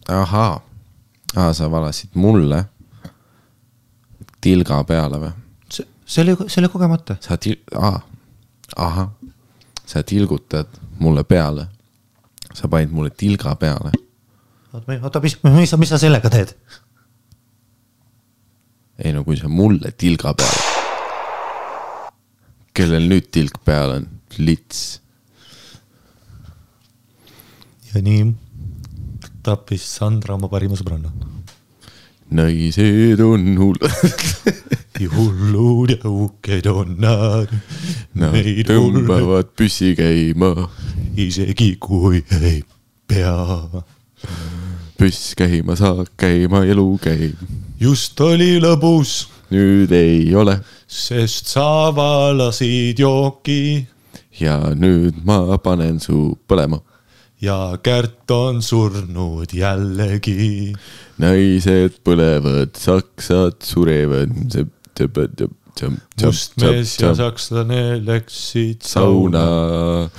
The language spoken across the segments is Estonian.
Ahaa. Sa valasid mulle tilga peale või? See oli kogemata. Sa tilgutad mulle peale. Sa panid mulle tilga peale. Oota, mis sa sellega teed? Ei no kui sa mulle tilga peale. Kellel nüüd tilg peal on? Lits. Ja nii tappis Sandra oma parima sõbranna. Naised on hullud. Hullud ja uked on nad. Nad tõmbavad püssi käima. Isegi kui ei pea. Püss käima, saak käima, elu käib. Just oli lõbus. Nüüd ei ole. Sest sa valasid jooki. Ja nüüd ma panen su põlema. Ja Kärt on surnud jällegi. Naised põlevad, saksad surevad. Mustmees ja sakslane läksid sauna.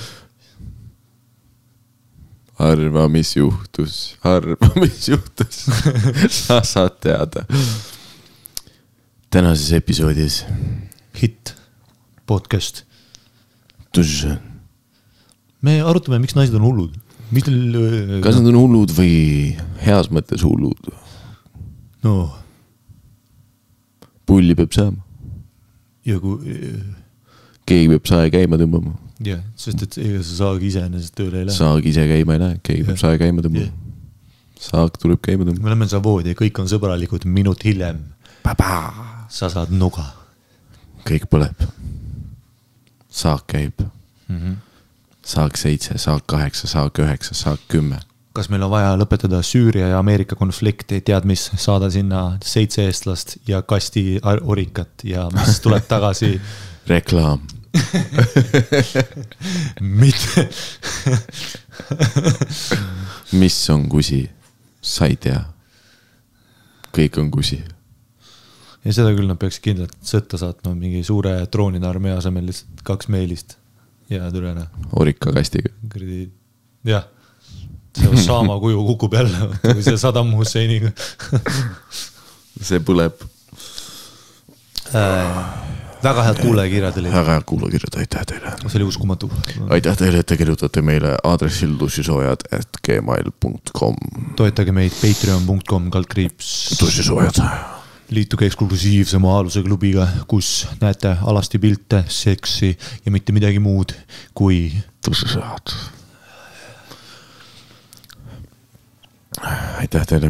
Arva, mis juhtus. Sa saad teada. Tänases episoodis Hit podcast. Tuž. Me arutame, miks naised on hullud. Kas nad on hullud või heas mõttes hullud? No. Pulli peab saama. Ja kui... Keegi peab sae käima tõmbama. Ja, sest et ega sa saag ise ennast tööle ei lähe. Saag ise käima ei lähe, keegi peab sae käima tõmbama. Saag tuleb käima tõmbama. Me oleme savoodi ja kõik on sõbralikud minut hiljem. Sa saad nuga. Kõik põleb. Saak käib. Saak 7, saak 8, saak 9, saak 10. Kas meil on vaja lõpetada Süüria ja Ameerika konflikti, tead mis, saada sinna 7 eestlast ja kasti orikat ja mis tuleb tagasi? Reklaam. Mitte. Mis on kusi? Sa ei tea. Kõik on kusi. Ja seda küll nad peaks kindlalt sõtta saatma mingi suure droonide armee asemel lihtsalt 2 meilist. Ja tulena. Orika kastiga. Jah. See Osama kuju kukub jälle, kui see Saddam Husseiniga. See põleb. Väga head kuulajakirjad oli. Väga head kuulajakirjad, aitäh teile. See oli uskumatu. Aitäh teile, et te kirjutate meile aadressil tussisoojad@gmail.com. Toetage meid patreon.com tussisoojad. Liituge eksklusiivse Maaluse klubiga, kus näete alasti pilte, seksi ja mitte midagi muud kui tussisoojad. Aitäh teile,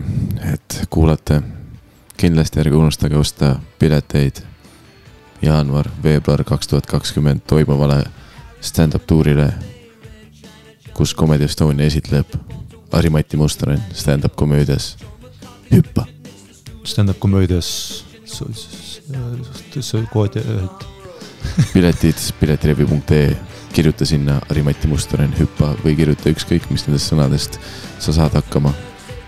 et kuulate. Kindlasti ärge unustage osta pileteid jaanuar, veebruar 2020 toimuvale stand-up tuurile, kus Comedy Estonia esitleb Ari-Mati Mustonen stand-up komöödias Hüppa. Stand-up komöödias piletid piletrevi.ee, kirjuta sinna Ari-Mati Mustonen Hüppa või kirjuta ükskõik mis nendest sõnadest sa saad hakkama.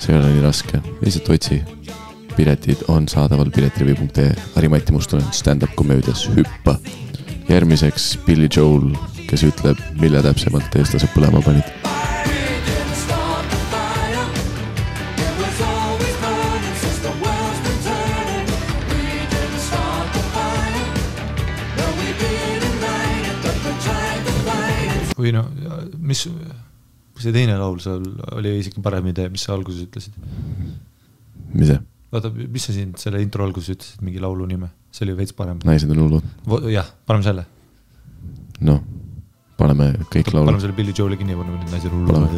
See ei ole nii raske, lihtsalt otsi. Piletid on saadaval piletrevi.ee, Ari-Mati Mustonen stand-up komöödias Hüppa. Järgmiseks Billy Joel, kes ütleb, mille täpsemalt eestlased põlema panid. Või no, mis see teine laul seal oli isegi parem idee, mis sa alguses ütlesid? Mis see? Vaata, mis sa siin selle intro alguses ütlesid, mingi laulu nime? See oli veits parem. Naised on hullud. Jah, paneme selle. No, paneme kõik laulu. Paneme selle Billy Joeli kinni, paneme Naised on hullud.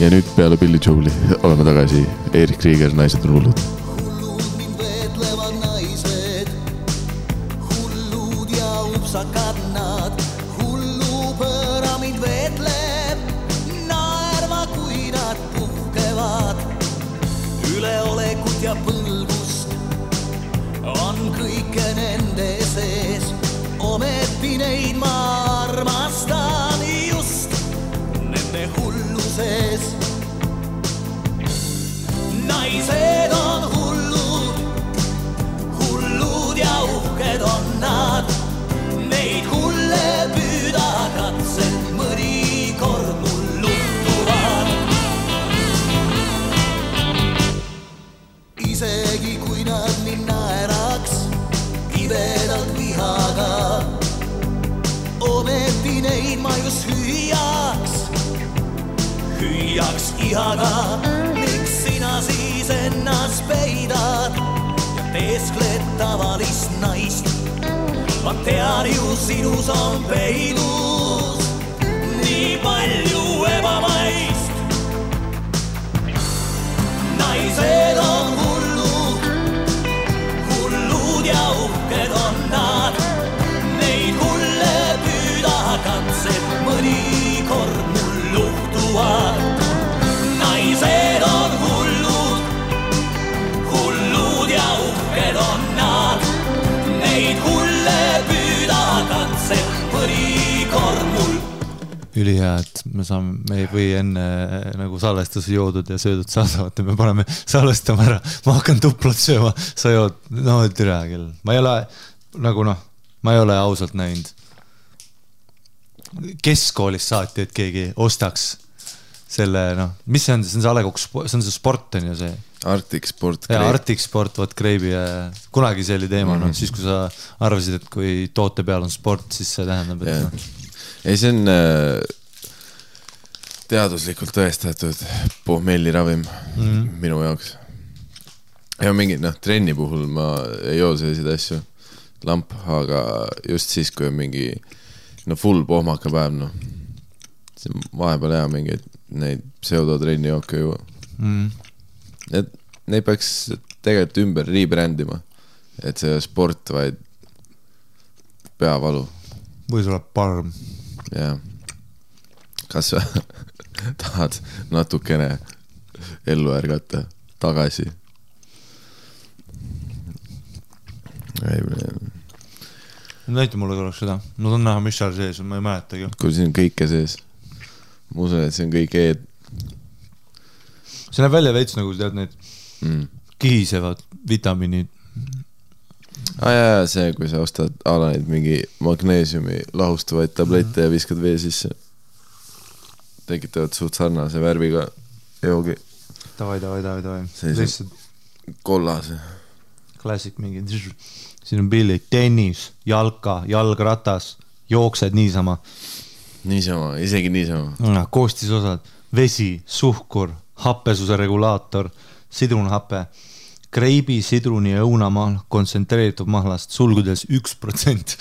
Ja nüüd peale Billy Joeli oleme tagasi. Erik Krieger, Naised on hullud. Hullud mind veetlevad naised, hullud ja upsakad nad. Üleolekut ja põlgust on kõike nende sees. Ometi neid ma armastan just nende hulluses. Naised on hullud, hullud ja isegi kui nad mind naeraks kibedalt vihaga. Ometi neid ma just hüüaks ihaga. Miks sina siis ennast peidad ja teeskled tavalist naist? Ma tean ju sinus on peidus nii palju ebamaist. Naised on hullud ja uhked on nad. Neid hulle püüda katsed mõnikord mul luhtuvad. Naised on hullud ja uhked on nad. Neid hulle püüda katsed mõnikord mul. Ülihea, et me ei või enne nagu salvestuse joodud ja söödud saadavad ja me paneme salvestama ära. Ma hakkan tuplat sööma, sa jood, no türa küll. Ma ei ole nagu ma ei ole ausalt näinud keskkoolist saati, et keegi ostaks selle, mis see on? See on see Alekok, see on see sport on ju see Arctic Sport. Ja Arctic Sport, võt Kreibi ja kunagi see oli teema, siis kui sa arvasid, et kui toote peal on sport, siis see tähendab, et Ei, see on teaduslikult tõestatud pohmelliravim minu jaoks. Ja mingi, trenni puhul ma ei joo selliseid asju lamp, aga just siis, kui on mingi full pohmaka päev, see vahepeal hea mingi neid pseudotrenni jooke juua. Neid peaks tegelikult ümber rebrandima, et see sport, vaid peavalu. Või sul on parm. Ja. Kas sa tahad natukene ellu ärgata tagasi? Näita mulle korraks seda. Ma tahan näha, mis seal sees on, ma ei mäletagi. Kui siin on kõike sees. Ma usun, et see on kõik eed. See näeb välja veits nagu tead need kihisevad vitamiinid. Ja see, kui sa ostad alaneid mingi magneesiumi lahustuvaid tablette ja viskad vee sisse. Tekitavad suht sarnase värviga joogi. Davai. Sellise kollase. Klassik mingi. Siin on pillid, tennis, jalka, jalgratas, jooksed niisama. Niisama, isegi niisama. Koostisosad, vesi, suhkur, happesuse regulaator, sidrunhappe, Kreibi, sidruni ja õunamaal, kontsentreeritud mahlast, sulgudes 1%.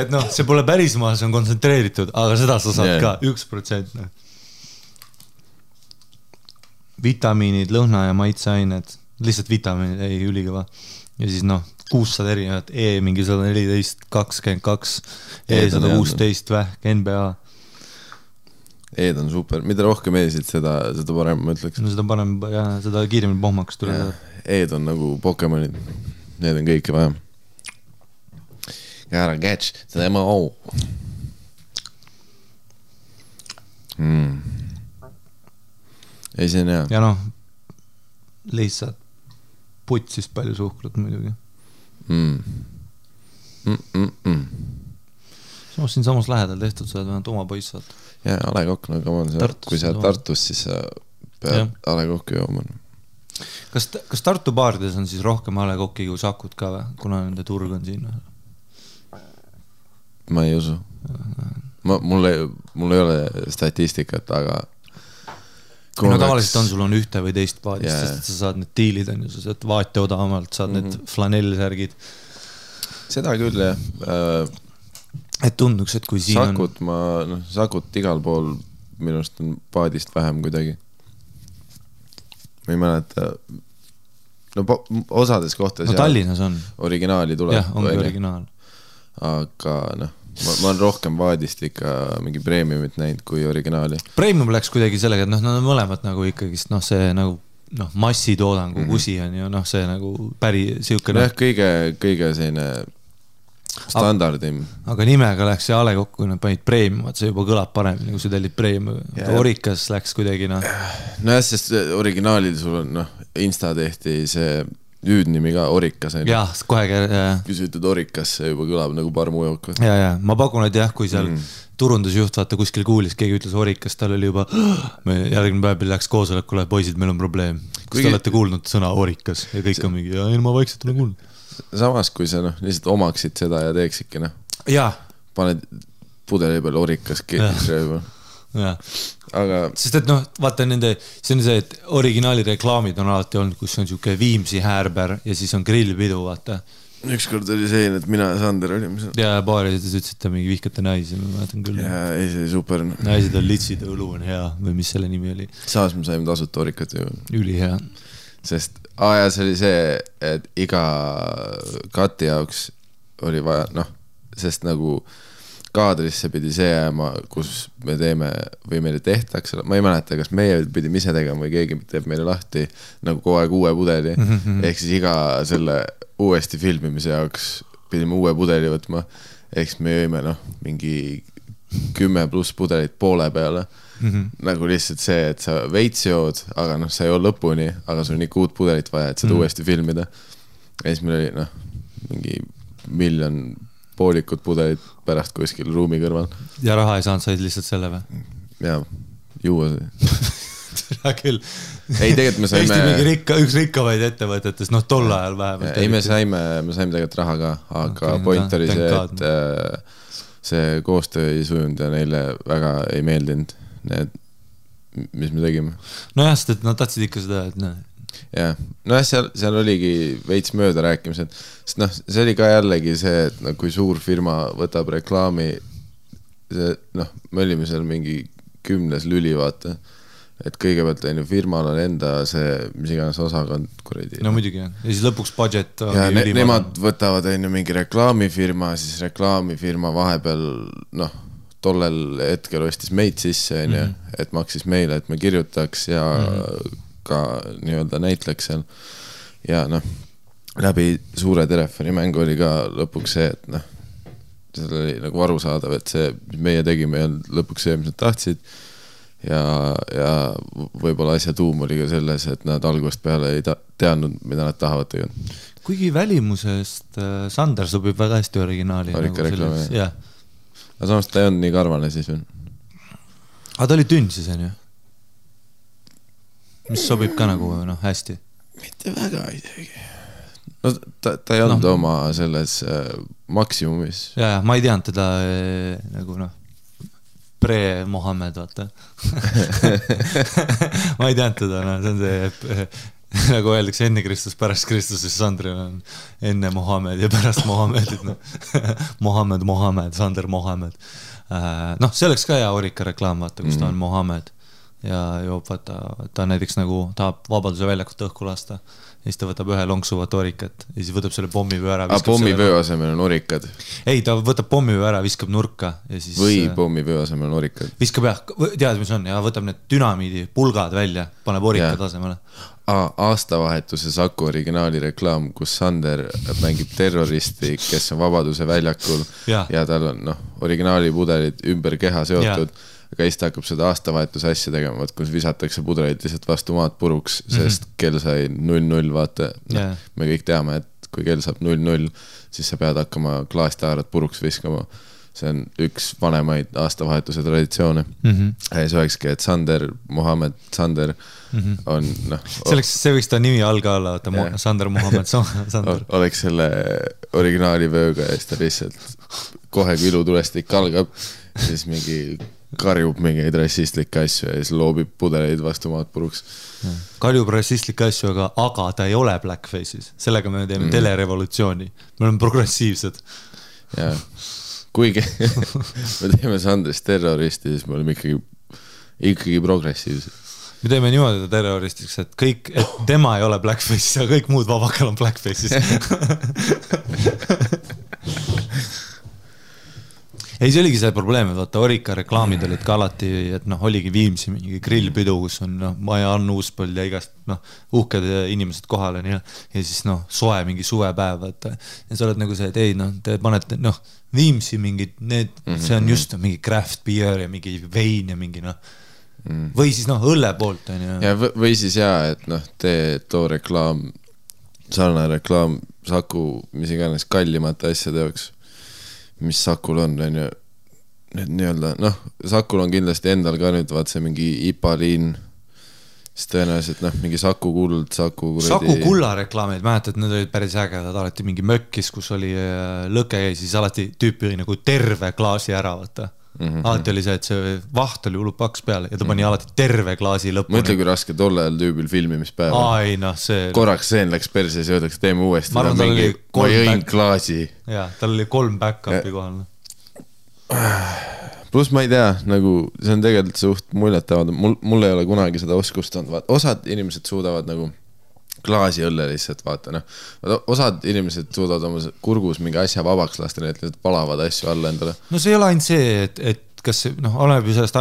Et see pole päris maal, see on kontsentreeritud, aga seda sa saad ka 1%. Vitamiinid, lõhna ja maitseained, lihtsalt vitamiinid, ei ülikõva. Ja siis 600 erinevat, mingi 114, 22, 116 vähk, NBA. Eed on super, mida rohkem eesid, seda parem, ma ütleks. Seda parem, seda kiiremini pohmaks tuleb. Eed on nagu Pokemonid, need on kõike vaja. Gotta catch, seda MO. Ei, see on hea. Ja lihtsalt putsist palju suhkrut muidugi. Siin samas lähedal tehtud, sa oled vähemalt oma poiss saad. Ja Alekok, kui sa Tartus, siis sa pead Alekokki jooma. Kas Tartu baarides on siis rohkem Alekokki kui Sakut ka või? Kuna nende turg on siin? Ma ei usu. Mul ei ole statistikat, aga tavaliselt on sul on ühte või teist paadist, sest sa saad need diilid on ju, sa saad vaate odavamalt, saad need flanellsärgid. Seda küll, jah. Et tunduks, et kui siin Sakut Sakut igal pool minust on paadist vähem kuidagi. Ma ei mäleta. Osades kohtades Tallinnas on. Originaali tuleb. Jah, ongi originaal. Aga ma olen rohkem vaadist ikka mingi premiumit näinud kui originaali. Premium läks kuidagi sellega, et nad on mõlemad nagu ikkagist, see nagu massitoodangu kusi on ju, see nagu päri siukene. Kõige selline standardim. Aga nimega läks see Alekok, kui nad panid premium, see juba kõlab paremini, kui sa tellid premium. Orikas läks kuidagi Nojah, sest originaalil sul on Insta tehti see hüüdnimi ka, Orikas. Jah, kohe kui sa ütled Orikas, see juba kõlab nagu parmujook. Ja, ma pakun, et jah, kui seal turundusjuht vaata kuskil kuulis, keegi ütles Orikas, tal oli juba järgmine päev läks koosolekule, poisid, meil on probleem. Kas te olete kuulnud sõna Orikas? Ja kõik on mingi, ja ma vaikselt olen kuulnud. Samas, kui sa lihtsalt omaksid seda ja teeksidki, paned pudeli peal Orikas keelisrööba. Aga... Sest et vaata nende, see on see, et originaali reklaamid on alati olnud, kus on siuke Viimsi häärber ja siis on grillpidu, vaata. Ükskord oli see, et mina ja Sander olime seal. Ja baarides ütlesite mingi vihkate naisi, ma mäletan küll. Ja ei, see oli super. Naised on litsid, õlu on hea või mis selle nimi oli. Saas me saime tasuta Orikat ju. Üli hea. Sest ja see oli see, et iga kati jaoks oli vaja, sest nagu kaadrisse pidi see jääma, kus me teeme või meile tehtakse, ma ei mäleta, kas meie pidime ise tegema või keegi teeb meile lahti nagu kogu aeg uue pudeli, ehk siis iga selle uuesti filmimise jaoks pidime uue pudeli võtma, ehk siis me jõime mingi 10+ pudelit poole peale. Nagu lihtsalt see, et sa veits jood, aga sa ei ole lõpuni, aga sul on ikka uut pudelit vaja, et seda uuesti filmida. Ja siis meil oli mingi 1 miljon poolikut pudelit pärast kuskil ruumi kõrval. Ja raha ei saanud, said lihtsalt selle või? Ja, juua see. Hea küll. Ei, tegelikult me saime... Eesti mingi üks rikkavaid ettevõtetes, tol ajal vähemalt. Ei, me saime tegelikult raha ka, aga point oli see, et see koostöö ei sujunud ja neile väga ei meeldinud need, mis me tegime. Nojah, sest et nad tahtsid ikka seda, et jah, seal oligi veits mööda rääkimised, sest see oli ka jällegi see, et kui suur firma võtab reklaami, me olime seal mingi 10 lüli, vaata, et kõigepealt firmal on enda see, mis iganes osakond kuradi. No muidugi, ja siis lõpuks budget ja nemad võtavad mingi reklaamifirma, siis reklaamifirma vahepeal, tollel hetkel ostis meid sisse, et maksis meile, et me kirjutaks ja ka nii-öelda näitleks seal. Ja läbi suure telefonimängu oli ka lõpuks see, et seal oli nagu arusaadav, et see, mis meie tegime, ei olnud lõpuks see, mis nad tahtsid. Ja võib-olla asja tuum oli ka selles, et nad algusest peale ei teadnud, mida nad tahavad tegelikult. Kuigi välimusest Sander sobib väga hästi originaali. Orika reklaami, jah. Aga samas ta ei olnud nii karvane siis veel. Aga ta oli tünn siis, on ju? Mis sobib ka nagu hästi? Mitte väga isegi. Ta ei olnud oma selles maksimumis. Ja, ma ei teadnud teda nagu pre-Mohammed, vaata. Ma ei teadnud teda, see on see... Nagu öeldakse enne Kristus, pärast Kristus, siis Sandril on enne Mohammed ja pärast Mohammedit. Mohammed, Sander Mohammed. See oleks ka hea Orika reklaam, vaata, kus ta on Mohammed. Ja joob, vaata, ta näiteks nagu tahab Vabaduse väljakut õhku lasta. Ja siis ta võtab ühe lonksuvat Orikat ja siis võtab selle pommivöö ära. Pommivöö asemel on Orikad? Ei, ta võtab pommivöö ära, viskab nurka. Ja siis, või pommivöö asemel on Orikad? Viskab jah, tead, mis on, ja võtab need dünamiidi pulgad välja, paneb Orikad asemele. Aastavahetuse Saku originaali reklaam, kus Sander mängib terroristi, kes on Vabaduse väljakul ja tal on originaali pudelid ümber keha seotud. Aga siis ta hakkab seda aastavahetuse asja tegema, kus visatakse pudeleid lihtsalt vastu maad puruks, sest kell sai 0-0, vaata. Me kõik teame, et kui kell saab 0-0, siis sa pead hakkama klaastaarat puruks viskama. See on üks vanemaid aastavahetuse traditsioone. Ja siis olekski, et Sander, Mohammed, Sander on... See võiks ta nimi alga olla, Sander, Mohammed, Sander. Oleks selle originaali vööga ja siis ta lihtsalt kohe kui ilutulestik algab, siis mingi... karjub mingeid rassistlikke asju ja siis loobib pudeleid vastu maad puruks. Karjub rassistlikke asju, aga ta ei ole blackface'is. Sellega me teeme telerevolutsiooni. Me oleme progressiivsed. Ja, kuigi me teeme Sandrist terroristi, siis me oleme ikkagi progressiivsed. Me teeme niimoodi terroristiks, et tema ei ole blackface'is ja kõik muud vabakal on blackface'is. Ei, see oligi see probleem, et vaata Orika reklaamid olid ka alati, et oligi Viimsi mingi grillpidu, kus on Maja Ann Uuspõld ja igast uhked inimesed kohal ja siis soe mingi suvepäev, vaata. Ja sa oled nagu see, et ei, te panete Viimsi mingid, see on just mingi craft beer ja mingi vein ja mingi või siis õlle poolt on ju. Ja või siis et tee too reklaam sarnane reklaam Saku, mis iganes kallimate asjade jaoks, mis Sakul on ju, need nii-öelda, noh, Sakul on kindlasti endal ka nüüd, vaat see mingi IPA-liin, siis tõenäoliselt, noh, mingi Saku kuld, Saku kulla reklaamid, mäletad, need olid päris ägedad, alati mingi mökkis, kus oli lõke ja siis alati tüüpi nagu terve klaasi ära, vaata. Alati oli see, et see vaht oli hullult paks peale ja ta pani alati terve klaasi lõpuni. Mõtle, kui raske tolle ajal tüübil filmimispäeva. Ai, noh, see... Korraks seen läks perses ja öeldaks, teeme uuesti. Ma jõin klaasi. Jaa, tal oli 3 back-upi kohal. Plus ma ei tea, nagu see on tegelikult suht muljetavad. Mul ei ole kunagi seda oskust olnud. Osad inimesed suudavad nagu klaasi õlle lihtsalt, vaata, noh. Osad inimesed suudavad oma kurgus mingi asja vabaks lasta, nii et lihtsalt palavad asju alla endale. No see ei ole ainult see, et kas see, noh, oleneb ju sellest,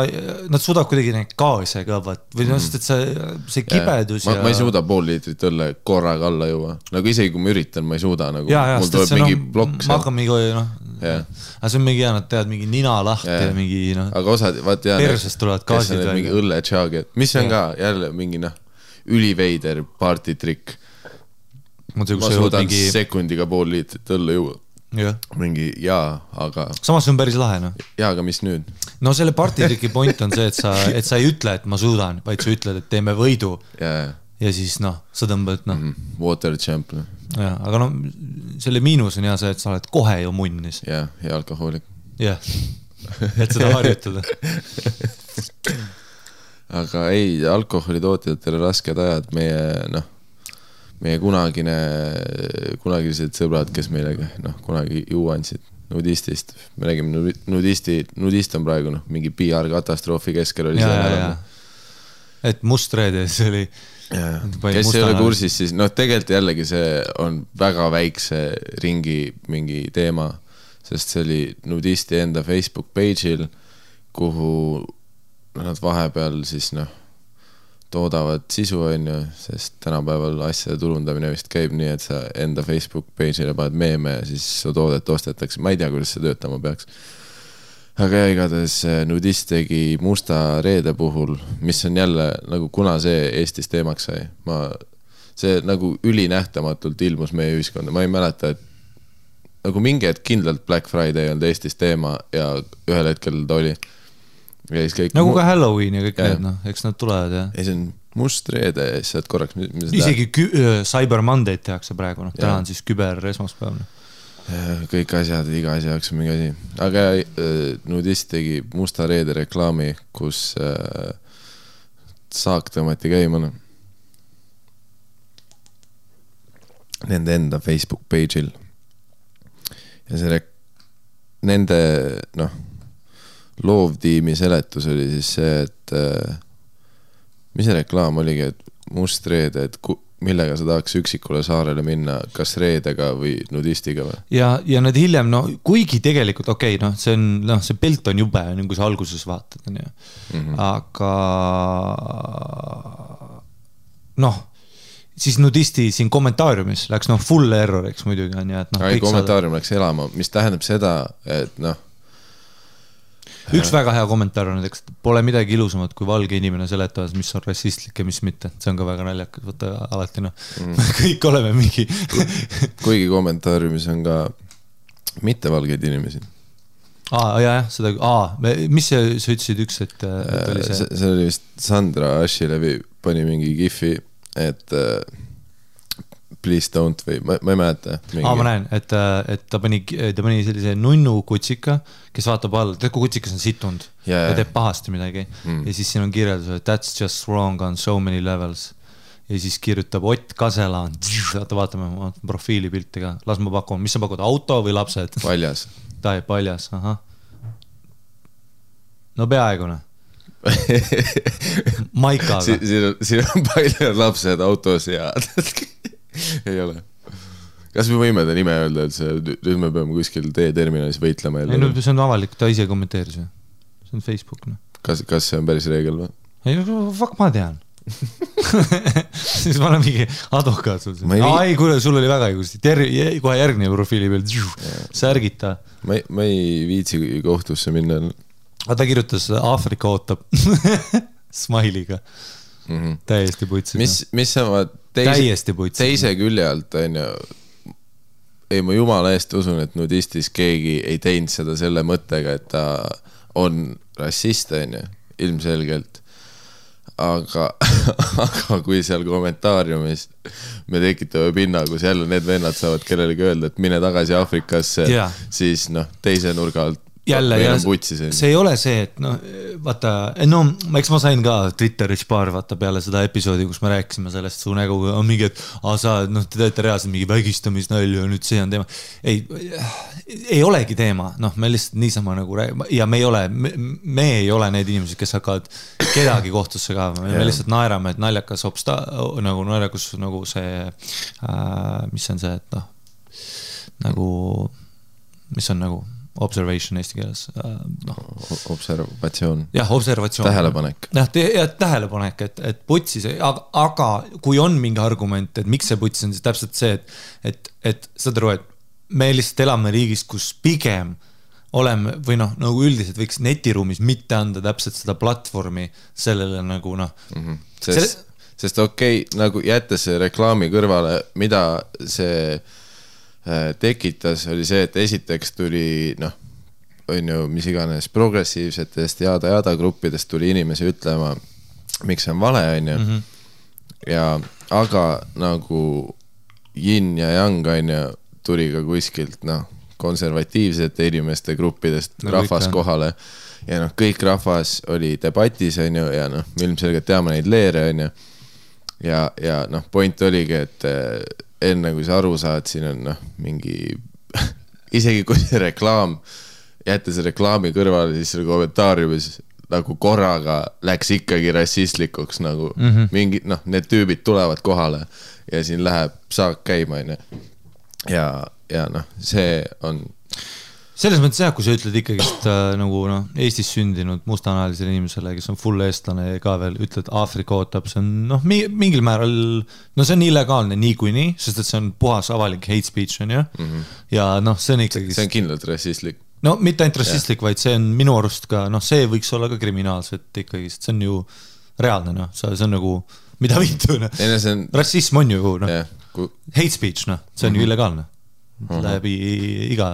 nad suudavad kuidagi neid gaase ka, või sest, et see kibedus ja... Ma ei suuda 5 liitrit õlle korraga alla juua. Nagu isegi kui ma üritan, ma ei suuda, nagu mul tuleb mingi plokk. Ma hakkan mingi, noh, aga see on mingi, nad teevad mingi nina lahti ja mingi, noh, aga osad, vaat jah, persest tulevad gaasid mingi õlle tšaagi, mis on ka jälle mingi, noh, üliveider partitrikk. Ma suudan sekundiga 5 liitrit õlle juua. Mingi, aga... Samas on päris lahe, noh. Aga mis nüüd? No selle partitriki point on see, et sa ei ütle, et ma suudan, vaid sa ütled, et teeme võidu. Ja siis, noh, sa tõmbad, noh. Water champ. Ja, aga noh, selle miinus on hea see, et sa oled kohe ju munnis. Ja alkohoolik. Jah, et seda harjutada. Aga ei, alkoholitootjatele rasked ajad, meie kunagised sõbrad, kes meile kunagi juua andsid nudistist. Me räägime nudist on praegu mingi PR-katastroofi keskel oli see. Et Mustreede, see oli... Kes ei ole kursis, siis tegelikult jällegi see on väga väikse ringi mingi teema, sest see oli nudisti enda Facebook page'il, kuhu nad vahepeal siis toodavad sisu onju, sest tänapäeval asjade turundamine vist käib nii, et sa enda Facebook page'ile paned meeme ja siis su toodet ostetakse. Ma ei tea, kuidas see töötama peaks. Aga igatahes nudist tegi Musta Reede puhul, mis on jälle nagu kuna see Eestis teemaks sai. See nagu ülinähtamatult ilmus meie ühiskonda. Ma ei mäleta, et nagu mingi hetk kindlalt Black Friday on Eestis teema ja ühel hetkel ta oli. Nagu ka Halloween ja kõik need, eks nad tulevad, jah. Ei, see on Must Reede ja siis korraks... Isegi Cyber Monday tehakse praegu, täna on siis küber esmaspäev. Kõik asjad, iga asja jaoks on mingi asi. Aga nudist tegi Musta Reede reklaami, kus saak tõmmati käima. Nende enda Facebook page'il. Ja see nende, loovtiimi seletus oli siis see, et mis see reklaam oligi, et Must Reede, et millega sa tahaks üksikule saarele minna, kas reedega või nudistiga või? Ja need hiljem, kuigi tegelikult, see pilt on jube, kui sa alguses vaatad, aga siis nudisti siin kommentaariumis läks full erroriks muidugi. Kommentaarium läks elama, mis tähendab seda, et üks väga hea kommentaar on, et pole midagi ilusamat kui valge inimene seletavad, mis on rassistlik ja mis mitte. See on ka väga naljakas, võtta alati, kõik oleme mingi. Kuigi kommentaariumis on ka mittevalgeid inimesi. Mis sa ütlesid üks, et oli see? See oli vist Sandra Ashilevi pani mingi gifi, et please don't või, ma ei mäleta. Ma näen, et ta pani sellise nunnu kutsika, kes vaatab all, kui kutsikas on sitund ja teeb pahasti midagi. Ja siis siin on kirjeldus, et that's just wrong on so many levels. Ja siis kirjutab Ott Kaselaan. Vaatame profiilipilti ka. Las ma pakun. Mis sa pakud? Auto või lapsed? Paljas. Ta ei paljas, aha. No peaaegune. Maikaga. Siin on palju lapsed autos ja... ei ole. Kas me võime ta nime öelda, et nüüd me peame kuskil teeterminalis võitlema? Ei, see on avalik, ta ise kommenteeris. See on Facebook. Kas see on päris reegel või? Ei, fuck, ma tean. Siis ma olen mingi advokaat sul. Ei, kuule, sul oli väga õigusti. Kohe järgmine profiili peal. Särgita. Ma ei viitsi kohtusse minna. Ta kirjutas Aafrika ootab. Smile'iga. Täiesti putsis. Mis sama teise külje alt on ju, ei ma jumala eest usun, et nudistis keegi ei teinud seda selle mõttega, et ta on rassist on ju, ilmselgelt. Aga kui seal kommentaariumis me tekitame pinna, kus jälle need vennad saavad kellelegi öelda, et mine tagasi Afrikasse, siis teise nurga alt jälle, ja see ei ole see, et vaata, eks ma sain ka Twitteris paar vaata peale seda episoodi, kus me rääkisime sellest su näguga, on mingi, et sa te teete reaalselt mingi vägistamisnälju ja nüüd see on teema. Ei olegi teema, me lihtsalt niisama nagu ja me ei ole need inimesed, kes hakkavad kedagi kohtusse ka, me lihtsalt naerame, et naljakas naljakus nagu see, mis on see, et nagu, mis on nagu observation eesti keeles. Observatsioon. Jah, observatsioon. Tähelepanek. Tähelepanek, et putsis, aga kui on mingi argument, et miks see putsis on, siis täpselt see, et saad aru, et me lihtsalt elame riigis, kus pigem oleme, või nagu üldiselt võiks netiruumis mitte anda täpselt seda platvormi sellele nagu Sest okei, nagu jättes reklaami kõrvale, mida see tekitas, oli see, et esiteks tuli, on ju, mis iganes progressiivsetest jada gruppidest tuli inimesi ütlema, miks see on vale, on ju. Ja, aga nagu yin ja yang, on ju, tuli ka kuskilt, konservatiivsete inimeste gruppidest rahvas kohale. Ja kõik rahvas oli debatis, on ju, ja ilmselgelt teame neid leere, on ju. Ja point oligi, et enne kui sa aru saad, siin on mingi, isegi kui see reklaam, jätta see reklaami kõrvale, siis selle kommentaariumis nagu korraga läks ikkagi rassistlikuks, nagu mingi, need tüübid tulevad kohale ja siin läheb saak käima, ja see on selles mõttes jah, kui sa ütled ikkagi nagu Eestis sündinud mustanahalisele inimesele, kes on full eestlane ka veel, ütled Aafrika ootab, see on mingil määral, see on illegaalne niikuinii, sest et see on puhas avalik hate speech on ju, ja see on ikkagi see on kindlalt rassistlik. Mitte ainult rassistlik, vaid see on minu arust ka, see võiks olla ka kriminaalselt ikkagi, sest see on ju reaalne, see on nagu, mida viitu, rassism on ju hate speech, see on ju illegaalne läbi iga.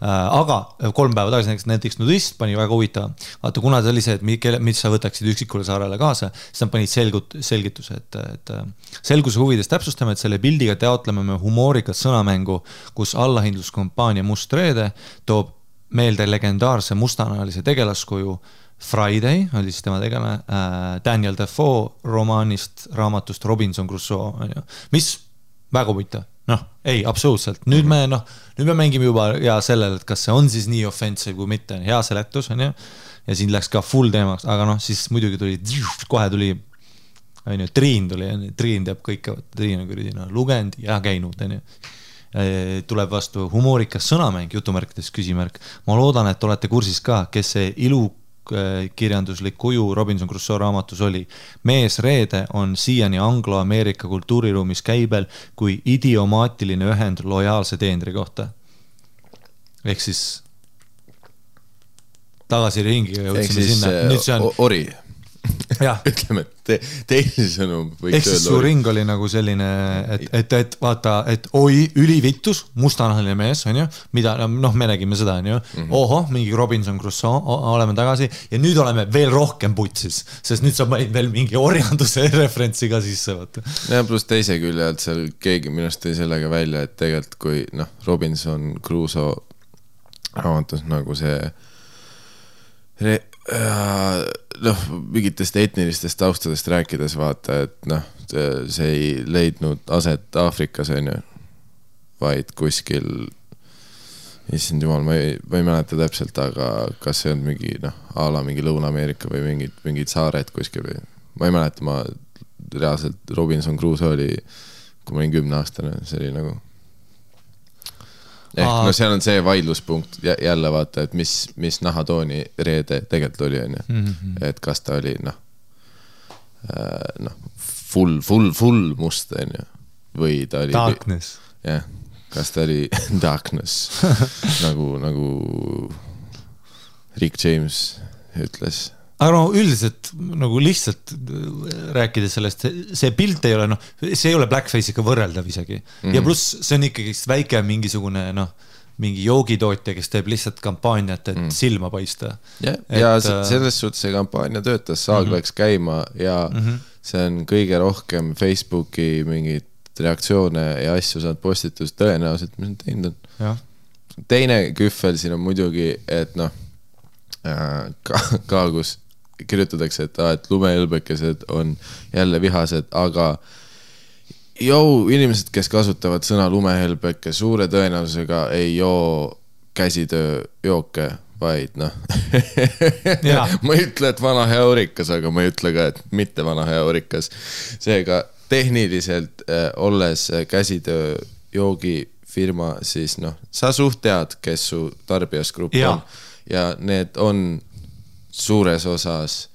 Aga 3 päeva tagasi näiteks nudist pani väga huvitav. Vaata, kuna ta oli see, et mis sa võtaksid üksikule saarele kaasa, siis nad panid selgituse, et selguse huvides täpsustame, et selle pildiga teotleme me humoorikat sõnamängu, kus allahindluskompaania Must Reede toob meelde legendaarse mustanahalise tegelaskuju Friday, oli siis tema tegelane, Daniel Defoe raamatust Robinson Crusoe, mis väga huvitav. Ei, absoluutselt. Nüüd me mängime juba ja sellel, et kas see on siis nii offensive kui mitte, hea seletus on ju, ja siin läks ka full teemaks, aga siis muidugi kohe tuli Triin teab kõike, Triin on lugenud ja käinud, tuleb vastu humoorikas sõnamäng, jutumärkides küsimärk. Ma loodan, et olete kursis ka, kes see ilukirjanduslik kuju Robinson Crusoe raamatus oli. Mees Reede on siiani anglo-Ameerika kultuuriruumis käibel kui idiomaatiline ühend lojaalse teenri kohta. Ehk siis tagasi ringiga jõudsime sinna. Nüüd see on ori. Ütleme, et teisi sõnum võiks öelda. Ehk siis su ring oli nagu selline, et vaata, et oi, ülivittus, mustanahaline mees, on ju, mida, me nägime seda, on ju, oho, mingi Robinson Crusoe, oleme tagasi, ja nüüd oleme veel rohkem putsis, sest nüüd sa panid veel mingi orjanduse referentsi ka sisse, vaata. Ja plus teise külje, et seal keegi minust tõi sellega välja, et tegelikult kui, Robinson Crusoe raamatus nagu see mingitest etnilistest taustadest rääkides vaata, et see ei leidnud aset Aafrikas, on ju, vaid kuskil, issand jumal, ma ei mäleta täpselt, aga kas see on mingi, ala mingi Lõuna-Ameerika või mingid saared kuskil või, ma ei mäleta, ma reaalselt Robinson Crusoe oli, kui ma olin 10-aastane, see oli nagu seal on see vaidluspunkt jälle vaata, et mis nahatooni Reede tegelikult oli, on ju. Et kas ta oli full must, on ju. Või ta oli darkness. Jah, kas ta oli darkness nagu Rick James ütles. aga no üldiselt nagu lihtsalt rääkides sellest, see pilt ei ole, noh, see ei ole blackface'iga võrreldav isegi. Ja pluss see on ikkagi väike mingisugune, noh, mingi joogitootja, kes teeb lihtsalt kampaaniat, et silma paista. Ja selles suhtes see kampaania töötas, saag läks käima ja see on kõige rohkem Facebooki mingid reaktsioone ja asju saad postitus tõenäoliselt, mis on teinud on. Teine küffel siin on muidugi, et noh, ka kus kirjutatakse, et lumehõlbekesed on jälle vihased, aga inimesed, kes kasutavad sõna lumehõlbeke, suure tõenäosusega ei joo käsitööjooke, vaid noh ma ei ütle, et vana hea Orikas, aga ma ei ütle ka, et mitte vana hea Orikas. Seega tehniliselt olles käsitööjoogi firma, siis noh, sa suht tead, kes su tarbijasgrupp on ja need on suures osas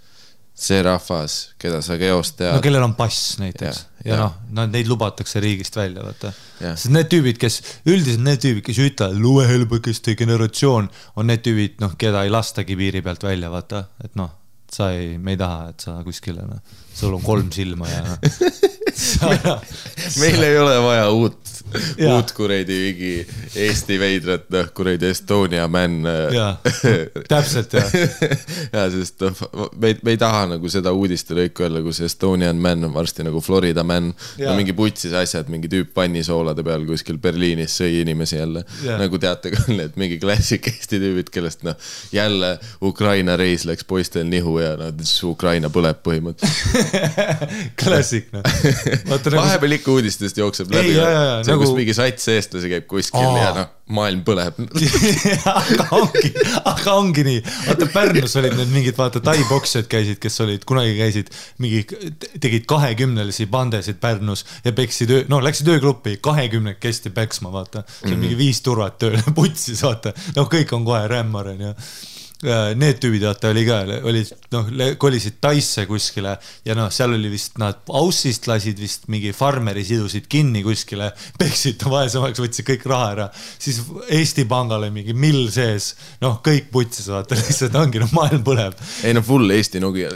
see rahvas, keda sa geost tead. No kellel on pass näiteks ja noh, neid lubatakse riigist välja, vaata. Sest need tüübid, kes ütlevad lumehõlbekeste generatsioon, on need tüübid, noh, keda ei lastagi piiri pealt välja, vaata, et noh, me ei taha, et sa kuskile, noh, sul on 3 silma ja meil ei ole vaja uut kureidi vigi Eesti veidrat, noh, kureidi Estonia man. Täpselt, sest me ei taha nagu seda uudiste lõiku öelda, kus Estonian man on varsti nagu Florida man. No mingi putsis asjad, mingi tüüp pannisoolade peal kuskil Berliinis sõi inimesi jälle. Nagu teate küll, et mingi klassik Eesti tüübid, kellest noh, jälle Ukraina reis läks poistel nihu ja Ukraina põleb põhimõtteliselt. Klassik, noh. Vahepeal ikka uudistest jookseb läbi. See on, kus mingi sats eestlasi käib kuskil ja noh, maailm põleb. aga ongi nii. Vaata, Pärnus olid need mingid, vaata, tai-boksjad käisid, kes olid, kunagi käisid, tegid 20-lisi bandesid Pärnus ja läksid öögruppi 20 kesti päksma, vaata. See on mingi 5 turvat tööle putsis, vaata. No kõik on kohe rämmaren ja need tüübid, vaata, kolisid Taisse kuskile ja noh, seal oli vist, nad Aussist lasid vist mingi farmeri sidusid kinni kuskile, peksid vaesemaks, võtsid kõik raha ära, siis Eesti Pangale mingi mill sees, noh, kõik putsis, vaata, lihtsalt ongi, noh, maailm põleb. Ei, no full Eesti Nokia.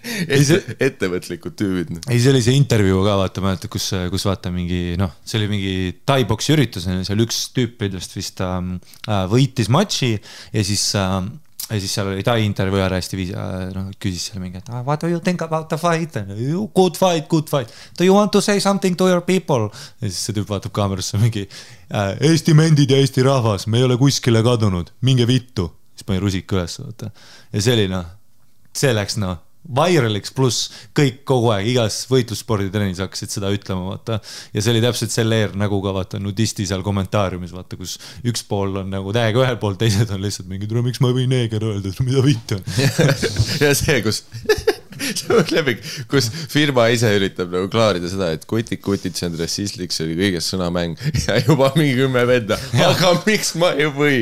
ettevõtlikud tüübid. Ei, see oli see intervjuu ka, vaata, mäletab, kus vaata mingi, noh, see oli mingi tai-boksi üritus, seal üks tüüp vist võitis matši ja siis seal oli tai intervjuu ära hästi viis, noh, küsis seal mingi, et what do you think about the fight? Good fight. Do you want to say something to your people? Ja siis see tüüp vaatab kaamerasse mingi, Eesti mendid ja Eesti rahvas, me ei ole kuskile kadunud, minge vittu. Siis pani rusik üles, vaata. Ja see oli, noh, see läks, noh, viraliks pluss kõik kogu aeg igas võitlussporditrenis hakkasid seda ütlema, vaata. Ja see oli täpselt selle nagu ka, vaata, nudisti seal kommentaariumis, vaata, kus üks pool on nagu täiega ühel pool, teised on lihtsalt mingi, miks ma ei või neeger öelda, mida vitt on. Ja see, kus firma ise üritab nagu klaarida seda, et kutid, see on rassistlik, see oli kõigest sõnamäng ja juba mingi 10 venda, aga miks ma ei või?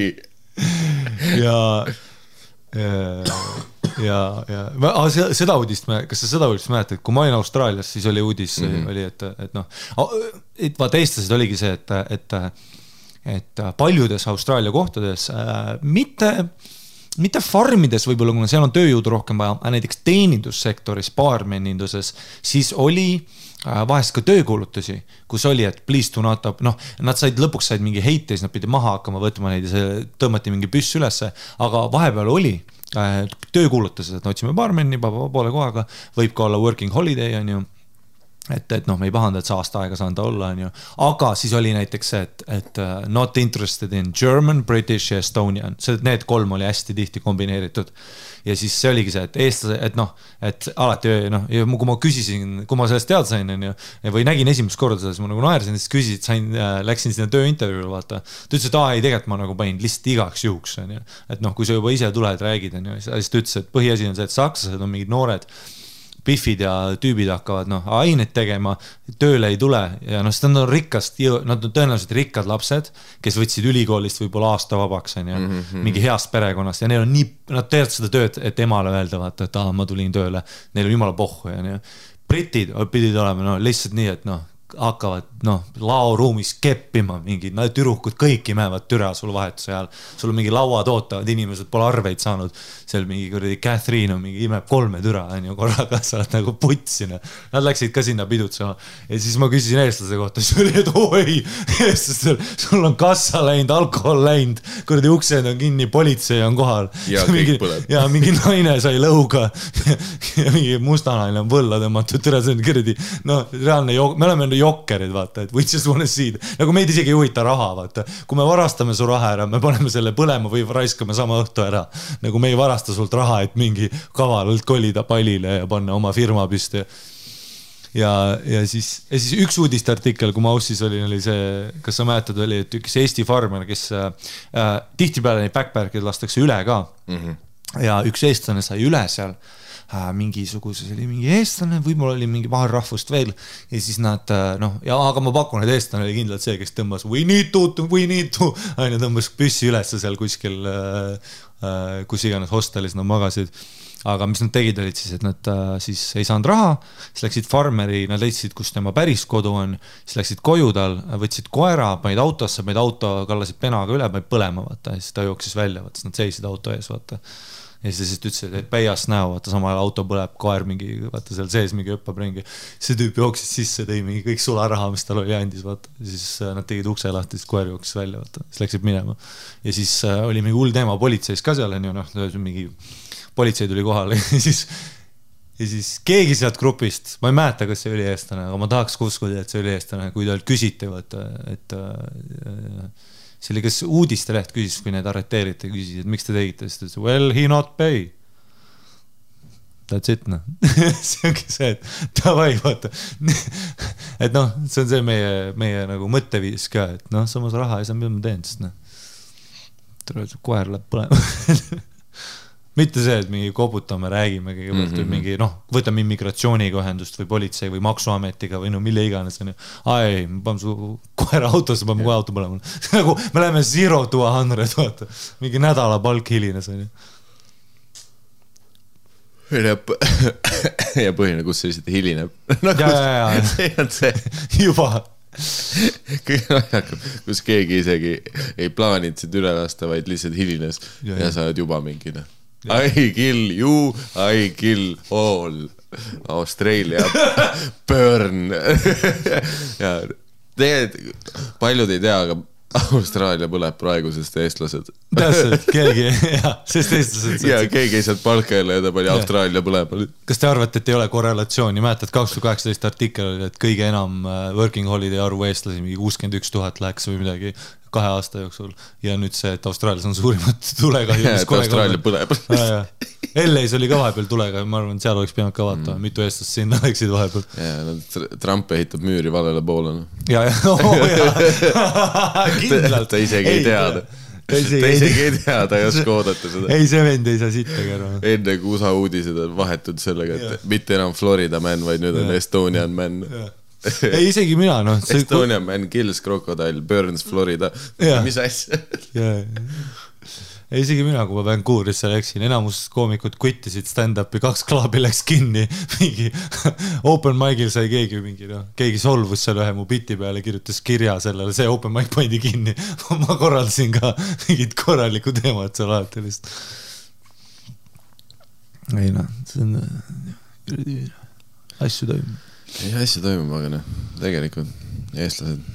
Seda uudist, kas sa seda uudist mäletad, kui ma olin Austraalias, siis oli uudis, oli, et noh, vaata eestlased oligi see, et paljudes Austraalia kohtades mitte farmides võib-olla, kuna seal on tööjõudu rohkem vaja, näiteks teenindussektoris, baarmeninduses, siis oli vahest ka töökuulutusi, kus oli, et please do not up, noh, nad lõpuks said mingi heite, siis nad pidi maha hakkama võtma neid ja see tõmmati mingi püss ülesse, aga vahepeal oli töökuulutused, et otsime baarmeni poole kohaga, võib ka olla working holiday, on ju, et noh, me ei pahanda, et sa aasta aega saanud olla, on ju, aga siis oli näiteks see, et not interested in German, British ja Estonian, need 3 oli hästi tihti kombineeritud ja siis see oligi see, et eestlase, et noh, et alati, noh, kui ma küsisin, kui ma sellest teada sain, on ju, või nägin esimest korda seda, siis ma nagu naersin, siis küsisid, läksin sinna tööintervjuule, vaata, ta ütles, et ei, tegelikult ma nagu panin lihtsalt igaks juhuks, on ju, et noh, kui sa juba ise tuled, räägid, on ju, siis ta ütles, et põhiasi on see, et sakslased on mingid noored pifid ja tüübid hakkavad, noh, aineid tegema, tööle ei tule ja noh, seda on nad on tõenäoliselt rikkad lapsed, kes võtsid ülikoolist võib-olla aasta vabaks, on ju, mingi heast perekonnast ja neil on nii, nad teevad seda tööd, et emale öelda, vaata, et ma tulin tööle, neil on jumala pohhu ja nii. Britid pidid olema, no lihtsalt nii, et noh, hakkavad laoruumis keppima mingi türukud, kõik imevad türa sul vahetuse ajal. Sul on mingi lauad ootavad, inimesed pole arveid saanud. Seal mingi kuradi Catherine on mingi imeb 3 türa, korraga sa oled nagu putsina. Nad läksid ka sinna pidutsema. Ja siis ma küsisin eestlase kohta, siis oli, et oi, eestlastel, sul on kassa läinud, alkohol läinud, kuradi uksed on kinni, politsei on kohal. Ja kõik põleb. Ja mingi naine sai lõuga ja mingi mustanaine on võlla tõmmatud, türa see on kuradi, reaalne me oleme jokkerid, vaata, et we just wanna see it. Nagu meid isegi ei huvita raha, vaata. Kui me varastame su raha ära, me paneme selle põlema või raiskame sama õhtu ära. Nagu me ei varasta sult raha, et mingi kavalalt kolida pallile ja panna oma firma püsti. Ja siis üks uudistartikkel, kui ma aussis olin, oli see, kas sa mäletad, oli, et üks Eesti farmer, kes tihtipeale neid backpack'id lastakse üle ka. Ja üks eestlane sai üle seal. Mingisuguses oli mingi eestlane, võib-olla oli mingi vahel rahvust veel ja siis nad, aga ma pakun, et eestlane oli kindlalt see, kes tõmbas we need to, aina tõmbas püssi üles seal kuskil, kus iganes hostelis nad magasid, aga mis nad tegid olid siis, et nad siis ei saanud raha, siis läksid farmeri, nad leidsid, kus tema päris kodu on, siis läksid koju tal, võtsid koera, panid autosse, auto kallasid penaga üle, panid põlema, vaata, ja siis ta jooksis välja, vaata, siis nad seisid auto ees, vaata. Ja siis ütlesid, et päias näo, vaata samal auto põleb, koer mingi, vaata seal sees mingi õppab ringi. See tüüp jooksis sisse, tõi mingi kõik sularaha, mis tal oli andis, vaata. Siis nad tegid ukse lahti, siis koer jooksis välja, vaata. Siis läksid minema. Ja siis oli mingi hull teema politseis ka seal, mingi politsei tuli kohale. Ja siis keegi sealt grupist, ma ei mäleta, kas see oli eestlane, aga ma tahaks uskuda, et see oli eestlane, kui talt küsiti, vaata, et see oli, kas uudiste leht küsis, kui need arreteeriti, küsis, et miks te tegite, siis ta ütles, well, he not pay. That's it, see ongi see, et davai, vaata. Et see on see meie nagu mõtteviis ka, et samas raha ei saa, mida ma teen, sest koer läheb põlema. Mitte see, et mingi koputame, räägime kõigepealt või mingi, võtame immigratsiooniga ühendust või politsei või maksuametiga või mille iganes. Ai, ma panen su koera autosse, panen kohe auto põlema. Nagu me läheme 0 to 100, vaata. Mingi nädala palk hilines. Ja põhine, kus see lihtsalt hilineb. See on see. Juba. Kus keegi isegi ei plaaninud sind üle lasta, vaid lihtsalt hilines ja sa oled juba mingine. I kill you, I kill all. Australia burn. Ja tegelikult paljud ei tea, aga Austraalia põleb praegu, sest eestlased. Täpselt, keegi, sest eestlased. Ja keegi ei saanud palka jälle ja ta pani Austraalia põleb. Kas te arvate, et ei ole korrelatsiooni? Mäletad, 2018 artikkel oli, et kõige enam working holiday arvu eestlasi, mingi 61 000 läks või midagi 2 aasta jooksul. Ja nüüd see, et Austraalias on suurimad tulegahju. Ja, et Austraalia põleb. LA-s oli ka vahepeal tulega, ma arvan, et seal oleks pidanud ka vaatama, mitu eestlast sinna läksid vahepeal. Ja, Trump ehitab müüri valele poole. Ja, kindlalt. Ta isegi ei teada. Ta isegi ei tea, ta ei oska oodata seda. Ei, see vend ei saa sittagi ära. Enne kui USA uudised on vahetud sellega, et mitte enam Florida man, vaid nüüd on Estonian man. Ei, isegi mina, Estonian man kills crocodile, burns Florida. Mis asja? Ei, isegi mina, kui ma Vancouverisse läksin, enamus koomikud kvittisid stand-upi, 2 klaabi läks kinni, mingi open mic'il sai keegi mingi, keegi solvus seal ühe mu biti peale, kirjutas kirja sellele, see open mic pandi kinni. Ma korraldasin ka mingid korraliku teemad seal alati lihtsalt. Ei, see on asju toimub. Ei, asju toimub, aga tegelikult eestlased,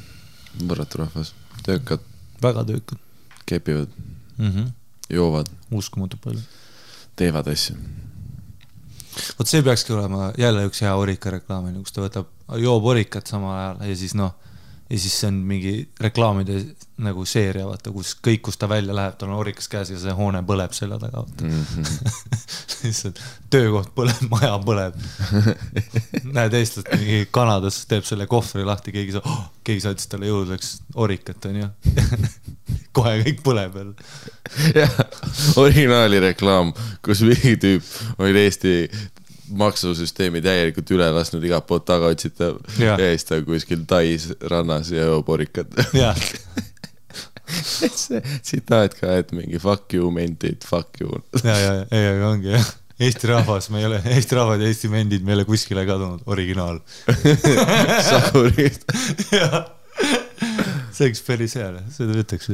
võrratu rahvas, töökad. Väga töökad. Kepivad, joovad. Uskumatu palju. Teevad asju. Vot see peakski olema jälle üks hea orika reklaam, kus ta võtab joob orikat samal ajal ja siis ja siis see on mingi reklaamide nagu seeria, vaata, kus kõik, kus ta välja läheb, tal on orikas käes ja see hoone põleb selle taga, vaata. Töökoht põleb, maja põleb. Näed eestlast mingi Kanadas teeb selle kohvri lahti, keegi saatis talle jõudleks orikat, on ju. Kohe kõik põleb veel. Jah, originaali reklaam, kus mingi tüüp oli Eesti maksusüsteemi täielikult üle lasnud igat poolt taga otsita ja siis ta kuskil Tais rannas ja jooporikat. Jah. See tsitaat ka, et mingi fuck you meant it, fuck you. Ja, aga ongi jah. Eesti rahvas ja Eesti vendid meile kuskile kadunud, originaal. Sakurid. See oleks päris hea, seda ütleks.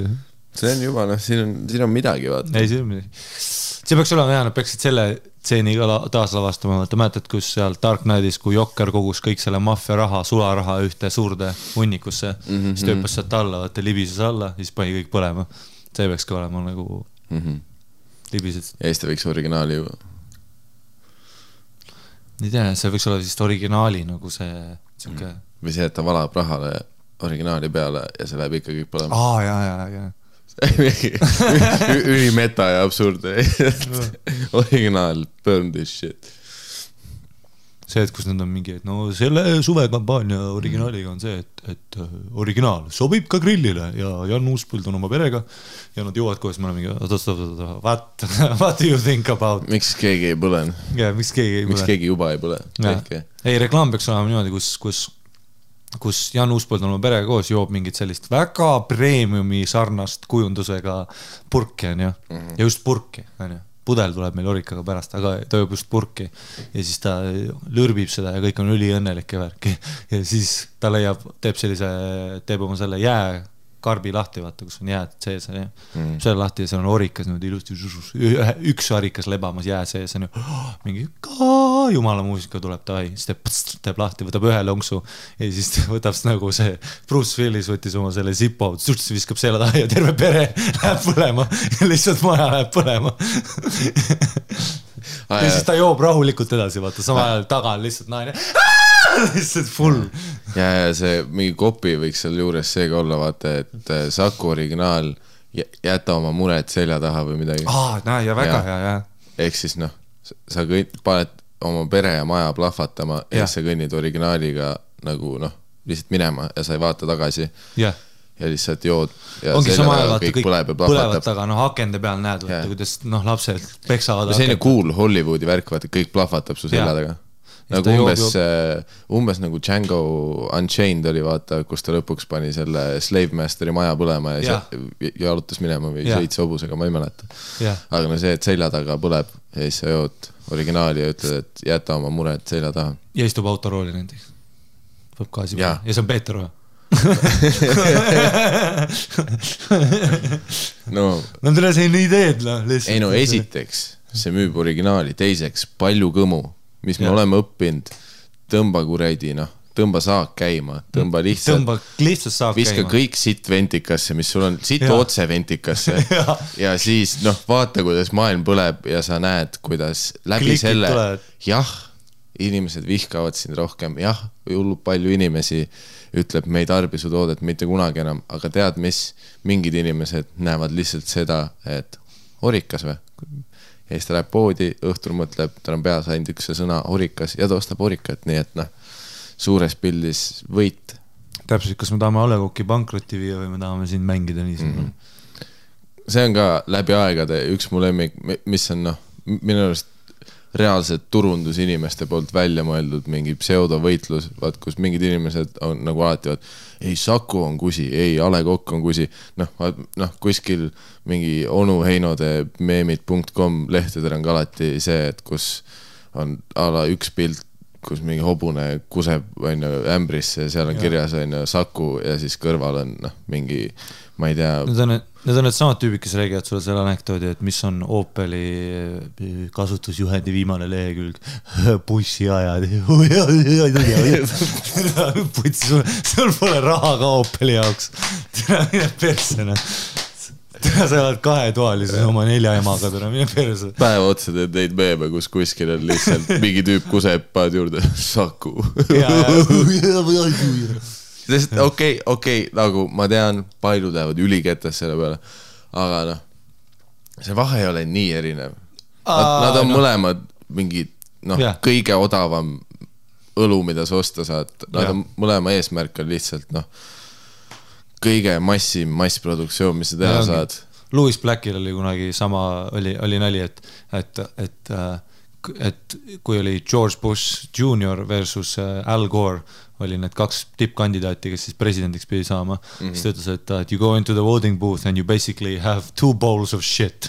See on juba, siin on midagi, vaata. Ei, see on midagi. See peaks olema hea, nad peaksid selle tseeni taaslavastama, vaata, mäletad, kus seal Dark Knightis, kui Jokker kogus kõik selle maffia raha, sularaha ühte suurde hunnikusse, siis tööpas sealt alla, vaata, libises alla, siis pani kõik põlema. See peaks ka olema nagu libised. Ja Eesti võiks originaali ju. Ei tea, see võiks olla vist originaali nagu see siuke... Või see, et ta valab rahale originaali peale ja see läheb ikka kõik põlema. Jaa. Ülimeta ja absurd. Originaal, burn this shit. See, et kus nad on mingi, et no selle suvekampaania originaaliga on see, et originaal sobib ka grillile ja Jan Uuspõld on oma perega ja nad jõuavad koos, me oleme mingi, what do you think about? Miks keegi ei põlen? Yeah, miks keegi juba ei põle? Ei, reklaam peaks olema niimoodi, kus Jan Uuspõld on oma perega koos, joob mingit sellist väga premiumi sarnast kujundusega purki, on ju, ja just purki, on ju. Pudel tuleb meil orikaga pärast, aga ta joob just purki ja siis ta lõrbib seda ja kõik on üliõnnelik ja värki ja siis ta teeb oma selle jääkarbi lahti, vaata, kus on jääd sees selle lahti ja seal on orikas ilusti, üks orikas lebamas jää sees on ju, mingi jumala muusika tuleb ta siis teeb lahti, võtab ühe lonksu ja siis võtab nagu see Bruce Willis võttis oma selle zipo, viskab selle taha ja terve pere läheb põlema ja lihtsalt maja läheb põlema ja siis ta joob rahulikult edasi, vaata, sama ajal taga on lihtsalt naine lihtsalt full ja see mingi kopi võiks seal juures seega olla, vaata, et Saku originaal jäta oma mured selja taha või midagi ja väga hea ehk siis sa paned oma pere ja maja plahvatama ja sa kõnnid originaaliga nagu lihtsalt minema ja sa ei vaata tagasi ja lihtsalt jood ja ongi sama ajal, vaata, kõik põlevad taga, akende peal näed, vaata, kuidas lapsed peksavad selline cool Hollywoodi värk, vaata, kõik plahvatab su selja taga nagu umbes nagu Django Unchained oli, vaata, kus ta lõpuks pani selle Slave Masteri maja põlema ja jalutas minema või sõits hobusega, ma ei mäleta aga see, et selja taga põleb ja siis sa jood originaali ja ütled, et jäta oma mured selja taha ja istub autorooli näiteks võb gaasi peale ja see on Peeter või? no tule see nii teed ei no esiteks see müüb originaali, teiseks palju kõmu mis me oleme õppinud, tõmba kuredi, tõmba saak käima, tõmba lihtsalt saak viska käima. Kõik sitt ventikasse, mis sul on, sitt otse ventikasse ja siis vaata, kuidas maailm põleb ja sa näed, kuidas läbi Klikid selle tulevad. Inimesed vihkavad sind rohkem, hullub palju inimesi ütleb, me ei tarbi su toodet mitte kunagi enam, aga tead mis, mingid inimesed näevad lihtsalt seda, et orikas või? Ja siis ta läheb poodi, õhtul mõtleb, tal on peas ainult üks sõna orikas ja ta ostab orikat, nii et suures pildis võit. Täpselt, kas me tahame Alekoki pankrotti viia või me tahame siin mängida nii See on ka läbi aegade üks mu lemmik, mis on minu arust reaalselt turundusinimeste poolt välja mõeldud mingi pseudovõitlus, vaat kus mingid inimesed on nagu alati ei Saku on kusi, ei A Le Coq on kusi kuskil mingi onuheinode meemid.com lehtedel on ka alati see, et kus on ala üks pilt, kus mingi hobune kuseb ämbrisse ja seal on kirjas Saku ja siis kõrval on mingi, ma ei tea Need on need samad tüübid, kes räägivad sulle selle anekdoodi, et mis on Opeli kasutusjuhendi viimane lehekülg bussiajad sul pole raha ka Opeli jaoks mine persena sa oled kahetoalises oma 4 emaga mine perse päeva otsa teed neid meeme, kus kuskil on lihtsalt mingi tüüp kuseb paad juurde Saku sest okei, nagu ma tean, paljud lähevad üliketas selle peale, aga see vahe ei ole nii erinev. Nad on mõlemad mingid, kõige odavam õlu, mida sa osta saad. Nad on mõlema eesmärk on lihtsalt, kõige massproduktsioon, mis sa teha saad. Louis Blackil oli kunagi sama, oli nali, et kui oli George Bush Jr. versus Al Gore, oli need 2 tippkandidaati, kes siis presidendiks pidi saama, siis ta ütles, et you go into the voting booth and you basically have 2 bowls of shit.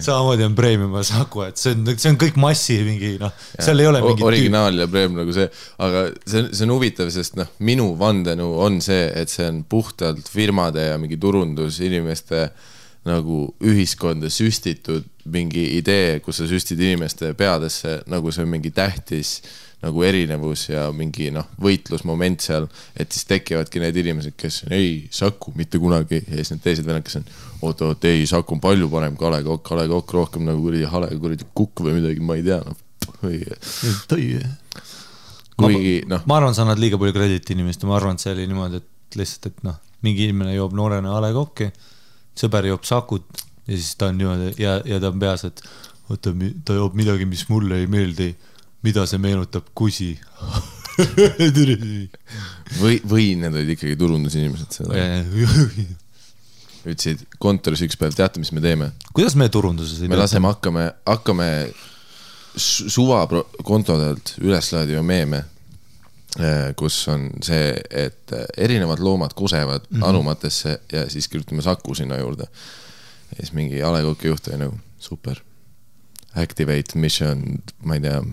samamoodi on Premium ja Saku, et see on kõik massi mingi, noh, seal ei ole mingi originaal ja Premium nagu see, aga see on huvitav, sest noh, minu vandenõu on see, et see on puhtalt firmade ja mingi turundus inimeste nagu ühiskonda süstitud mingi idee, kus sa süstid inimeste peadesse, nagu see on mingi tähtis nagu erinevus ja mingi võitlusmoment seal, et siis tekivadki need inimesed, kes on ei, Saku, mitte kunagi, ja siis need teised vennad, kes on oot, ei, Saku on palju parem kui A Le Coq rohkem nagu kuradi kukk või midagi, ma ei tea kuigi ma arvan, sa annad liiga palju krediti inimest ja ma arvan, et see oli niimoodi, et lihtsalt, et mingi inimene joob noorena A Le Coq'i, sõber joob Sakut ja siis ta on niimoodi ja ta on peas, et oota, ta joob midagi, mis mulle ei meeldi, mida see meenutab kusi. või need olid ikkagi turundusinimesed seda. Ütlesid kontoris üks päev, teate, mis me teeme? Kuidas me turunduses? Me laseme, hakkame suva kontodelt üles laadima meeme, kus on see, et erinevad loomad kusevad anumatesse ja siis kirjutame Saku sinna juurde. Ja siis mingi A Le Coq'i juht oli nagu, super. Activate mission, ma ei tea,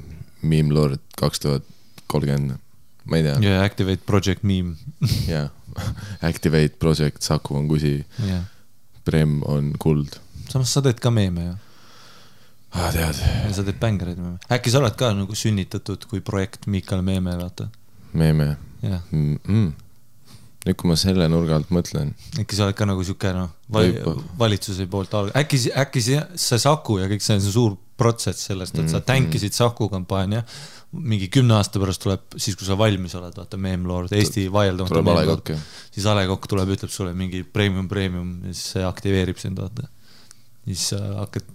Meme Lord 2030, ma ei tea. Yeah, Activate Project Meme. Yeah, Activate Project, Saku on kusi, Prem on kuld. Samas sa teed ka meeme, jah? Tead. Ja sa teed bängereid meeme. Äkki sa oled ka nagu sünnitatud kui projekt Miikal Meeme, vaata? Meeme? Jah. Nüüd, kui ma selle nurga alt mõtlen. Äkki sa oled ka nagu siuke, valitsuse poolt äkki see Saku ja kõik see on suur protsess sellest, et sa tänkisid Saku kampaania, mingi 10 aasta pärast tuleb, siis kui sa valmis oled, vaata, Meme Lord, Eesti vaieldamata Meme Lord, siis A Le Coq tuleb, ütleb sulle mingi premium, ja siis see aktiveerib sind, vaata. Siis hakkad,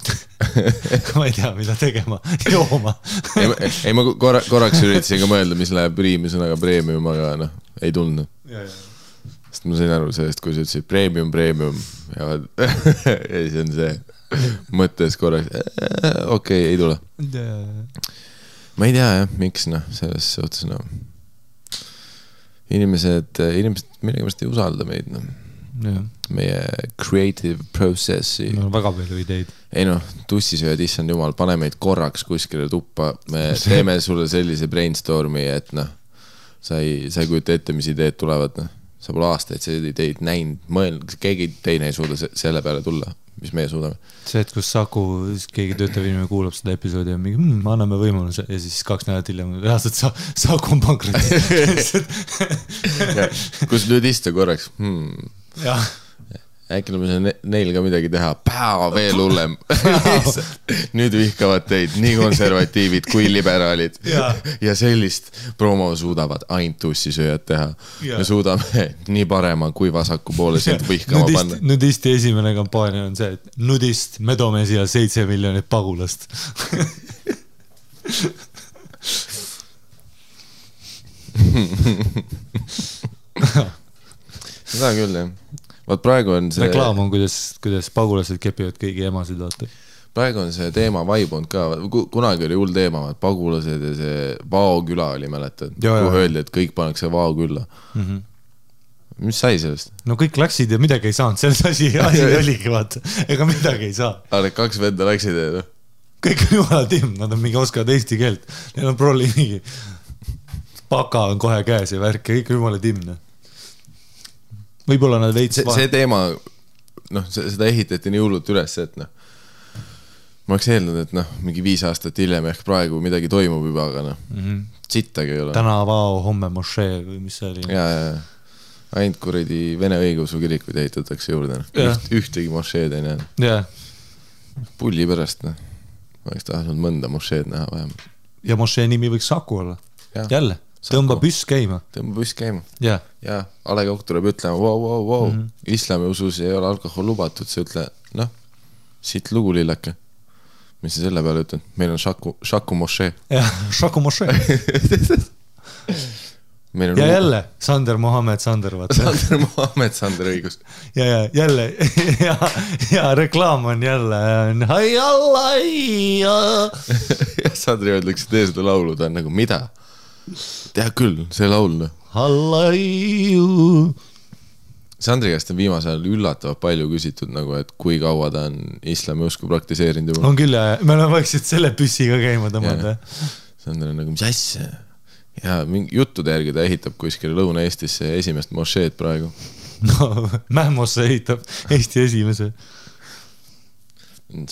ma ei tea, mida tegema, jooma. ei, ma korraks üritasin ka mõelda, mis läheb riimi sõnaga premium, aga ei tulnud. Sest ma sain aru sellest, kui sa ütlesid premium ja siis on see mõttes korraks, okei, ei tule. Ma ei tea, jah, miks, selles suhtes, inimesed millegipärast ei usalda meid, meie creative processi. Väga palju ideid. Ei tussisööd, issand jumal, pane meid korraks kuskile tuppa, me teeme sulle sellise brainstormi, et sa ei kujuta ette, mis ideed tulevad, sa pole aastaid seda ideid näinud, keegi teine ei suuda selle peale tulla, mis meie suudame. See, et kus Saku, keegi töötav inimene kuulab seda episoodi ja mingi, anname võimaluse ja siis 2 nädalat hiljem reaalselt Saku on pankrotis. Kus nüüd istu korraks? Jah. Äkki neil ka midagi teha, veel hullem. Nüüd vihkavad teid nii konservatiivid kui liberaalid ja sellist promo suudavad ainult tussisööjad teha. Me suudame nii parema kui vasaku poole sind vihkama panna. Nudisti esimene kampaania on see, et nudist, me toome siia 7 miljonit pagulast. Seda küll, jah. Vaat praegu on see... Reklaam on, kuidas pagulased kepivad kõigi emasid, vaata. Praegu on see teema vaibunud ka. Kunagi oli hull teema, pagulased ja see Vao küla oli, mäletad? Kui öeldi, et kõik pannakse Vao külla. Mis sai sellest? No kõik läksid ja midagi ei saanud. Selles asi oligi, vaata. Ega midagi ei saa. Aga 2 venda läksid ja... Kõik on jumala timm, nad on mingi oskavad eesti keelt. Neil on prolli mingi... Paka on kohe käes ja värk ja kõik on jumala timm. Võib-olla nad veits... See teema, seda ehitati nii hullult üles, et ma oleks eelnud, et mingi 5 aastat hiljem ehk praegu midagi toimub juba, aga sittagi ei ole. Täna Vao, homme Mošee või mis see oli? Ja. Ainult kuradi Vene õigeusu kirikuid ehitatakse juurde. Ühtegi Mošeed ei näe. Ja. Pulli pärast, ma oleks tahtnud mõnda Mošeed näha vähem. Ja Mošee nimi võiks Saku olla. Jälle. Tõmba püss käima. Ja A Le Coq tuleb ütlema, wow. Islami usus ei ole alkohol lubatud, see ütle, siit lugu lillake. Mis sa selle peale ütlen? Meil on Saku Mošee. Ja, Saku Mošee. Ja jälle, Sander Mohamed Sander, vaata. Sander Mohamed Sander, õigus. Ja jälle, ja reklaam on jälle, hai allai. Ja Sandri öeldakse, tee seda laulu, ta on nagu, mida? Tea küll, see laul. Hallaiu. Sandri käest on viimasel ajal üllatavalt palju küsitud nagu, et kui kaua ta on islami usku praktiseerinud juba. On küll ja me oleme vaikselt selle püssiga käima tõmmata. Sandri on nagu, mis asja? Ja mingi juttude järgi ta ehitab kuskil Lõuna-Eestisse esimest mošeed praegu. No, Mähmosse ehitab Eesti esimese.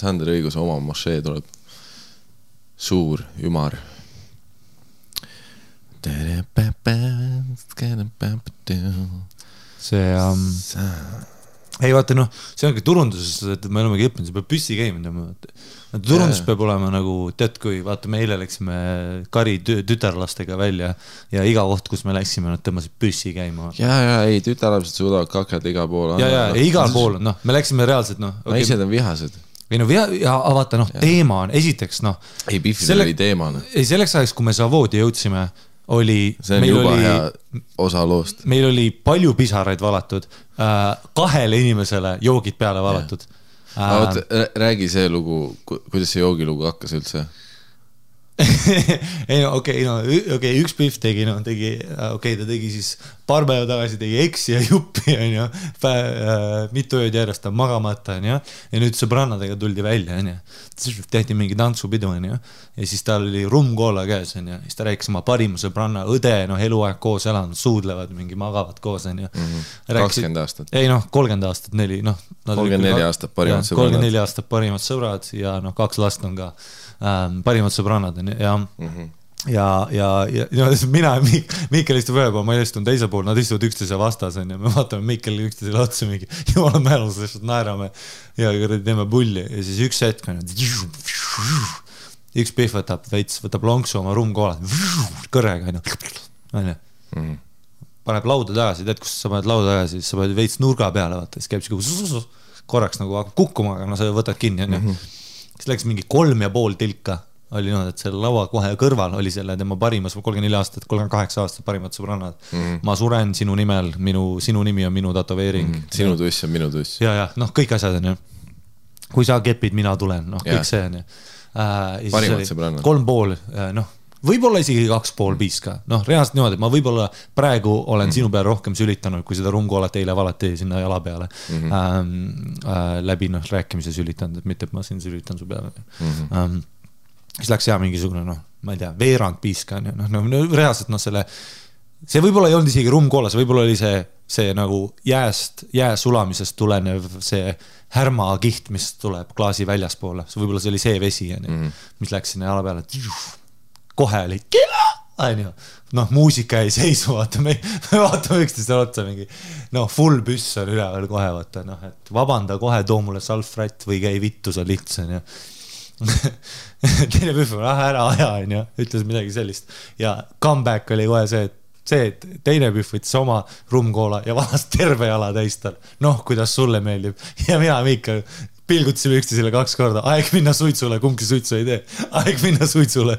Sandri õigus oma mošee tuleb. Suur, ümar. See ei vaata noh, see ongi turunduses, et me olemegi õppinud, see peab püssi käima. Turundus peab olema nagu, tead kui vaata me eile läksime Kari tütarlastega välja ja iga koht, kus me läksime, nad tõmbasid püssi käima. Ja, ei, tütarlapsed suudavad kakada igal pool. Ja, igal pool, noh, me läksime reaalselt, noh. Naised on vihased. Või no ja vaata, noh, teema on, esiteks, noh. Ei, Biffidel oli teema. Ei, selleks ajaks, kui me Savoodi jõudsime, see on juba hea osa loost. Meil oli palju pisaraid valatud, 2 inimesele joogid peale valatud. Räägi see lugu, kuidas see joogilugu hakkas üldse? Ei, okei, üks Biff tegi, ta tegi siis paar päeva tagasi tegi eksi ja juppi, mitu ööd järjest ta magamata, ja nüüd sõbrannadega tuldi välja, tehti mingi tantsupidu, ja siis tal oli rumkoola käes, siis ta rääkis oma parimu sõbranna, õde, eluaeg koos elanud, suudlevad, mingi magavad koos, 20 aastat. Ei, 30 aastat, 34 aastat parimad sõbrannad. 34 aastat parimad sõbrad ja 2 last on ka parimad sõbrannad ja mina ja Miikel istub ühe pool, ma istun teise pool, nad istuvad üksteise vastas ja me vaatame Miikel üksteisele otsa mingi jumala mälus, lihtsalt naerame ja teeme pulli ja siis üks hetk on üks Biff võtab lonksu oma rumkoola kõrrega paneb lauda tagasi, tead kus sa paned lauda tagasi, siis sa paned veits nurga peale vaata, siis käib see korraks nagu hakkab kukkuma, aga sa võtad kinni siis läks mingi 3,5 tilka oli et selle laua kohe kõrval oli selle tema parimas 34 aastat, 38 aastat parimad sõbrannad. Ma suren sinu nimel, sinu nimi on minu tatoveering. Sinu tuss on minu tuss. Ja, kõik asjad on. Kui sa kepid, mina tulen, kõik see on. Parimad sõbrannad. 3,5, võib-olla isegi 2,5 piiska. Reaalselt niimoodi, et ma võib-olla praegu olen sinu peale rohkem sülitanud, kui seda rumkoolat eile valati sinna jala peale. Läbi rääkimise sülitanud, et mitte, et ma siin sülitan su peale. Siis läks mingisugune, ma ei tea, veerand piiska. Reaalselt see võib-olla ei olnud isegi rumkoolas, võib-olla oli see nagu jää sulamisest tulenev see härmakiht, mis tuleb klaasi väljaspoole. Võib-olla see oli see vesi, mis läks sinna jala peale. Kohe oli muusika ei seisu, vaata, me vaatame üksteisele otsa mingi, full püss on üleval kohe, vaata, et vabanda kohe, too mulle salfrätt või käi vittu sa lihtsan, teine Biff on, ära aja, ütles midagi sellist ja comeback oli kohe see, et teine Biff võttis oma rumkoola ja valas terve jala täistal, kuidas sulle meeldib ja mina Miikal pilgutasime üksteisele 2 korda, aeg minna suitsule, kumbki suitsu ei tee, aeg minna suitsule.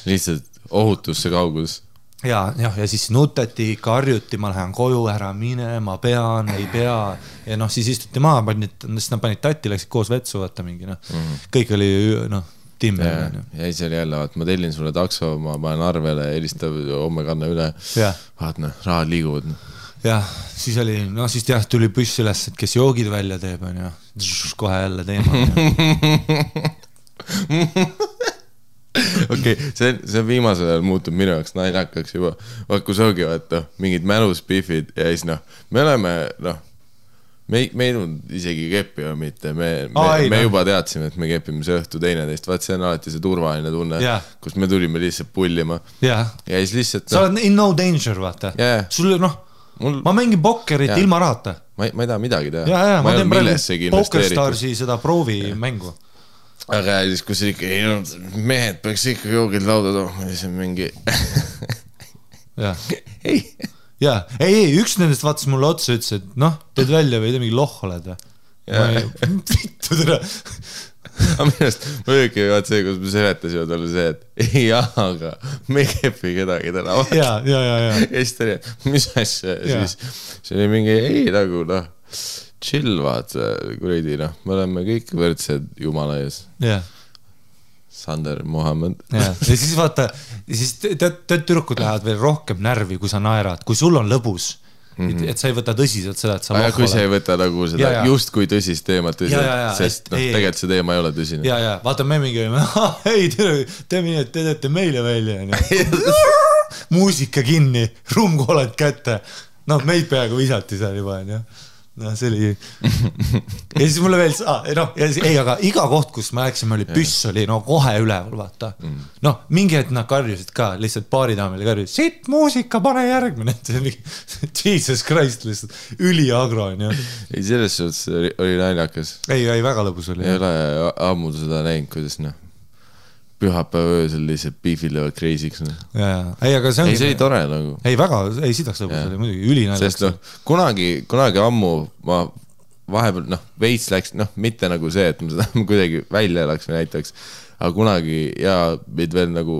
Lihtsalt ohutusse kaugus. Ja siis nutati, karjuti, ma lähen koju, ära mine, ma pean, ei pea. Ja siis istuti maa, siis nad panid tatti, läksid koos vetsu, vaata mingi, kõik oli, timme. Ja siis oli jälle, ma tellin sulle takso, ma panen arvele, helistab, homme kanna üle. Vaat, rahad liiguvad. Ja, siis oli, siis tuli püss üles, et kes joogid välja teeb, kohe jälle teema. Okei, see viimasel ajal muutub minu jaoks naljakaks juba. Kui soogi vaata, mingid mälus Biffid ja siis me oleme, me ei tulnud isegi keppi või mitte, me juba teadsime, et me kepime see õhtu teineteist, vaat see on alati see turvaline tunne, kus me tulime lihtsalt pullima. Ja siis lihtsalt... Sa oled in no danger, vaata. Sul, ma mängin pokkerit ilma rahata. Ma ei taha midagi teha. Ja, ma teen praegu Pokerstarsi seda proovi mängu. Aga siis, kus ikka, mehed peaks ikka joogid lauda tooma, siis on mingi... Ei, üks nendest vaatas mulle otsa, ütles, et teed välja või mingi loh oled. Vittu tere. Aga millest ma õige vaat see, kus me seletasime talle see, et aga me ei kepi kedagi täna. Ja siis ta oli, mis asja? Siis see oli mingi, nagu chill vaat, kuridi, me oleme kõik võrdsed Jumala ees. Sander Mohammed. Ja siis vaata, siis tead tüdrukud lähevad veel rohkem närvi, kui sa naerad, kui sul on lõbus. et sa ei võta tõsiselt seda, et sa aga kui sa ei võta nagu seda just kui tõsist teemat tõsiselt, sest tegelikult see teema ei ole tõsine. Ja, vaata me mingi, ei, te teete meile välja. Muusika kinni, ruumkooled kätte. Meid peaaegu visati seal juba, see oli ja siis mulle veel aga iga koht, kus me läksime, oli püss oli kohe üleval, vaata mingi hetk nad karjusid ka, lihtsalt baaridaamile karjusid, sitt muusika, pane järgmine Jesus Christ, lihtsalt üliagro ei, selles suhtes oli naljakas ei, väga lõbus oli ei ole ammu seda näinud, kuidas pühapäeva öösel lihtsalt beefil löövad crazy'ks ei, aga see oli tore nagu ei, väga, ei sidaks lõbus oli muidugi ülinaljakas sest kunagi ammu ma vahepeal veits läks, mitte nagu see, et ma seda kuidagi välja elaks või näitaks, aga kunagi meid veel nagu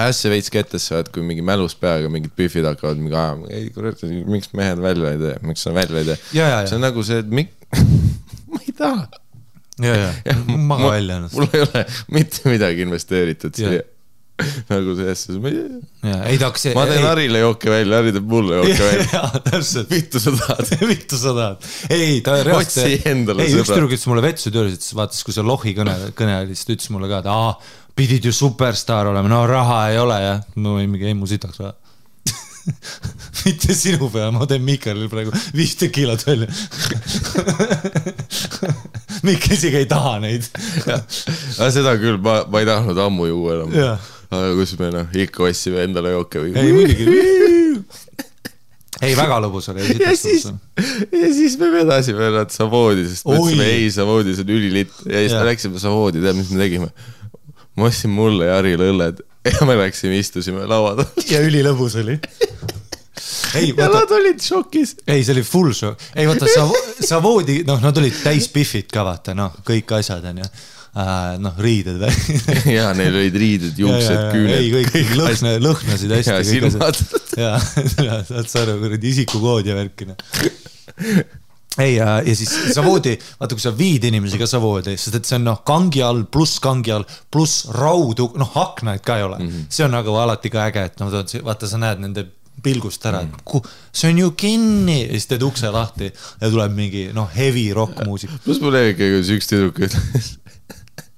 ässe veits kettesse, kui mingi mälus peaga mingid büfid hakkavad mingi ajama, ei kurat, miks mehed välja ei tee, miks sa välja ei tee see on nagu see, et ma ei taha maga välja ennast. Mul ei ole mitte midagi investeeritud siia. Nagu sellesse. Ma teen Harile jooke välja, Hari teeb mulle jooke välja. Vittu sa tahad. Ei, ta reaalselt. Otsi endale sõbra. Üks tüdruk ütles mulle vetsu töölis, et vaatas, kui see Lohi kõne oli, siis ta ütles mulle ka, et pidid ju superstar olema, raha ei ole ja ma võin mingi mu sitaks vaja. Mitte sinu peale, ma teen Mikalil praegu 5 kilot välja. Mikk isegi ei taha neid. Seda küll, ma ei tahtnud ammu juua enam. Aga kus me ikka ossime endale jooke või? Ei, muidugi. Ei, väga lõbus oli. Ja siis me vedasime nad Savoodi, sest mõtlesime, ei, Savoodi, see on ülilitt. Ja siis me läksime Savoodi, tead, mis me tegime? Ma ostsin mulle ja Harile õlled. Ja me läksime, istusime lauad. Ja ülilõbus oli. Ja nad olid šokis. Ei, see oli full šok. Ei, vaata, Savoodi, nad olid täis biffid ka, vaata, kõik asjad on ja riided või. Ja, neil olid riided, juuksed, küüned. Ei, kõik lõhnasid hästi. Ja, silmad. Ja, saad saada kuradi isikukood ja värkina. Ei, ja siis Savoodi, vaata, kui sa viid inimesi ka Savoodi, sest et see on kangi all, pluss raudu, aknaid ka ei ole. See on nagu alati ka äge, et vaata, sa näed nende pilgust ära, et see on ju kinni, ja siis teed ukse lahti ja tuleb mingi heavy rock muusik. Plus mul üks tüdruk ütles.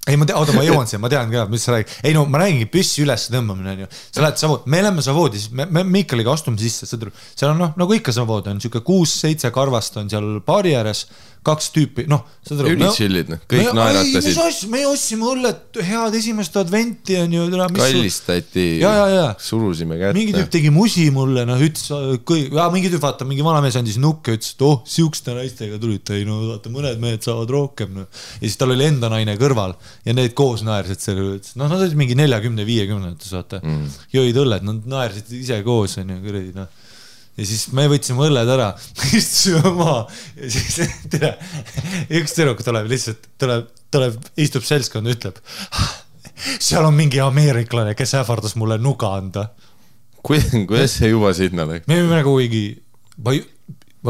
Ei, ma jõuan siia, ma tean ka, mis sa räägid. Ei, ma räägingi püssi üles tõmbamine on ju. Sa lähed Savoodi, me oleme Savoodi, siis me Miikaliga astume sisse, seal on nagu ikka Savoodi on, siuke 6-7 karvast on seal baari ääres, 2 tüüpi, Ülitsillid, kõik naeratasid. Me ostsime õllet head esimest adventi on ju. Kallistati, surusime kätte. Mingi tüüp tegi musi mulle, mingi tüüp vaata, mingi vanamees andis nukke, ütles, et siukste naistega tulite, vaata, mõned mehed saavad rohkem. Ja siis tal oli enda naine kõrval ja need koos naersid selle, nad olid mingi 40-50, vaata, jõid õlled, nad naersid ise koos on ju, kuradi, ja siis me võtsime õlled ära, istusime maa ja siis üks tüdruk tuleb lihtsalt, istub seltskond ja ütleb, seal on mingi ameeriklane, kes ähvardas mulle nuga anda. Kuidas see juba sinna läks? Me võime nagu kuigi, ma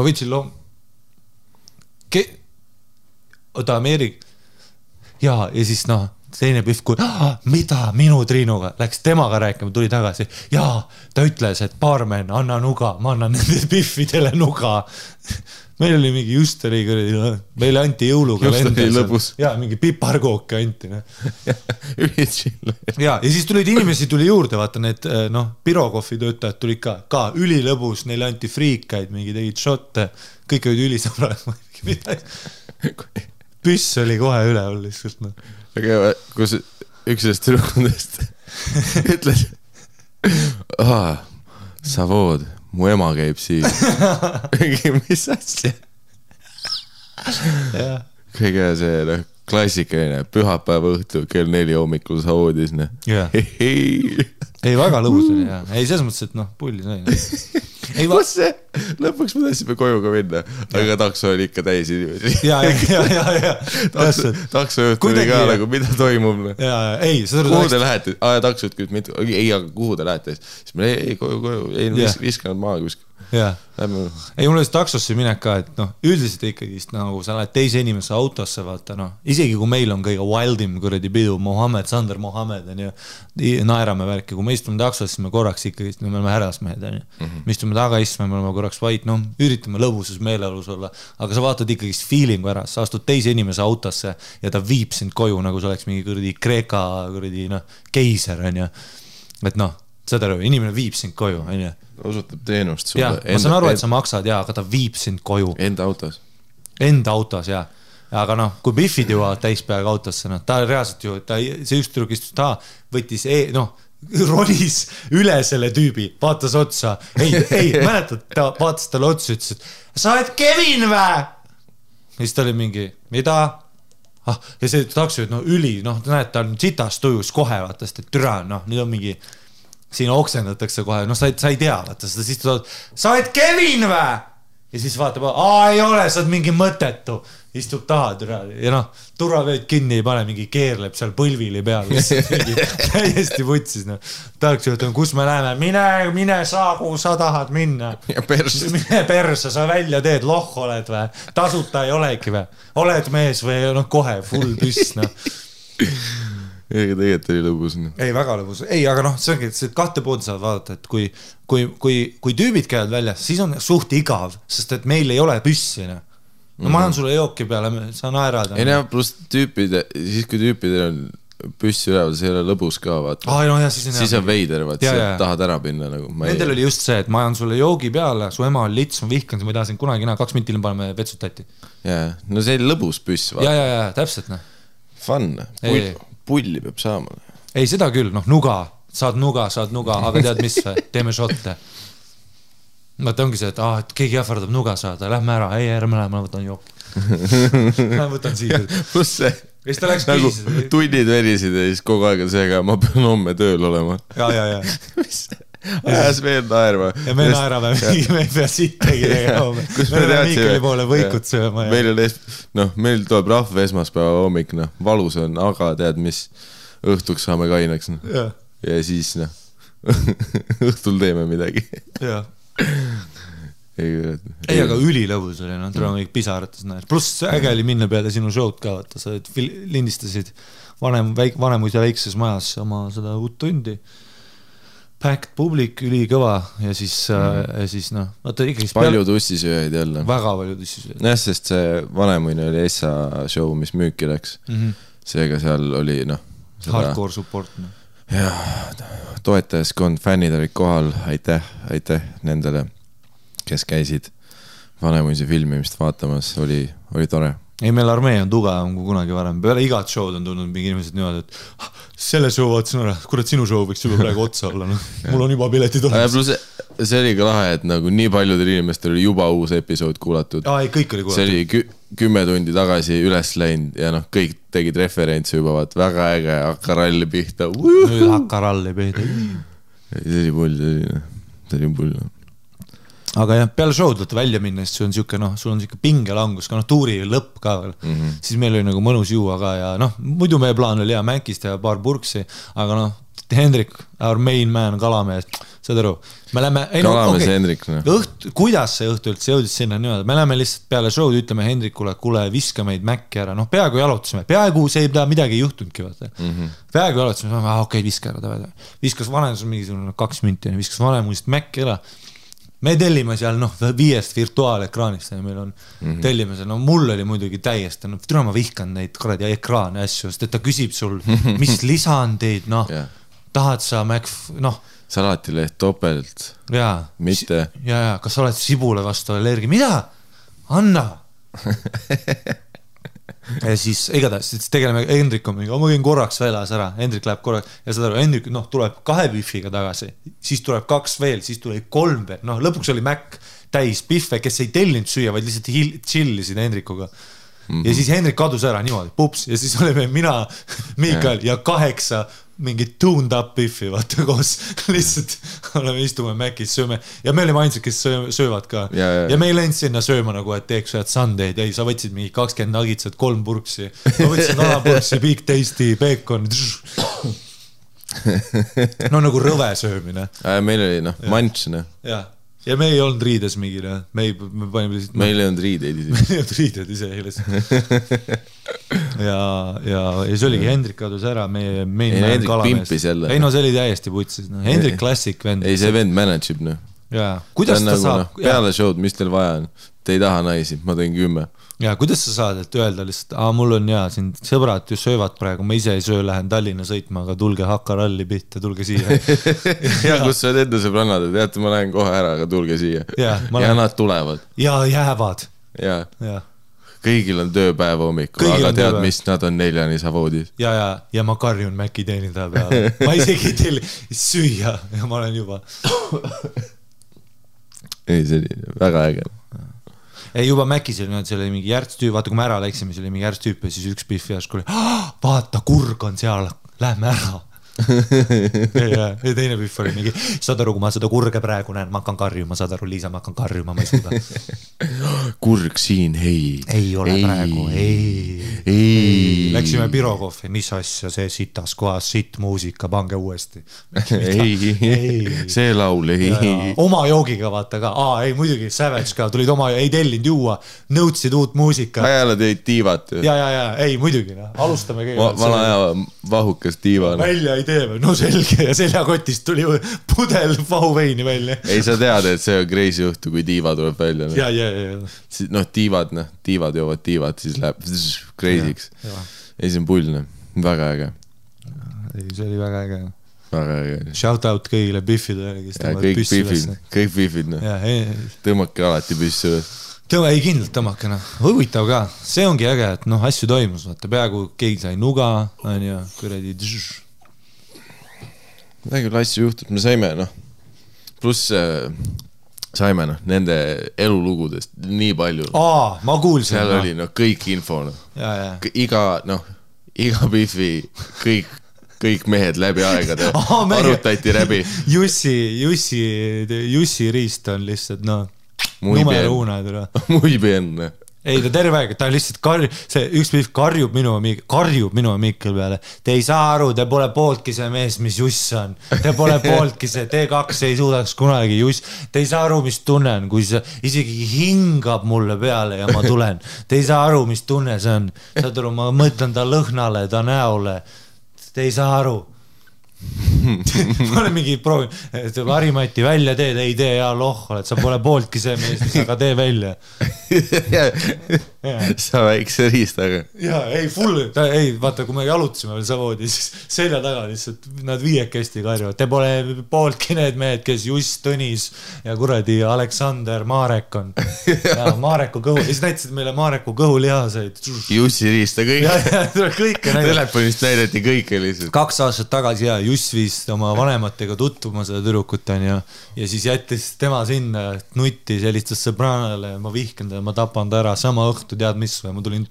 võtsin oota Ameerik ja siis teine pühv, kui mida minu Triinuga läks temaga rääkima, tuli tagasi ja ta ütles, et baarmen, anna nuga, ma annan nende pühvidele nuga. Meil oli mingi just oli, meile anti jõuluga ja mingi piparkooke anti ja siis tulid inimesi tuli juurde, vaata need Pirokofi töötajad tulid ka ülilõbus, neile anti friikaid, mingi tegid šotte, kõik olid ülisõbrad püss oli kohe üleval lihtsalt aga kus üks sellest tüdrukundest ütles Savood, mu ema käib siin mis asja kõige see klassikaline pühapäeva õhtu kell 4 hommikul Savoodis ei väga lõbus oli ei selles mõttes, et pulli sai kus see? Lõpuks me tahtsime koju ka minna, aga takso oli ikka täis inimesi. Ja. Takso juht oli ka nagu, mida toimub? Kuhu te lähete? Takso juht küll, ei, aga kuhu te lähete? Siis me ei, koju, ei viskanud maa kuskil. jah. Ei, mul oli taksosse minek ka, et noh, üldiselt ikkagi nagu sa lähed teise inimese autosse, vaata noh, isegi kui meil on kõige wildim kuradi pidu, Sander Mohammed on ju, naerame värki, kui me istume taksosse, siis me korraks ikkagi, me oleme härrasmehed, on ju. Me istume taga istme, me oleme korraks vait, noh, üritame lõbusus meeleolus olla, aga sa vaatad ikkagi feelingu ära, sa astud teise inimese autosse ja ta viib sind koju, nagu sa oleks mingi kuradi Kreeka kuradi, noh, keiser, on ju. Et noh, seda aru, inimene viib sind koju, on ju. Osutab teenust sulle. Ja, ma saan aru, et sa maksad, ja, aga ta viib sind koju. Enda autos, ja. Aga noh, kui Biffid jõuavad täispeaga autosse, noh, ta reaalselt ju, see üks tüdruk istus ta, võttis, noh, ronis üle selle tüübi, vaatas otsa. Ei, mäletad, ta vaatas talle otsa, ütles, et sa oled Kevin vä? Ja siis ta oli mingi, mida? Ja see takso, et noh, noh, näed, ta on sitas tujus kohe, vaatast, et türa, noh, nüüd on mingi siin oksendatakse kohe, noh, sa ei tea, vaata, siis sa oled Kevin vä? Ja siis vaatab, ei ole, sa oled mingi mõtetu, istub taha, ja noh, turvavööd kinni ei pane, mingi keerleb seal põlvili peal, täiesti vutsis, noh. Tahaks juhtu, kus me läheme, mine saa, kuhu sa tahad minna. Mine perse, sa välja teed, loh oled vä, tasuta ei olegi vä, oled mees või, noh, kohe, full püss, noh. Ega tegelikult oli lõbus. Ei, väga lõbus. Ei, aga noh, see ongi, et kahte pood saavad vaadata, et kui tüübid käivad välja, siis on suht igav, sest et meil ei ole püssi. No ma annan sulle jooki peale, sa naerad. Ei näe, pluss tüüpide, siis kui tüüpidel on püssi üleval, see ei ole lõbus ka, vaata. No, ja, siis on veider, vaata, sa tahad ära pinna. Nagu. Nendel oli just see, et ma annan sulle joogi peale, su ema on lits, ma vihkan, ma ei taha sind kunagi 2 mintil paneme vetsut tatti. Jaa, no see oli lõbus püss, vaata. Ja, täpselt, noh. Fun, pulli peab saama. Ei, seda küll, noh, saad nuga, aga tead mis, teeme shotte. Vaata ongi see, et keegi ähvardab nuga saada, lähme ära, ei, ära ma võtan jooki. Ma võtan siia. Plus see, nagu tunnid verisid ja siis kogu aeg on see, aga ma pean homme tööl olema. Ja. Mis? Ajas veel naerma. Ja me naerame, me ei pea sittegi tegema. Me oleme Miikeli poole võikut sööma. Meil tuleb rahva esmaspäeva hommik, valus on, aga tead mis, õhtuks saame kaineks. Ja siis, õhtul teeme midagi. Jah. Ei, aga ülilõbus oli, tuleb kõik pisarates näed. Pluss äge oli minna peale sinu show'd ka, vaata, sa lindistasid vanemuid ja väikses majas oma seda uut tundi. Packed publik, ülikõva ja siis noh, palju tussisööjaid jälle. Väga palju tussisööjaid. Jah, sest see vanemuine oli Essa show, mis müüki läks. Seega seal oli, noh. Hardcore support. Jah, toetajaskond, fännid olid kohal, aitäh nendele, kes käisid vanemuise filmimist vaatamas, oli tore. Ei, meil armee on tugevam kui kunagi varem. Peale igat show'd on tulnud mingi inimesed niimoodi, et selle show vaatasin ära, kurat sinu show võiks juba praegu otsa olla. Mul on juba piletid olemas. Plus see oli ka lahe, et nagu nii paljudel inimestel oli juba uus episood kuulatud. Ei, kõik oli kuulatud. See oli 10 tundi tagasi üles läinud ja noh, kõik tegid referentsi juba, vaat väga äge hakkaralli pihta. Nüüd hakkaralli pihta. See oli pull. Aga jah, peale show'd võtta välja minna, siis sul on siuke pingelangus, ka tuuri lõpp ka veel. Siis meil oli nagu mõnus juua ka ja noh, muidu meie plaan oli Mänkist ja paar purksi, aga noh, Hendrik, our main man, Kalamees, saad aru? Kalamees Hendrik. Kuidas see õhtu üldse jõudis sinna niimoodi? Me läheme lihtsalt peale show'd, ütleme Hendrikule, kuule, viska meid Mäkki ära. Noh, peaaegu jalutasime. Peaaegu see ei pea midagi juhtunudki, vaata. Peaaegu jalutasime, okei, viska ära. Viskas vanemus mingisugune 2 minti, viskas vanemusest Mäkki ära. Me tellime seal 5 virtuaalekraanist ja meil on tellime seal, mul oli muidugi täiesti, türa ma vihkan neid kuradi ekraane asju, sest et ta küsib sul, mis lisandeid, tahad sa salatileht topelt, mitte. Ja, kas sa oled sibule vastu allergi, mida? Anna! Ja siis igatahes tegeleme Hendrik on mingi, ma käin korraks väljas ära, Hendrik läheb korraks ja seda Hendrik tuleb 2 biffiga tagasi, siis tuleb 2 veel, siis tuleb 3 veel, lõpuks oli Mac täis biffe, kes ei tellinud süüa, vaid lihtsalt chillisid Hendrikuga ja siis Hendrik kadus ära niimoodi, pups ja siis oleme mina, Miikal ja 8 mingid tuned up biffi, vaata koos lihtsalt oleme istume Mäkis, sööme ja me olime ainsad, kes söövad ka ja me ei läinud sinna sööma nagu, et teeks ühed sundaid, ei, sa võtsid mingi 20 nagitsad, 3 purksi ma võtsin alapurksi, big tasty, bacon nagu rõve söömine meil oli, manč ja, ja me ei olnud riides mingile, me panime lihtsalt meil ei olnud riideid meil ei olnud riided ise ja see oligi Hendrik kadus ära, meie Hendrik pimpis jälle. Ei no see oli täiesti putsis, no. Hendrik klassik vend. Ei see vend manageb, noh. Jaa, kuidas ta saab? Peale show'd, mis teil vaja on? Te ei taha naisi, ma teen 10. Ja kuidas sa saad, et öelda lihtsalt, mul on siin sõbrad ju söövad praegu, ma ise ei söö, lähen Tallinna sõitma, aga tulge Hakaralli pihta, tulge siia. ja kus sa oled enda sõbrannad, teate, ma lähen kohe ära, aga tulge siia. Ja nad tulevad. Ja jäävad. Ja. Kõigil on tööpäev hommikul, aga tead, mis nad on 4 savoodis. Ja ma karjun Mäki teenindaja peale. Ma isegi teil süüa ja ma olen juba. Ei, see oli väga äge. Ei, juba Mäkis oli, see oli mingi järgstüüp, vaata kui me ära läksime, see oli mingi järgstüüp ja siis üks pihv järsku oli, vaata, kurg on seal, lähme ära. ja teine pihv oli mingi, saad aru, kui ma seda kurge praegu näen, ma hakkan karjuma, saad aru, Liisa, ma hakkan karjuma, ma ei suuda. Kurg siin, ei ole praegu, ei. Läksime Pirokohvi, mis asja see sitas kohas, sitt muusika, pange uuesti. ei, see laul, ei. Oma joogiga vaata ka, ei muidugi, Savage ka, tulid oma, ei tellinud juua, nõudsid uut muusika. Ajale teid tiivat. Ja, ei muidugi, alustame kõigepealt. Vana aja vahukas tiiva. Välja ei tee, no selge ja seljakotist tuli pudel vahuveini välja. Ei, sa tead, et see on crazy juhtu, kui tiiva tuleb välja. Ja. Noh, tiivad joovad tiivad, siis läheb crazy'ks. Ei, see on pullne, väga äge. Ei, see oli väga äge. Väga äge. Shout out kõigile biffidele, kes tõmbavad püssi ülesse. Kõik biffid, tõmmake alati püssi üles. Ei kindlalt tõmmake, huvitav ka. See ongi äge, et asju toimus, vaata, peaaegu keegi sai nuga, on ju, kuradi väga küll asju juhtud, me saime, pluss saime, nende elulugudest nii palju. Ma kuulsin. Seal oli, kõik info, iga biffi, kõik mehed läbi aegade arutati läbi. Jussi Riist on lihtsalt, numero una. Muy bien. Ei, ta terve aeg, ta lihtsalt üks pihv karjub minu Mikkel peale. Te ei saa aru, te pole pooltki see mees, mis Juss on. Te pole pooltki see, T2 ei suudaks kunagi Juss. Te ei saa aru, mis tunnen, kui see isegi hingab mulle peale ja ma tulen. Te ei saa aru, mis tunne see on. Saad aru, ma mõtlen ta lõhnale, ta näole. Te ei saa aru. Ma olen mingi proovin, et Harimati välja teed, ei tee ja oled, sa pole pooltki see mees, aga tee välja. Sa väikse riistaga. Ei, vaata, kui me jalutasime veel savoodi, siis selja taga lihtsalt nad viiekesti karjuvad. Te pole pooltki need mehed, kes Just Tõnis ja kuradi Aleksander Marek on. Mareku kõhu, siis näitasid meile Mareku kõhulihaseid. Jussi riista kõik. Telefonist näidati kõike lihtsalt. 2 aastat tagasi Juss viis oma vanematega tutvuma seda tüdrukut on ja siis jättis tema sinna nutti sellistes sõbranale, ma vihkan ta, ma tapan ta ära sama õhtu, tead mis või, ma tulin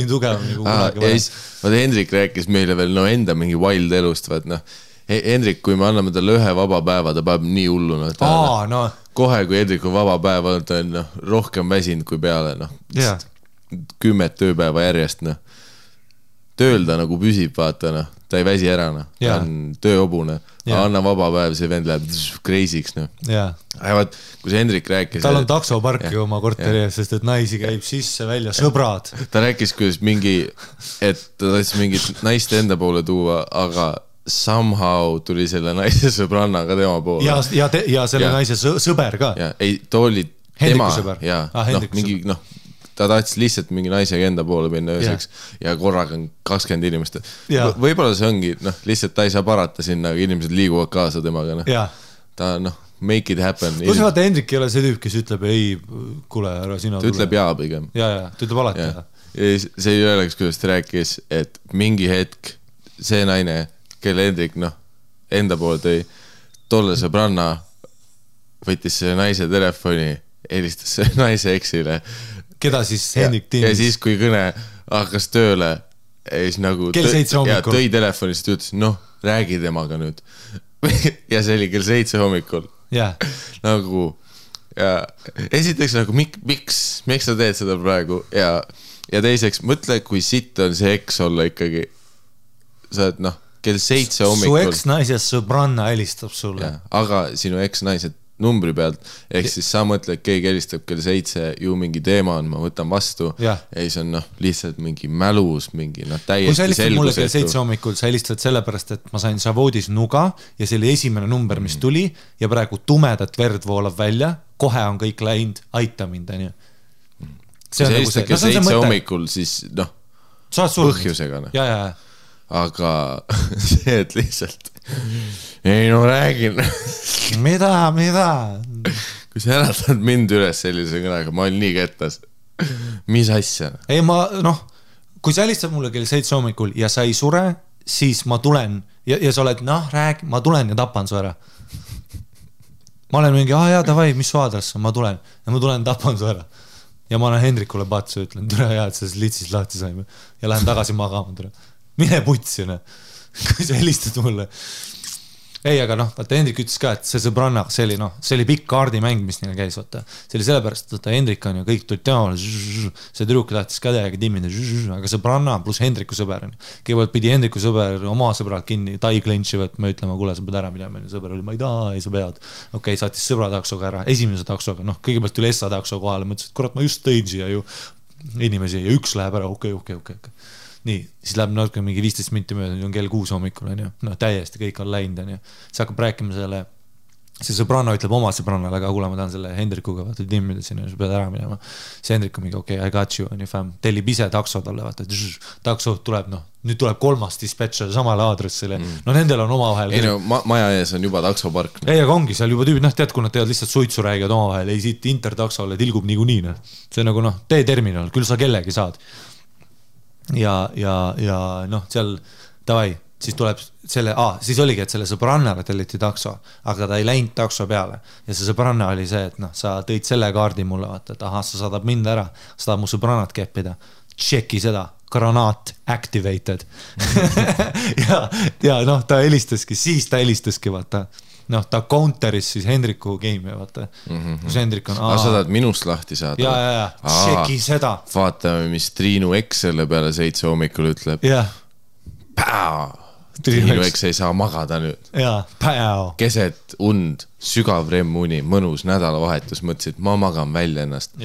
tugevam nagu kunagi varem. Vaata, Hendrik rääkis meile veel enda mingi wild elust, Hendrik, kui me anname talle ühe vaba päeva, ta paneb nii hulluna. Kohe, kui Hendrik on vaba päeva, ta on rohkem väsinud kui peale, 10 tööpäeva järjest, tööl ta nagu püsib, vaata, ta ei väsi ära, ta on tööobune, anna vaba päev, see vend läheb crazy'ks. Kui see Hendrik rääkis... Tal on taksoparki oma korteri ees, sest et naisi käib sisse välja, sõbrad. Ta rääkis, kuidas et ta tahtis mingit naist enda poole tuua, aga somehow tuli selle naise sõbranna ka tema poole. Ja selle naise sõber ka. Ei, ta oli tema. Mingi, ta tahtis lihtsalt mingi naisega enda poole minna ööseks ja korraga on 20 inimest. Võib-olla see ongi, lihtsalt ta ei saa parata sinna, aga inimesed liiguvad kaasa temaga. Ta, make it happen. Kus vaata, Hendrik ei ole see tüüp, kes ütleb, ei, kuule, ära sina tule. Ta ütleb jaa pigem. Ta ütleb alati. See ei oleks, kuidas ta rääkis, et mingi hetk see naine, kelle Hendrik, enda poole tõi, tolle sõbranna võttis selle naise telefoni, helistas selle naise eksile. Keda siis Hendrik tiimis? Ja siis, kui kõne hakkas tööle, siis nagu kell 7 hommikul. Tõi telefonist ja ütles, räägi temaga nüüd. Ja see oli kell 7 hommikul. Nagu, ja esiteks nagu, miks sa teed seda praegu? Ja teiseks, mõtle, kui sitt on see eks olla ikkagi. Sa oled, kell 7 hommikul. Su eks-naises sõbranna helistab sulle. Aga sinu eks-naised numbri pealt, ehk siis sa mõtled, keegi helistab kell 7, ju mingi teema on, ma võtan vastu ja siis on lihtsalt mingi mälus, mingi täiesti selgusetu. Kui sa helistad mulle kell 7 hommikul, sa helistad sellepärast, et ma sain Savoodis nuga ja see oli esimene number, mis tuli ja praegu tumedat verd voolab välja, kohe on kõik läinud, aita mind, on ju. Kui sa helistad kell 7 hommikul, siis põhjusega. Aga see, et lihtsalt ei räägin mida? Kui sa äratad mind üles sellise kõnega, ma olin nii kettas. Mis asja? Ei kui sa helistad mulle kell 7 hommikul ja sa ei sure, siis ma tulen ja sa oled, räägi, ma tulen ja tapan su ära. Ma olen mingi, davai, mis su aadress on, ma tulen tapan su ära. Ja ma olen Hendrikule patsu, ütlen, tere hea, et sa litsis lahti saime ja lähen tagasi magama, tere. Mine putsi, kui sa helistad mulle. Ei, aga vaata, Hendrik ütles ka, et see sõbranna, see oli pikk kaardimäng, mis neil käis, vaata. See oli sellepärast, et Hendrik on ja kõik tulid temal, see tüdruk tahtis ka täiega timmida, aga sõbranna pluss Hendriku sõber. Kõigepealt pidi Hendriku sõber oma sõbrad kinni, tai klentši võtma, ütlema, kuule, sa pead ära minema. Sõber oli, ma ei taha, ei sa pead. Okei, saatis sõbra taksoga ära, esimese taksoga, kõigepealt tuli Essa takso kohale, mõtlesin, et kurat, ma just tõin siia ju inimesi ja üks läheb ära, okei. Nii, siis läheb natuke mingi 15 minti mööda, on kell 6 hommikul, on ju. Täiesti kõik on läinud, on ju. See hakkab rääkima selle, see sõbranna ütleb oma sõbrannale, aga kuule, ma tahan selle Hendrikuga, vaata, timmida sinna, sa pead ära minema. See Hendrik on mingi, okei, I got you, on ju, fam. Tellib ise takso talle, vaata, takso tuleb, nüüd tuleb 3. dispatcher samale aadressile. Nendel on omavahel. Ei maja ees on juba taksopark. Ei, aga ongi, seal juba tüübid, tead, kui nad teevad lihtsalt suitsu räägivad omavahel, ei siit intertaksole tilgub niikuinii. See on nagu, T-terminal, küll sa kellegi saad. Ja seal davai, siis tuleb selle, siis oligi, et selle sõbrannale telliti takso, aga ta ei läinud takso peale ja see sõbranna oli see, et sa tõid selle kaardi mulle, vaata, et sa saadab mind ära, sa tahad mu sõbrannat keppida, tšeki seda, granaat activated ja ta helistaski, vaata ta counteris siis Hendriku game, vaata. Kus Hendrik on... sa tahad minust lahti saada? Ja, tšeki seda. Vaatame, mis Triinu X selle peale 7 hommikul ütleb. Triinu X ei saa magada nüüd. Keset und, sügav remmuni, mõnus nädalavahetus, mõtlesid, ma magan välja ennast.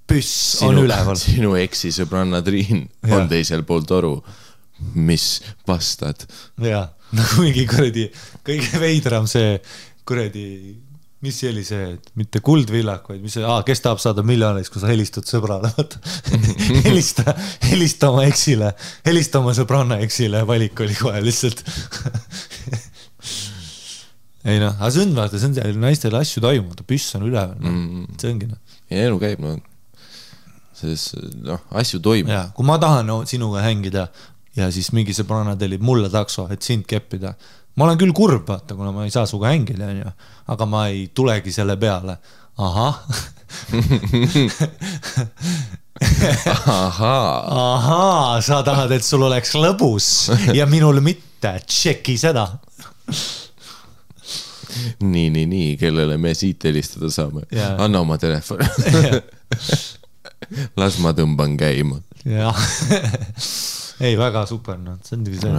Püss on üleval. Sinu X-i sõbranna Triin on teisel pool toru. Mis vastad? Nagu mingi kuradi, kõige veidram see kuradi, mis see oli see, et mitte kuldvillak, vaid mis see, kes tahab saada miljoneis, kui sa helistad sõbrale, helista oma eksile, helista oma sõbranna eksile, valik oli kohe lihtsalt. Ei aga see on, vaata, see on naistele asju toimub, püss on üleval, see ongi. Ja elu käib, asju toimub. Kui ma tahan sinuga hängida ja siis mingi sõbranna tellib mulle takso, et sind keppida. Ma olen küll kurb, vaata, kuna ma ei saa suga hängida, aga ma ei tulegi selle peale. Sa tahad, et sul oleks lõbus ja minul mitte, tšeki seda. Nii, kellele me siit helistada saame. Anna oma telefon. Las ma tõmban käima. Ei, väga super, see on see.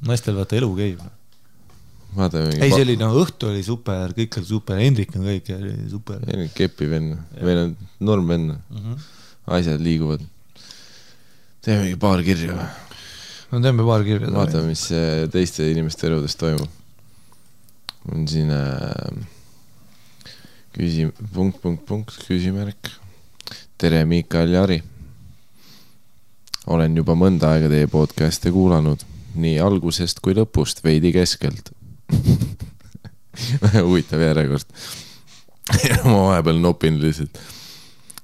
Naistel vaata elu käib. Ei, see oli, õhtu oli super, kõik oli super, Hendrik on kõik super. Kepi venn, meil on norm venn. Asjad liiguvad. Teeme paar kirja. Teeme paar kirja. Vaatame, mis teiste inimeste eludest toimub. On siin küsimärk. Tere, Mikael ja Ari. Olen juba mõnda aega teie podcast'e kuulanud, nii algusest kui lõpust, veidi keskelt. Huvitav järjekord. Ma vahepeal nopin lihtsalt.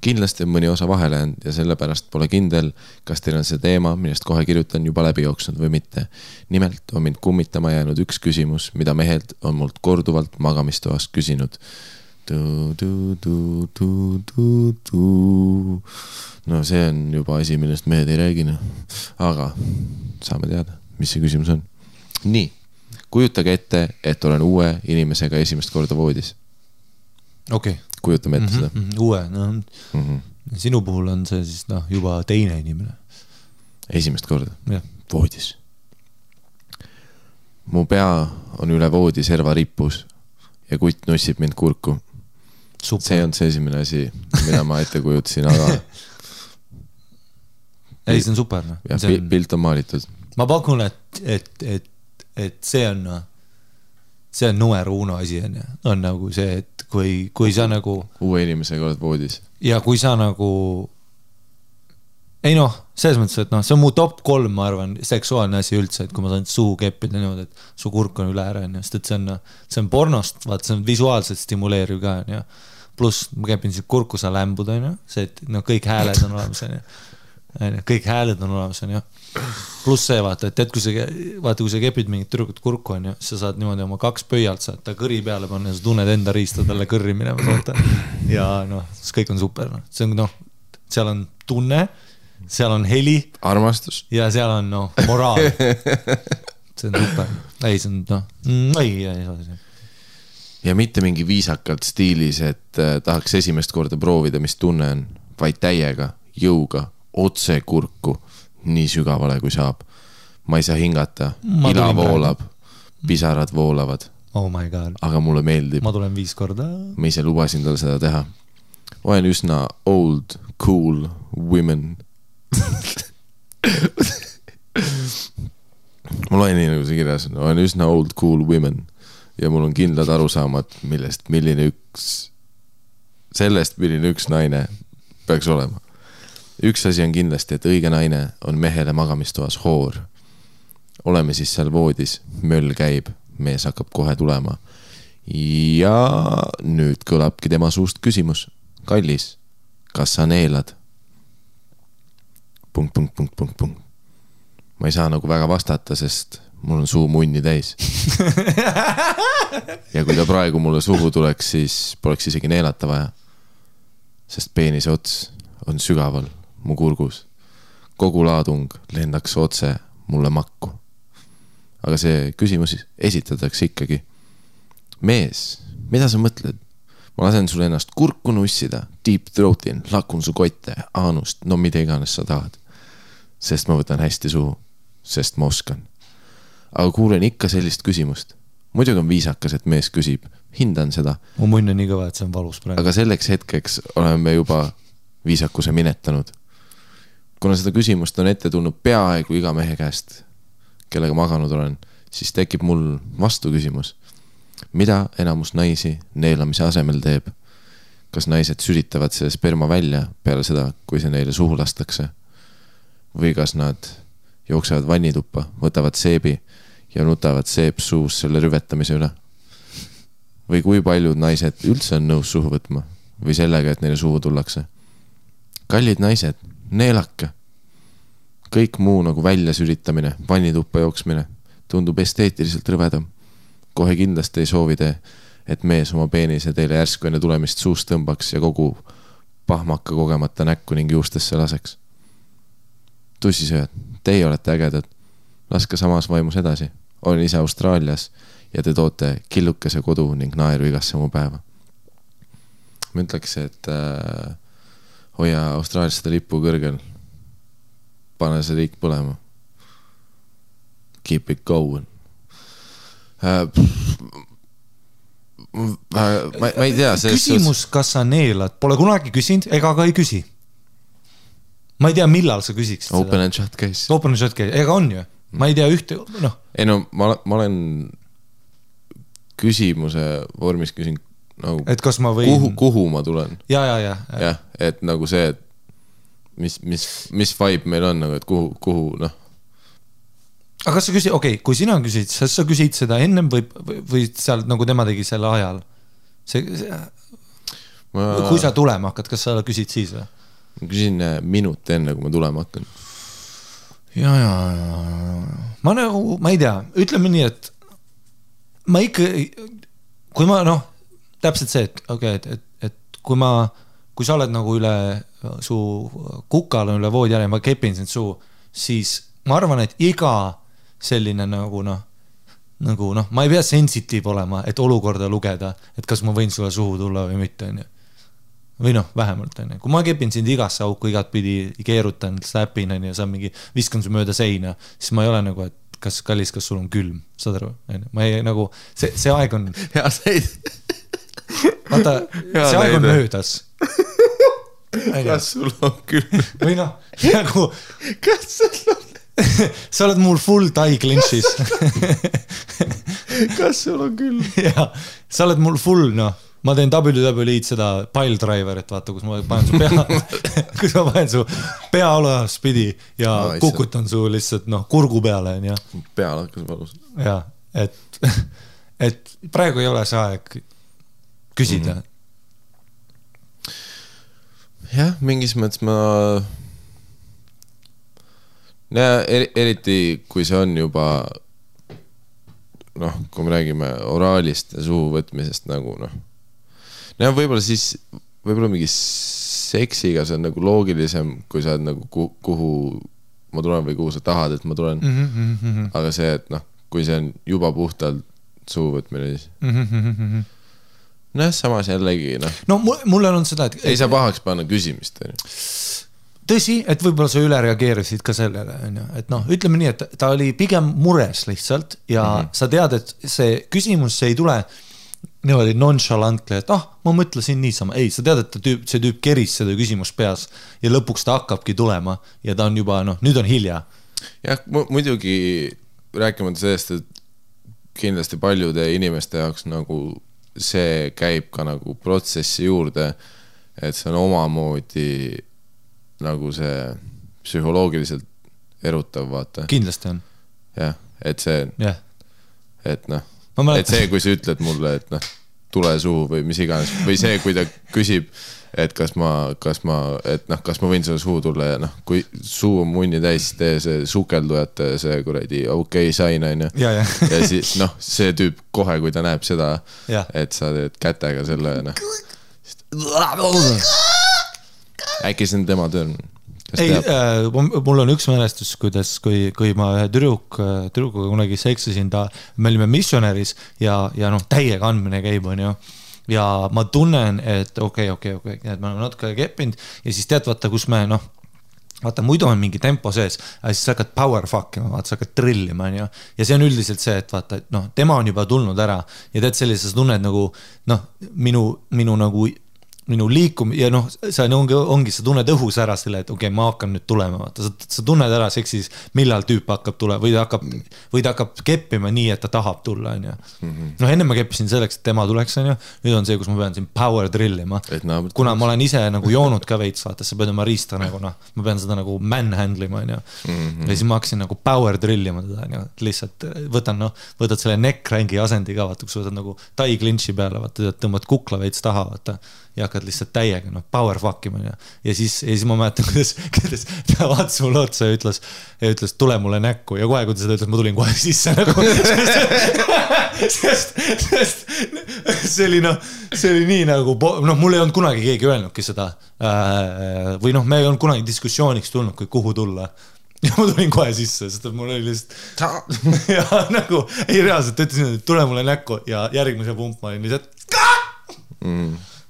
Kindlasti on mõni osa vahele ja sellepärast pole kindel, kas teil on see teema, millest kohe kirjutan juba läbi jooksnud või mitte. Nimelt on mind kummitama jäänud üks küsimus, mida mehelt on mult korduvalt magamistoast küsinud. No see on juba asi, millest mehed ei räägina. Aga saame teada, mis see küsimus on. Nii, kujutage ette, et olen uue inimesega esimest korda voodis. Okei. Kujutame ette seda. Uue, sinu puhul on see siis juba teine inimene. Esimest korda? Voodis. Mu pea on üle voodi serva rippus. ja kutt nussib mind kurku. Super. See on see esimene asi, mida ma ette kujutasin, aga ei, see on super. No. Ja, pilt on maalitud. Ma pakun, et see on numero uno asi on nagu see, et kui sa nagu uue inimesega oled voodis ja kui sa nagu ei noh, selles mõttes, et noh, see on mu top 3, ma arvan, seksuaalne asi üldse, et kui ma saan suhu keppida niimoodi, et su kurk on üle ära, sest et see on pornost, vaat see on visuaalselt stimuleeriv ka, ja pluss ma kepin siis kurku sa lämbud, see, et no, kõik hääled on olemas, kõik hääled on olemas, pluss see, vaata, et kui sa kepid mingit tüdrukut kurku, sa saad niimoodi oma 2 pöialt saad ta kõri peale panna ja sa tunned enda riista talle kõrri minema, vaata. Ja noh, see kõik on super, no. See on, noh, seal on tunne, seal on heli. Armastus. Ja seal on, noh, moraal. See on super. Ei, see on, noh, ei. Ja mitte mingi viisakalt stiilis, et tahaks esimest korda proovida, mis tunne on, vaid täiega, jõuga, otse kurku, nii sügavale kui saab. Ma ei saa hingata, ila voolab, pisarad voolavad. Oh my god. Aga mulle meeldib. Ma tulen 5 korda. Ma ise lubasin tal seda teha. Olen üsna old, cool women. Ma loen nii nagu see kirjas on. Olen üsna old, cool women. Ja mul on kindlad arusaamad, milline üks naine peaks olema. Üks asi on kindlasti, et õige naine on mehele magamistoas hoor. Oleme siis seal voodis, möll käib, mees hakkab kohe tulema. Ja nüüd kõlabki tema suust küsimus. Kallis, kas sa neelad? ... Ma ei saa nagu väga vastata, sest mul on suu munni täis. Ja kui ta praegu mulle suhu tuleks, siis poleks isegi neelata vaja. Sest peenise ots on sügaval mu kurgus. Kogu laadung lendaks otse mulle makku. Aga see küsimus esitatakse ikkagi. Mees, mida sa mõtled? Ma lasen sul ennast kurku nussida, deep throatin, lakun su kotte, aanust, no mida iganes sa tahad. Sest ma võtan hästi suhu, sest ma oskan. Aga kuulen ikka sellist küsimust. Muidugi on viisakas, et mees küsib. Hindan seda. Mu munn on nii kõva, et see on valus praegu. Aga selleks hetkeks oleme juba viisakuse minetanud. Kuna seda küsimust on ette tulnud peaaegu iga mehe käest, kellega maganud olen, siis tekib mul vastu küsimus. Mida enamus naisi neelamise asemel teeb? Kas naised süritavad see sperma välja peale seda, kui see neile suhu lastakse? Või kas nad jooksevad vannituppa, võtavad seebi ja nutavad seep suus selle rüvetamise üle? Või kui paljud naised üldse on nõus suhu võtma? Või sellega, et neile suhu tullakse? Kallid naised, neelake. Kõik muu nagu välja süritamine, vannituppa jooksmine tundub esteetiliselt rõvedam. Kohe kindlasti ei soovi te, et mees oma peenise teile järsku enne tulemist suust tõmbaks ja kogu pahmaka kogemata näkku ning juustesse laseks. Tussisööd, teie olete ägedad. Laske samas vaimus edasi. Olen ise Austraalias ja te toote killukese kodu ning naeru igasse mu päeva. Ma ütleks, et hoia Austraalias seda lippu kõrgel. Pane see riik põlema. Keep it going. Ma ei tea. Küsimus, kas sa neelad, pole kunagi küsinud ega ka ei küsi. Ma ei tea, millal sa küsiksid seda. Open and shut case. Open and shut case, ega on ju. Ma ei tea ühte, noh. Ei no, ma olen küsimuse vormis küsin nagu, et kas ma võin kuhu ma tulen. Ja, et nagu see, et mis vibe meil on nagu, et kuhu noh. Aga kas sa küsid, okei, kui sina küsid, sa küsid seda ennem või seal nagu tema tegi selle ajal? Kui sa tulema hakkad, kas sa küsid siis või? Ma küsin minut enne, kui ma tulema hakkan. Ja. Ma ei tea, ütleme nii, et ma ikka, kui ma noh, täpselt see, et kui sa oled nagu üle su kukal on üle voodi ja ma kepin sind suu, siis ma arvan, et iga selline nagu ma ei pea sensitiiv olema, et olukorda lugeda, et kas ma võin sulle suhu tulla või mitte, või noh, vähemalt kui ma kepin sind igasse auku, igat pidi keerutan, slapin ja saan mingi viskan su mööda seina, siis ma ei ole nagu, et kas kallis, kas sul on külm, saad aru? Ma ei nagu, see aeg on... Hea seid. Vaata, see aeg on möödas. Kas sul on külm? Või noh, nagu... Kas sul on... Sa oled mul full tie clinch'is. Kas sul on külm? Jaa, sa oled mul full, noh. Ma teen WWE-d seda pile driverit, vaata, kus ma panen su pea, kus ma panen su pea olaspidi ja kukutan su lihtsalt, noh, kurgu peale, on ja. Peal hakkas valus. Jaa, et praegu ei ole see aeg küsida. Jah, mingis mõttes ma... eriti kui see on juba noh, kui me räägime oraalist ja suhu võtmisest nagu noh võib-olla siis võib-olla mingi seksiga see on nagu loogilisem, kui sa oled nagu kuhu ma tulen või kuhu sa tahad, et ma tulen aga see, et noh, kui see on juba puhtalt suhu võtmine siis samas jällegi no mulle on seda, et ei saa pahaks panna küsimist tõsi, et võib-olla sa üle reageerisid ka sellele, et noh, ütleme nii, et ta oli pigem mures lihtsalt ja sa tead, et see küsimus see ei tule niimoodi nonchalantly, et ma mõtlesin niisama. Ei, sa tead, et see tüüp keris seda küsimust peas ja lõpuks ta hakkabki tulema ja ta on juba, nüüd on hilja. Jah, muidugi rääkimata sellest, et kindlasti paljude inimeste jaoks nagu see käib ka nagu protsessi juurde, et see on omamoodi nagu see psühholoogiliselt erutav, vaata. Kindlasti on. Jah, et see, et noh, et see, kui sa ütled mulle, et noh, tule suhu või mis iganes, või see, kui ta küsib, et kas ma võin selle suhu tulla ja noh, kui suu on munni täis, tee see sukeldujate see kuradi sain, on ju. Ja siis noh, see tüüp kohe, kui ta näeb seda, et sa teed kätega selle, noh. Äkki see on tema töö? Ei, mul on üks mälestus, kuidas, kui ma ühe tüdrukuga kunagi seksisin, me olime missionäris ja noh, täiega andmine käib, on ju. Ja ma tunnen, et okei, et ma olen natuke keppinud ja siis tead, vaata, kus me, noh, vaata, muidu on mingi tempo sees, aga siis sa hakkad power fuckima, vaata, sa hakkad trillima, on ju. Ja see on üldiselt see, et vaata, et noh, tema on juba tulnud ära ja tead sellises tunned nagu, noh, minu nagu minu liikum ja noh, see ongi sa tunned õhus ära selle, et okei, ma hakkan nüüd tulema, vaata, sa tunned ära seksis, millal tüüp hakkab tulema või ta hakkab keppima nii, et ta tahab tulla, on ju. Noh, enne ma keppisin selleks, et tema tuleks, on ju, nüüd on see, kus ma pean siin power drillima, kuna ma olen ise nagu joonud ka veits, vaata, sa pead oma riista nagu, noh, ma pean seda nagu manhandlima, on ju, ja siis ma hakkasin nagu power drillima teda, on ju, lihtsalt võtad selle neck-rangi asendi ka, vaata, kus võtad nagu tie clinch'i peale, vaata, tõmbad kukla veits taha, vaata ja hakkad lihtsalt täiega, noh, power fuckima ja siis ma mäletan, kuidas ta vaatas mulle otsa ja ütles, tule mulle näkku ja kohe, kui ta seda ütles, ma tulin kohe sisse nagu, sest see oli nii nagu, noh, mul ei olnud kunagi keegi öelnudki seda või noh, me ei olnud kunagi diskussiooniks tulnud, kui kuhu tulla ja ma tulin kohe sisse, sest mul oli lihtsalt ja nagu, ei reaalselt ütlesin, et tule mulle näkku ja järgmise pump ma olin lihtsalt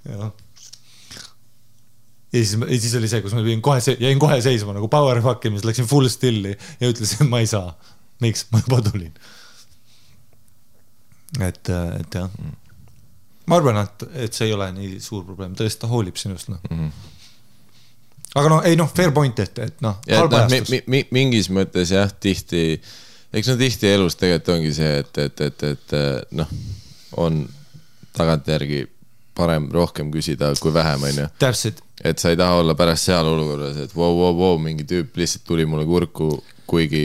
ja siis oli see, kus ma jäin kohe seisma nagu power fuckimis, läksin full stilli ja ütlesin, et ma ei saa. Miks? Ma juba tulin. Et jah. Ma arvan, et see ei ole nii suur probleem. Tõesti ta hoolib sinust. No. Aga noh, ei noh, fair point, et noh, halbajastus. Mingis mõttes jah, tihti, eks no tihti elus tegelikult ongi see, et noh, on tagantjärgi parem rohkem küsida kui vähem, on ju. Täpselt. Et sa ei taha olla pärast seal olukorras, et wow, mingi tüüp lihtsalt tuli mulle kurku, kuigi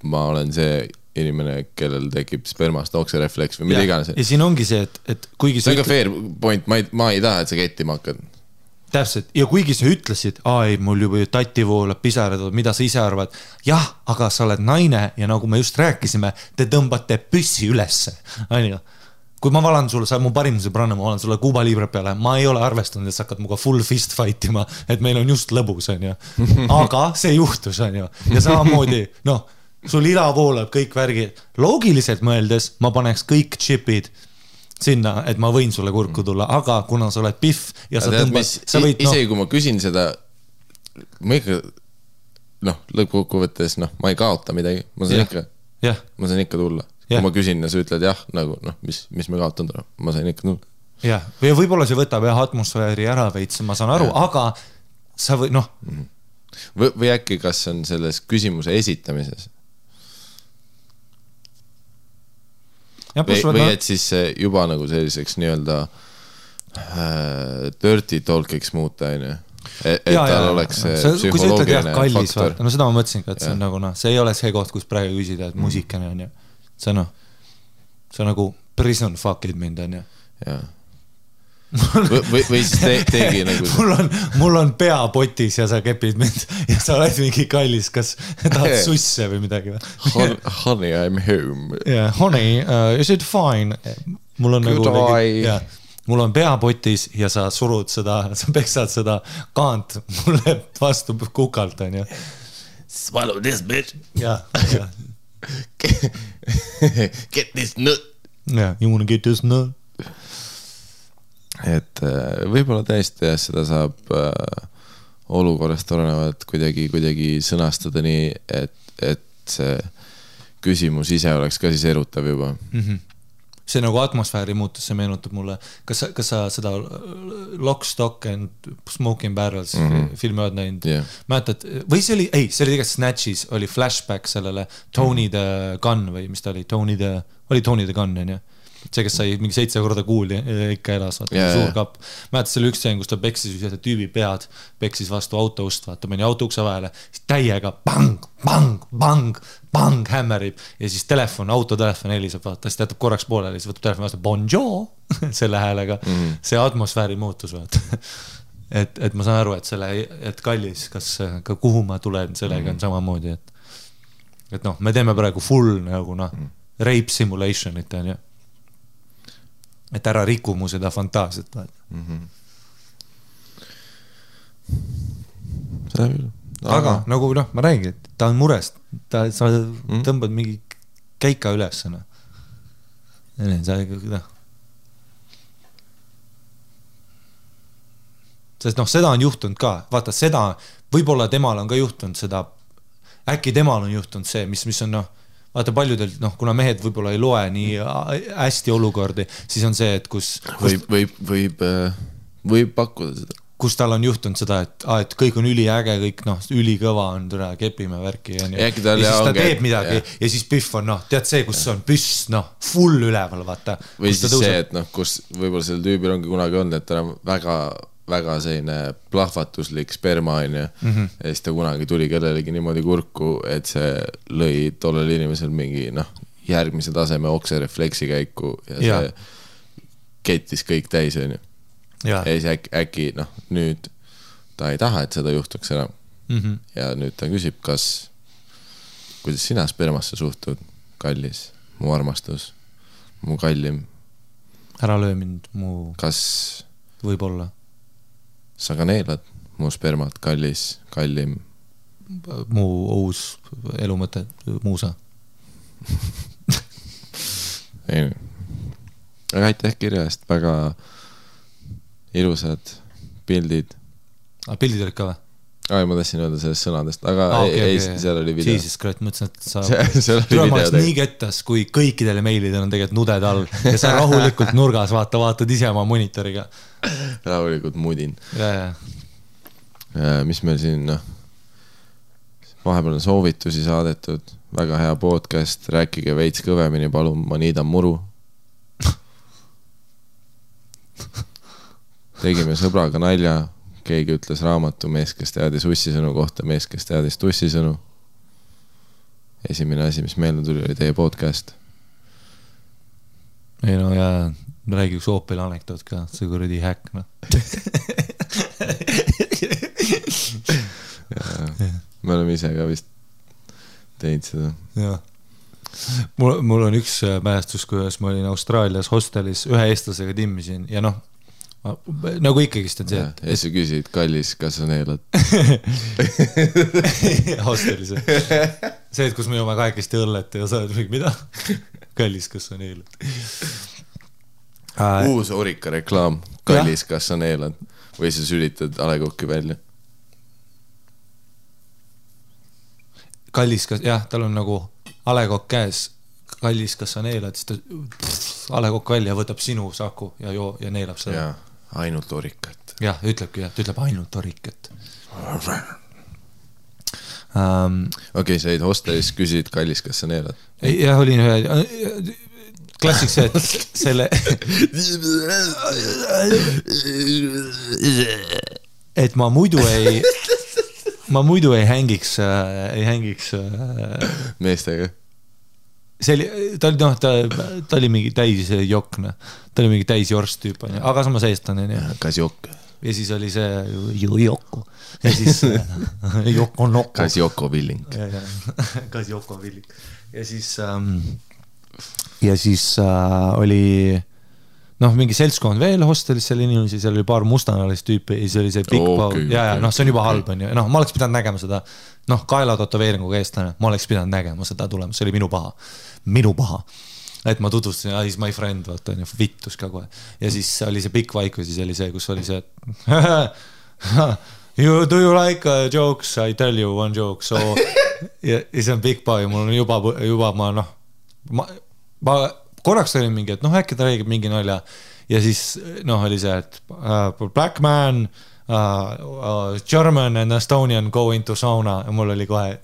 ma olen see inimene, kellel tekib spermast okserefleks või mida iganes. Ja siin ongi see, et kuigi see on ka fair point, ma ei taha, et sa kettima hakkad. Täpselt, ja kuigi sa ütlesid, ei, mul juba tati voolab pisarad, mida sa ise arvad, jah, aga sa oled naine ja nagu me just rääkisime, te tõmbate püssi ülesse, on ju. Kui ma valan sulle, sa mu parim sõbranna, ma valan sulle Kuuba Libre peale, ma ei ole arvestanud, et sa hakkad muga full fist fightima, et meil on just lõbus, on ju. Aga see juhtus, on ju. Ja samamoodi, noh, sul ila voolab kõik värgi. Loogiliselt mõeldes ma paneks kõik chipid sinna, et ma võin sulle kurku tulla, aga kuna sa oled piff ja sa tõmbad... Isegi kui ma küsin seda, ma ikka, noh, lõppkokkuvõttes, noh, ma ei kaota midagi, ma saan ikka... jah , ma sain ikka tulla . kui ma küsin ja sa ütled jah , nagu noh , mis me kaotanud oleme , ma sain ikka tulla . jah , või võib-olla see võtab jah atmosfääri ära veits , ma saan aru , aga sa või noh . või äkki , kas on selles küsimuse esitamises või et siis juba nagu selliseks nii-öelda dirty talk'iks muuta , on ju . et tal oleks see psühholoogiline faktor . no seda ma mõtlesin ka , et see on nagu noh , see ei ole see koht , kus praegu küsida , et muusikane on ju . see noh , see nagu prison fuck'id mind on ju . jah . või siis tegi nagu mul on pea potis ja sa kepid mind ja sa oled mingi kallis , kas tahad susse või midagi või ? Honey , I'm home . Yeah, honey , is it fine ? mul on Good nagu eye. mul on pea potis ja sa surud seda , sa peksad seda kaant mulle vastu kukalt on ju . Swallow this bitch . jah , Get this nut . you wanna get this nut ? et võib-olla tõesti jah , seda saab olukorrast olenevalt kuidagi sõnastada nii , et see küsimus ise oleks ka siis erutav juba . see nagu atmosfääri muutus , see meenutab mulle , kas sa seda Lock, Stock and Smoking Barrels filmi oled näinud mäletad , või see oli tegelikult Snatchis oli flashback sellele Tony the Gun või mis ta oli , Tony the Gun on ju , see , kes sai mingi 7 korda kuuli ikka elas , vaata suur kapp . mäletad , see oli üks seen , kus ta peksis ühe tüübi pead , peksis vastu auto ust , vaata meni auto ukse vahele , siis täiega bang , bang , bang , bang hämmerib ja siis autotelefon heliseb , vaata , siis ta jätab korraks pooleli , siis võtab telefoni vastu bonjour selle häälega , see atmosfääri muutus , vaata . et ma saan aru , et kallis , kas ka kuhu ma tulen sellega on samamoodi , et noh , me teeme praegu full nagu noh , rape simulation'it on ju . et ära riku mu seda fantaasiat . aga nagu noh , ma räägin , et ta on murest , sa tõmbad mingi käika üles . sest noh , seda on juhtunud ka , vaata seda , võib-olla temal on ka juhtunud seda , äkki temal on juhtunud see , mis on noh , vaata paljudel, noh, kuna mehed võib-olla ei loe nii hästi olukordi, siis on see, et kus võib pakkuda seda. Kus tal on juhtunud seda, et kõik on üliäge, kõik noh, ülikõva on, türa, kepime värki ja siis ta teeb midagi ja siis püff on, noh, tead see, kus on püss, noh, full üleval, vaata. Või siis see, et noh, kus võib-olla selle tüübil ongi kunagi olnud, et ta on väga selline plahvatuslik sperma on ja siis ta kunagi tuli kellelegi niimoodi kurku, et see lõi tollel inimesel mingi järgmise taseme okserefleksi käiku ja see kettis kõik täis on ju. Ja siis äkki nüüd ta ei taha, et seda juhtuks ära ja nüüd ta küsib, kuidas sina spermasse suhtud, kallis, mu armastus, mu kallim, ära löö mind, mu võib-olla sa ka neelad mu spermat, kallis, kallim. Mu uus elumõte, muusa. Aga aitäh kirja eest, väga ilusad pildid. Pildid olid ka või? Ma tahtsin öelda sellest sõnadest, aga ei, seal oli video. Jesus Christ, mõtlesin, et sa tulemaaks nii kettas, kui kõikidele meilidel on tegelikult nuded all ja sa rahulikult nurgas vaatad ise oma monitoriga. Rahulikult mudin. Mis meil siin, vahepeal on soovitusi saadetud, väga hea podcast, rääkige veits kõvemini, palun, ma niidan muru. Tegime sõbraga nalja, keegi ütles raamatu mees, kes teadis ussisõnu kohta, mees, kes teadis tussisõnu. Esimene asi, mis meelde tuli, oli teie podcast. Ei no ja räägi üks Opel anekdoot ka, see kuradi häkk, Me oleme ise ka vist teinud seda. Jah. Mul on üks mälestus, kuidas ma olin Austraalias hostelis, ühe eestlasega timmisin ja nagu ikkagist on see, et... Ja sa küsid, kallis, kas sa neelad? Hostelis. See, et kus me joome kahekesti õllet ja sa oled mingi, mida? Kallis, kas sa neelad? Uus Orika reklaam, kallis, kas sa neelad? Või sa sülitad alekokki välja? Kallis, kas... Jah, tal on nagu A Le Coq käes, kallis, kas sa neelad, siis ta A Le Coq välja võtab sinu saku ja neelab seda. Ja, ainult orikat. Jah, ütlebki, ta ütleb ainult orikat. Okei, sa jäid hostelis, küsid, kallis, kas sa neelad? Jah, olin ühe klassik see, et selle et ma muidu ei hängiks meestega. See oli, ta oli mingi täis jokna, ta oli mingi täis jorst tüüp, aga samas eestlane. Kas jokk? Ja siis oli see Joko. Ja siis Joko Noko. Kas Joko Villing. Kas Joko Villing. Ja siis oli mingi seltskond veel hostelis seal inimesi, seal oli paar mustanalist tüüpi ja siis oli see Big Bow. Ja, see on juba halb, on ju. Ma oleks pidanud nägema seda, kaela totoveeringuga eestlane, ma oleks pidanud nägema seda tulemas, see oli minu paha. Et ma tutvustasin, is my friend, vaata, vittus ka kohe. Ja siis oli see pikk vaikus, siis oli see, kus oli see, do you like jokes? I tell you one joke. So, ja see on Big Bow ja mul on juba ma korraks olin mingi, et äkki ta räägib mingi nalja. Ja siis oli see, et black man, German and Estonian go into sauna ja mul oli kohe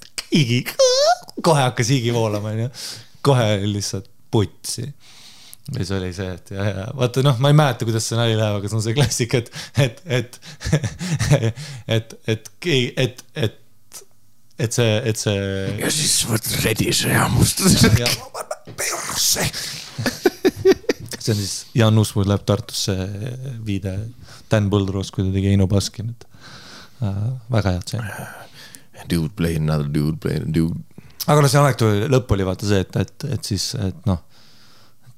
hakkas higi voolama, kohe lihtsalt putsi. Ja see oli see, et vaata, ma ei mäleta, kuidas see nali läheb, aga see on see klassik, et see ja siis võt redise ja mustus see on siis Jan Uusmuud läheb Tartusse viide Dan Põldroos, kui ta tegi Eino Baskin, väga head see dude play another dude aga see anekdoodi lõpp oli vaata see, et siis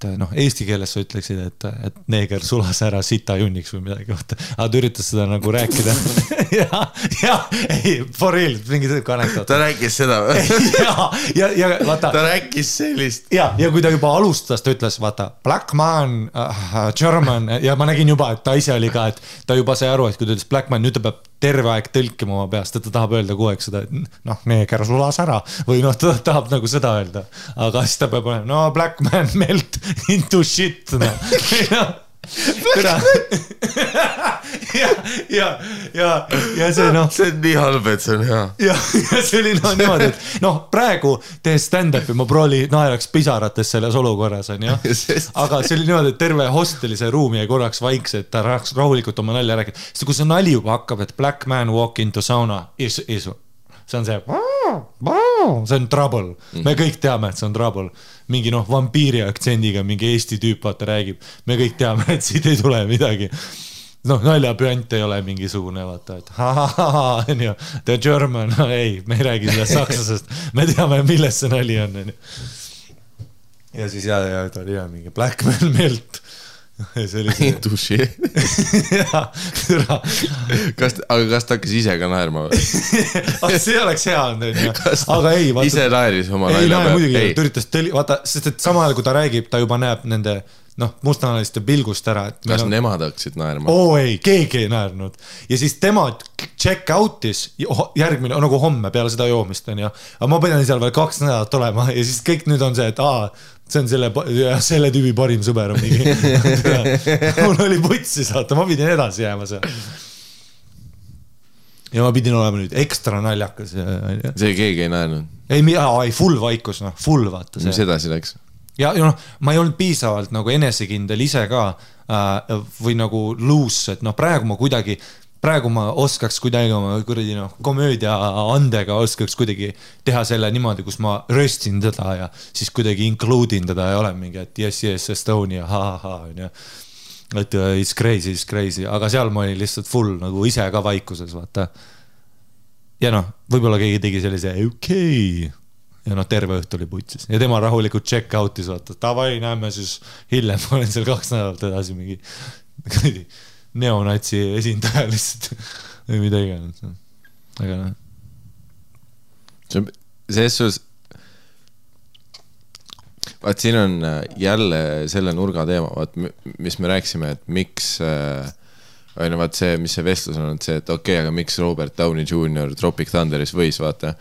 eesti keeles sa ütleksid, et neeger sulas ära sita junniks või midagi, aga ta üritas seda nagu rääkida ja, ei, for real, mingi anekdoot. Ta rääkis seda ja vaata. Ta rääkis sellist. Ja kui ta juba alustas, ta ütles, vaata, black man, German, ja ma nägin juba, et ta ise oli ka, et ta juba sai aru, et kui ta ütles black man, nüüd ta peab terve aeg tõlkima oma peast, et ta tahab öelda kogu aeg seda, et neeger sulas ära või ta tahab nagu seda öelda, aga siis ta peab olema, black man melt into shit, ja see see on nii halb, et see on hea ja see oli niimoodi, et praegu tehes stand-upi ma prooli naeraks pisarates selles olukorras on, aga see oli niimoodi, et terve hostelise ruumi jäi korraks vaikse, et ta rahaks rahulikult oma nalja rääkida, sest kui see nali juba hakkab, et black man walk into sauna see on see on trouble, me kõik teame, et see on trouble mingi vampiiri aktsendiga mingi Eesti tüüp vaata räägib, me kõik teame, et siit ei tule midagi naljapüant ei ole mingisugune vaata, et the German, ei, me ei räägi sellest sakslasest, me teame, milles see nali on ja siis ta oli mingi black man melt see oli see aga kas ta hakkas ise ka naerma või? see oleks hea aga ei vaata, ise naeris oma nalja peal ta üritas vaata, sest et samal ajal kui ta räägib, ta juba näeb nende mustanaliste pilgust ära kas nemad hakkasid naerma? Ei, keegi ei naernud ja siis tema check out'is järgmine, nagu homme peale seda joomist aga ma pidin seal veel 2 nädalat olema ja siis kõik nüüd on see, et see on selle tüübi parim sõber mul oli putsi saata, ma pidin edasi jääma seal ja ma pidin olema nüüd ekstra naljakas see keegi ei naernud? ei, full vaikus, full vaata see mis edasi läks? ja ma ei olnud piisavalt nagu enesekindel ise ka või nagu loose, et praegu ma oskaks kuidagi oma komöödia andega oskaks kuidagi teha selle niimoodi, kus ma röstin teda ja siis kuidagi include'in teda ja olen mingi, et yes, Estonia, et it's crazy, aga seal ma olin lihtsalt full nagu ise ka vaikuses, vaata. Ja võib-olla keegi tegi sellise okei. Ja terve õhtu oli putsis. Ja tema rahulikult check out'is, vaata. Tavai, näeme siis hiljem, ma olen seal 2 nädalat edasi mingi neonatsi esindaja lihtsalt või mida iganes. Aga selles suus vaat siin on jälle selle nurga teema, vaat mis me rääksime, et miks vaat see, mis see vestlus on, et see, et okei, aga miks Robert Downey Jr. Tropic Thunderis võis, vaata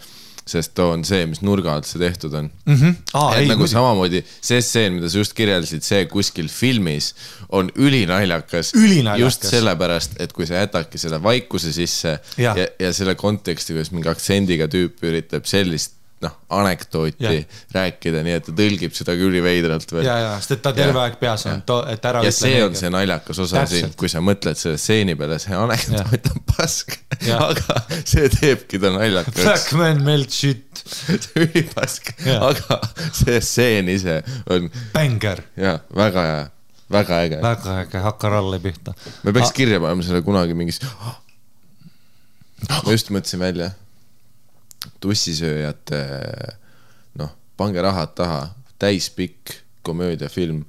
sest too on see, mis nurga alt see tehtud on. Ei, nagu samamoodi see stseen, mida sa just kirjeldasid, see kuskil filmis on ülinaljakas. Just sellepärast, et kui sa jätadki seda vaikuse sisse ja selle konteksti, kuidas mingi aktsendiga tüüp üritab sellist anekdooti rääkida, nii et ta tõlgib seda küll veidralt veel. Sest et ta terve aeg peas on, et ära ja see on see naljakas osa siin, kui sa mõtled selle stseeni peale, see anekdoot on pask, aga see teebki ta naljakas. Black man melt shit. See ülipask, aga see stseen ise on Banger. Väga hea, väga äge. Väga äge, hakka ralle pihta. Me peaks kirja panema selle kunagi mingis... Ma just mõtlesin välja tussisööjate, pange rahad taha, täispikk komöödiafilm,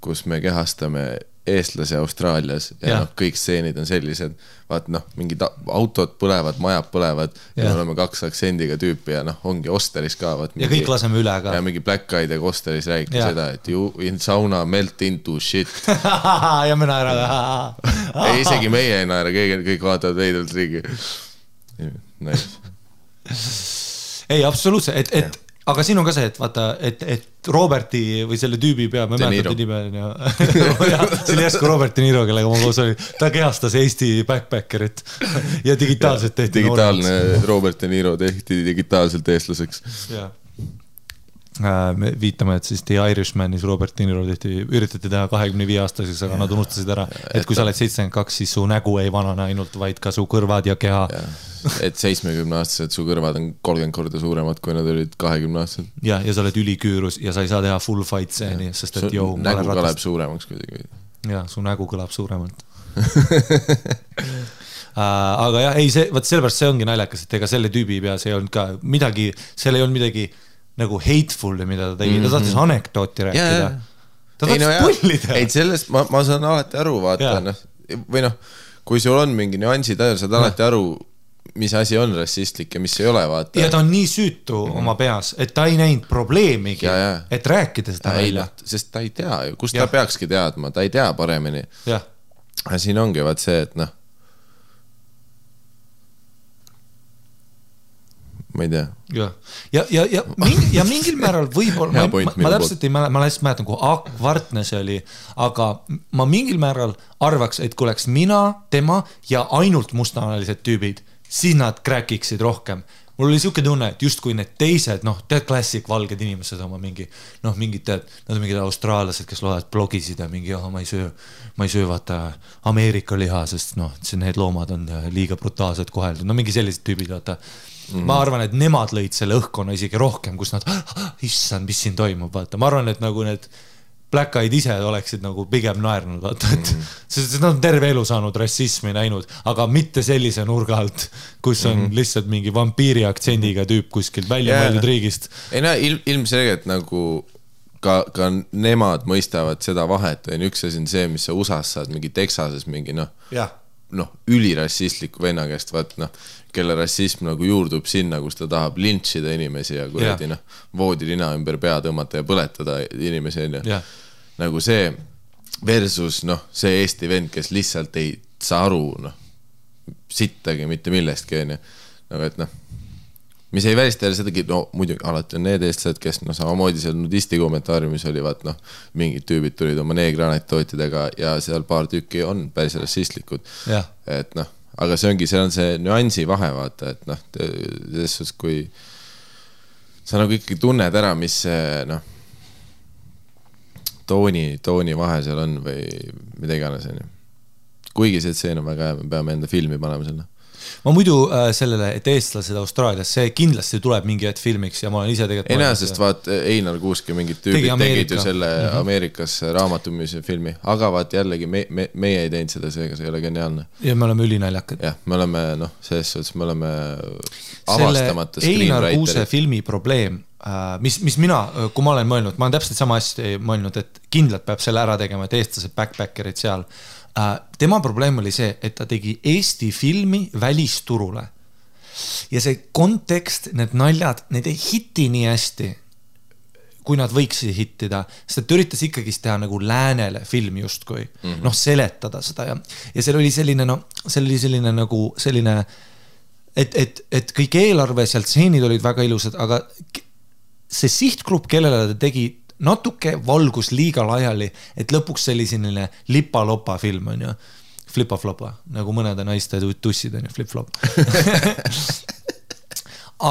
kus me kehastame eestlase Austraalias ja kõik stseenid on sellised, vaat mingid autod põlevad, majad põlevad ja me oleme 2 aktsendiga tüüpi ja ongi Osteris ka. Ja kõik laseme üle ka. Ja mingi Black Eyed ja Osteris räägib seda, et you in sauna melt into shit. Ja me naerame. Ei, isegi meie ei naera, kõik vaatavad veidelt riigi. Nice. Ei, absoluutselt, aga siin on ka see, et vaata, et Roberti või selle tüübi pea, ma mäletan nime see oli järsku Robert De Niro, kellega ma koos oli, ta kehastas Eesti backpackerit ja digitaalselt tehti digitaalne Robert De Niro tehti digitaalselt eestlaseks me viitame, et siis The Irishmanis Robert De Niro üritati teha 25-aastaseks, aga nad unustasid ära, et kui sa oled 72, siis su nägu ei vanane ainult, vaid ka su kõrvad ja keha. Et 70-aastased su kõrvad on 30 korda suuremad, kui nad olid 20-aastased. Ja sa oled üliküürus ja sa ei saa teha full fight scene'i, sest et su nägu kõlab suuremaks kuidagi. Ja, su nägu kõlab suuremalt. Aga jah, ei, sellepärast see ongi naljakas, et ega selle tüübi peas ei olnud ka midagi, seal ei olnud midagi nagu hateful, mida ta tegi, ta tahtis anekdooti rääkida. Ta tahtis pullida. Ei, sellest ma saan alati aru, vaata, või kui sul on mingi nüansid, saad alati aru, mis asi on rassistlik ja mis ei ole, vaata. Ja ta on nii süütu oma peas, et ta ei näinud probleemigi, et rääkida seda välja. Sest ta ei tea ju, kus ta peakski teadma, ta ei tea paremini. Ja siin ongi vaat see, et ma ei tea. Ja mingil määral võib-olla, ma täpselt ei mäletan, ma lihtsalt mäletan, kui akvartne see oli, aga ma mingil määral arvaks, et kui oleks mina, tema ja ainult mustanalised tüübid, siis nad kräkiksid rohkem. Mul oli siuke tunne, et just kui need teised, tead klassik valged inimesed oma mingi, mingid tead, nad on mingid austraallased, kes loevad blogisid ja mingi, ma ei söö vaata Ameerika liha, sest need loomad on liiga brutaalselt koheldud. Mingi sellised tüübid, vaata. Ma arvan, et nemad lõid selle õhkkonna isegi rohkem, kus nad, issand, mis siin toimub, vaata. Ma arvan, et nagu need Black Eyed ise oleksid nagu pigem naernud, vaata, et sest nad on terve elu saanud rassismi näinud, aga mitte sellise nurga alt, kus on lihtsalt mingi vampiiri aktsendiga tüüp kuskilt välja mõeldud riigist. Ei ilmselgelt nagu ka nemad mõistavad seda vahet, üks asi on see, mis sa USA-s saad mingi Texases mingi ülirassistliku venna käest, vaat kelle rassism nagu juurdub sinna, kus ta tahab lintšida inimesi ja kuradi voodilina ümber pea tõmmata ja põletada inimesi nagu see versus see Eesti vend, kes lihtsalt ei saa aru sittagi mitte millestki nagu et mis ei välista jälle sedagi, muidugi alati on need eestlased, kes samamoodi seal nudisti kommentaariumis oli, vaat mingid tüübid tulid oma neegranektootidega ja seal paar tükki on päris rassistlikud. Et aga see ongi, see on see nüansi vahe, vaata, et selles suhtes, kui sa nagu ikkagi tunned ära, mis see tooni vahe seal on või mida iganes. Kuigi see tseen on väga hea, me peame enda filmi panema selle. Ma muidu sellele, et eestlased Austraalias, see kindlasti tuleb mingi hetk filmiks ja ma olen ise tegelikult... Ei näe, sest vaat Einar Kuuske mingid tüübid tegid ju selle Ameerikas raamatumise filmi, aga vaat jällegi meie ei teinud seda, seega see ei ole geniaalne. Ja me oleme ülinaljakad. Jah, me oleme, selles suhtes me oleme avastamata screenwriterid. Einar Kuuse filmi probleem, mis mina, kui ma olen mõelnud, ma olen täpselt sama asja mõelnud, et kindlalt peab selle ära tegema, et eestlased backpackerid seal. Tema probleem oli see, et ta tegi Eesti filmi välisturule ja see kontekst, need naljad, need ei hitti nii hästi, kui nad võiksid hittida, sest ta üritas ikkagi teha nagu läänele filmi justkui, seletada seda ja seal oli selline, selline nagu selline et kõik eelarve sealt stseenid olid väga ilusad, aga see sihtgrupp, kellele ta tegi natuke valgus liiga laiali, et lõpuks selline lipa-lopa film on ju, flipa-flopa, nagu mõnede naiste tussid on ju, flip-flop.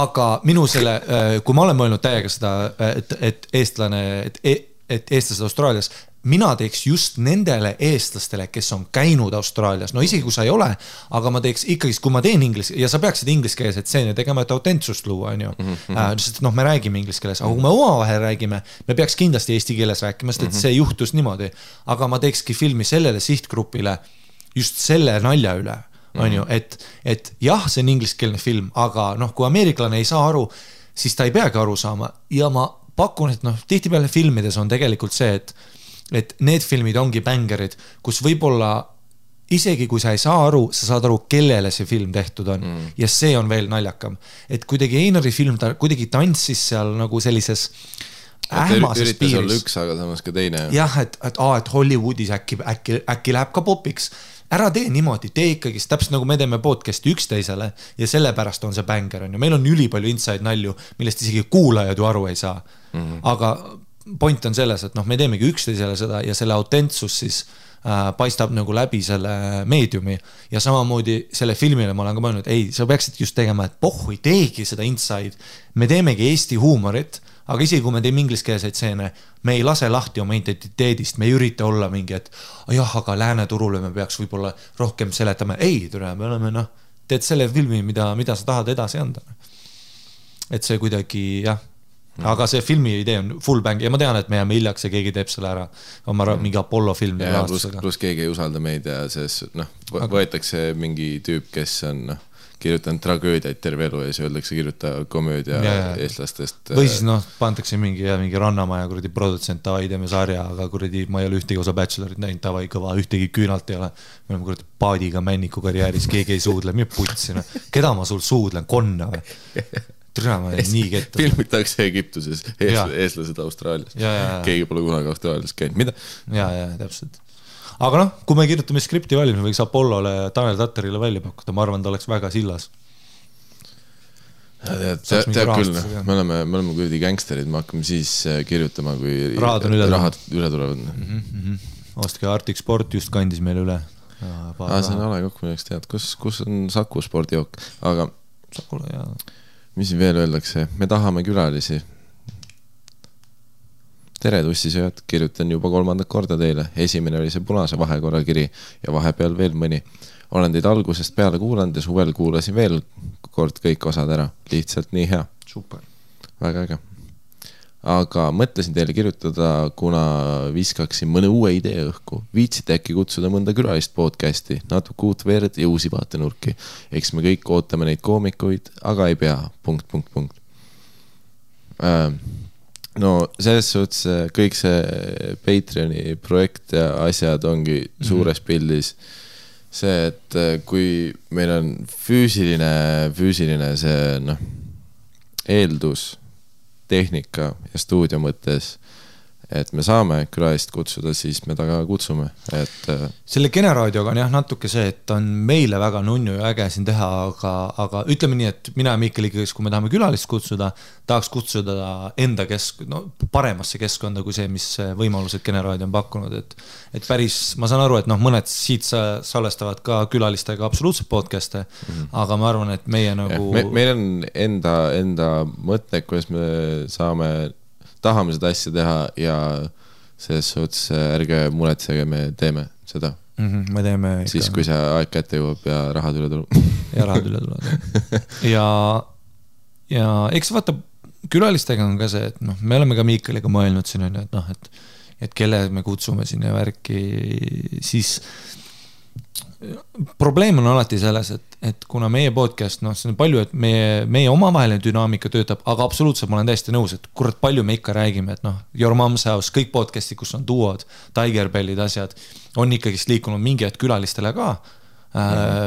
Aga minu selle, kui ma olen mõelnud täiega seda, et eestlased Austraalias, mina teeks just nendele eestlastele, kes on käinud Austraalias, no isegi kui sa ei ole, aga ma teeks ikkagi, kui ma teen inglis, ja sa peaksid ingliskeelset stseeni tegema, et autentsust luua, on ju. Sest me räägime inglis keeles, aga kui me omavahel räägime, me peaks kindlasti eesti keeles rääkima, sest et see juhtus niimoodi, aga ma teekski filmi sellele sihtgrupile just selle nalja üle, on ju, et jah, see on ingliskeelne film, aga kui ameeriklane ei saa aru, siis ta ei peagi aru saama ja ma pakun, et tihtipeale filmides on tegelikult see, et need filmid ongi bängerid, kus võib-olla isegi kui sa ei saa aru, sa saad aru, kellele see film tehtud on. Ja see on veel naljakam. Et kuidagi Einari film, ta kuidagi tantsis seal nagu sellises ähmases piiris. Üritas olla üks, aga samas ka teine. Jah, et Hollywoodis äkki läheb ka popiks. Ära tee niimoodi, tee ikkagi, täpselt nagu me teeme podcasti üksteisele ja sellepärast on see bänger. On ju. Meil on ülipalju inside nalju, millest isegi kuulajad ju aru ei saa. Aga point on selles, et me teemegi üksteisele seda ja selle autentsus siis paistab nagu läbi selle meediumi ja samamoodi selle filmile ma olen ka mõelnud, ei, sa peaksid just tegema, et pohhu ei teegi seda inside, me teemegi Eesti huumorit, aga isegi kui me teeme ingliskeelseid stseene, me ei lase lahti oma identiteedist, me ei ürita olla mingi, et jah, aga lääne turule me peaks võib-olla rohkem seletama, ei, me oleme, teed selle filmi, mida sa tahad edasi anda. Et see kuidagi, jah, aga see filmi idee on full bang ja ma tean, et me jääme hiljaks ja keegi teeb selle ära oma mingi Apollo film plus keegi ei usalda meid ja võetakse mingi tüüp, kes on kirjutanud tragöödiaid terve elu ja siis öeldakse kirjuta komöödia eestlastest või siis pandakse mingi Rannamaja kuradi produtsent tavai teeme sarja, aga kuradi ma ei ole ühtegi osa Bachelorit näinud, tavai kõva, ühtegi küünalt ei ole me oleme kuradi paadiga männiku karjääris, keegi ei suudle, mida putsina keda ma sul suudlen, konna või Trüma, nii ketta. Filmitakse Egiptuses, eestlased Austraalias. Keegi pole kunagi Austraalias käinud. Mida? Ja, täpselt. Aga kui me kirjutame skripti valmis, me võiks Apollole, Tanel Tatterile välja pakkuda. Ma arvan, ta oleks väga sillas. Tead küll, me oleme kuidagi gangsterid, me hakkame siis kirjutama, kui rahad üle tulevad. Ostke Arctic Sport just kandis meile üle. See on ale kokku, milleks tead. Kus on Saku spordijook? Aga Sakule, jaa. Mis siin veel öeldakse? Me tahame külalisi. Tere tussisööd, kirjutan juba 3. korda teile. Esimene oli see punase vahekorra kiri ja vahepeal veel mõni. Olen teid algusest peale kuulanud ja suvel kuulasin veel kord kõik osad ära. Lihtsalt nii hea. Super. Väga äge. Aga mõtlesin teile kirjutada, kuna viskaksin mõne uue idee õhku. Viitsite äkki kutsuda mõnda külalist podcasti, natuke uut verd ja uusi vaatenurki. Eks me kõik ootame neid koomikuid, aga ei pea. ... No selles suhtes kõik see Patreoni projekt ja asjad ongi suures pildis see, et kui meil on füüsiline see eeldus tehnika ja stuudio mõttes, et me saame külalist kutsuda, siis me taga kutsume. Selle generaadioga on jah natuke see, et on meile väga nunnu ja äge siin teha, aga ütleme nii, et mina ja Mikkel ikkagi, kui me tahame külalist kutsuda, tahaks kutsuda enda paremasse keskkonda kui see, mis võimalused generaadio on pakkunud. Et päris, ma saan aru, et mõned siit salvestavad ka külalistega absoluutselt podcast'e, aga ma arvan, et meie nagu... Meil on enda mõte, kuidas me tahame seda asja teha ja selles suhtes ärge muretsege, me teeme seda. Me teeme ikka. Siis, kui see aeg kätte jõuab ja rahad üle tuleb. Ja rahad üle tuleb. Ja eks vaata, külalistega on ka see, et me oleme ka Miikaliga mõelnud siin, et kelle me kutsume siin ja värki, siis probleem on alati selles, et kuna meie podcast, see on palju, et meie omavaheline dünaamika töötab, aga absoluutselt ma olen täiesti nõus, et kurat palju me ikka räägime, et Your Mom's House, kõik podcasti, kus on duod, Tigerbellid, asjad, on ikkagi liikunud mingi hetk külalistele ka,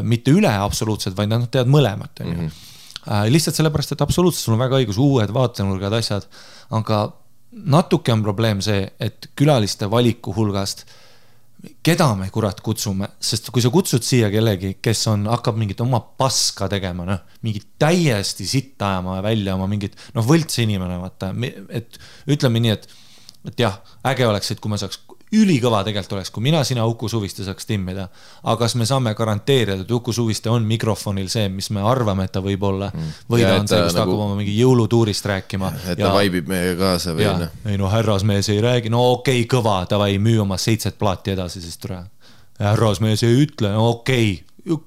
mitte üle absoluutselt, vaid nad teavad mõlemat. Lihtsalt sellepärast, et absoluutselt sul on väga õigus, uued vaatenurgad, asjad, aga natuke on probleem see, et külaliste valiku hulgast keda me kurat kutsume, sest kui sa kutsud siia kellegi, kes hakkab mingit oma paska tegema, mingit täiesti sitta ajama välja oma mingit, võlts inimene, vaata, et ütleme nii, et jah, äge oleks, et kui me saaks ülikõva tegelikult oleks, kui mina, sina, Uku Suviste saaks timmida, aga kas me saame garanteerida, et Uku Suviste on mikrofonil see, mis me arvame, et ta võib olla, või ta on see, kus ta hakkab oma mingi jõulutuurist rääkima. Et ta vaibib meie kaasa või ja, ei härrasmees ei räägi, okei, kõva, davai, müü oma 7 plaati edasi, siis tule. Härrasmees ei ütle, okei,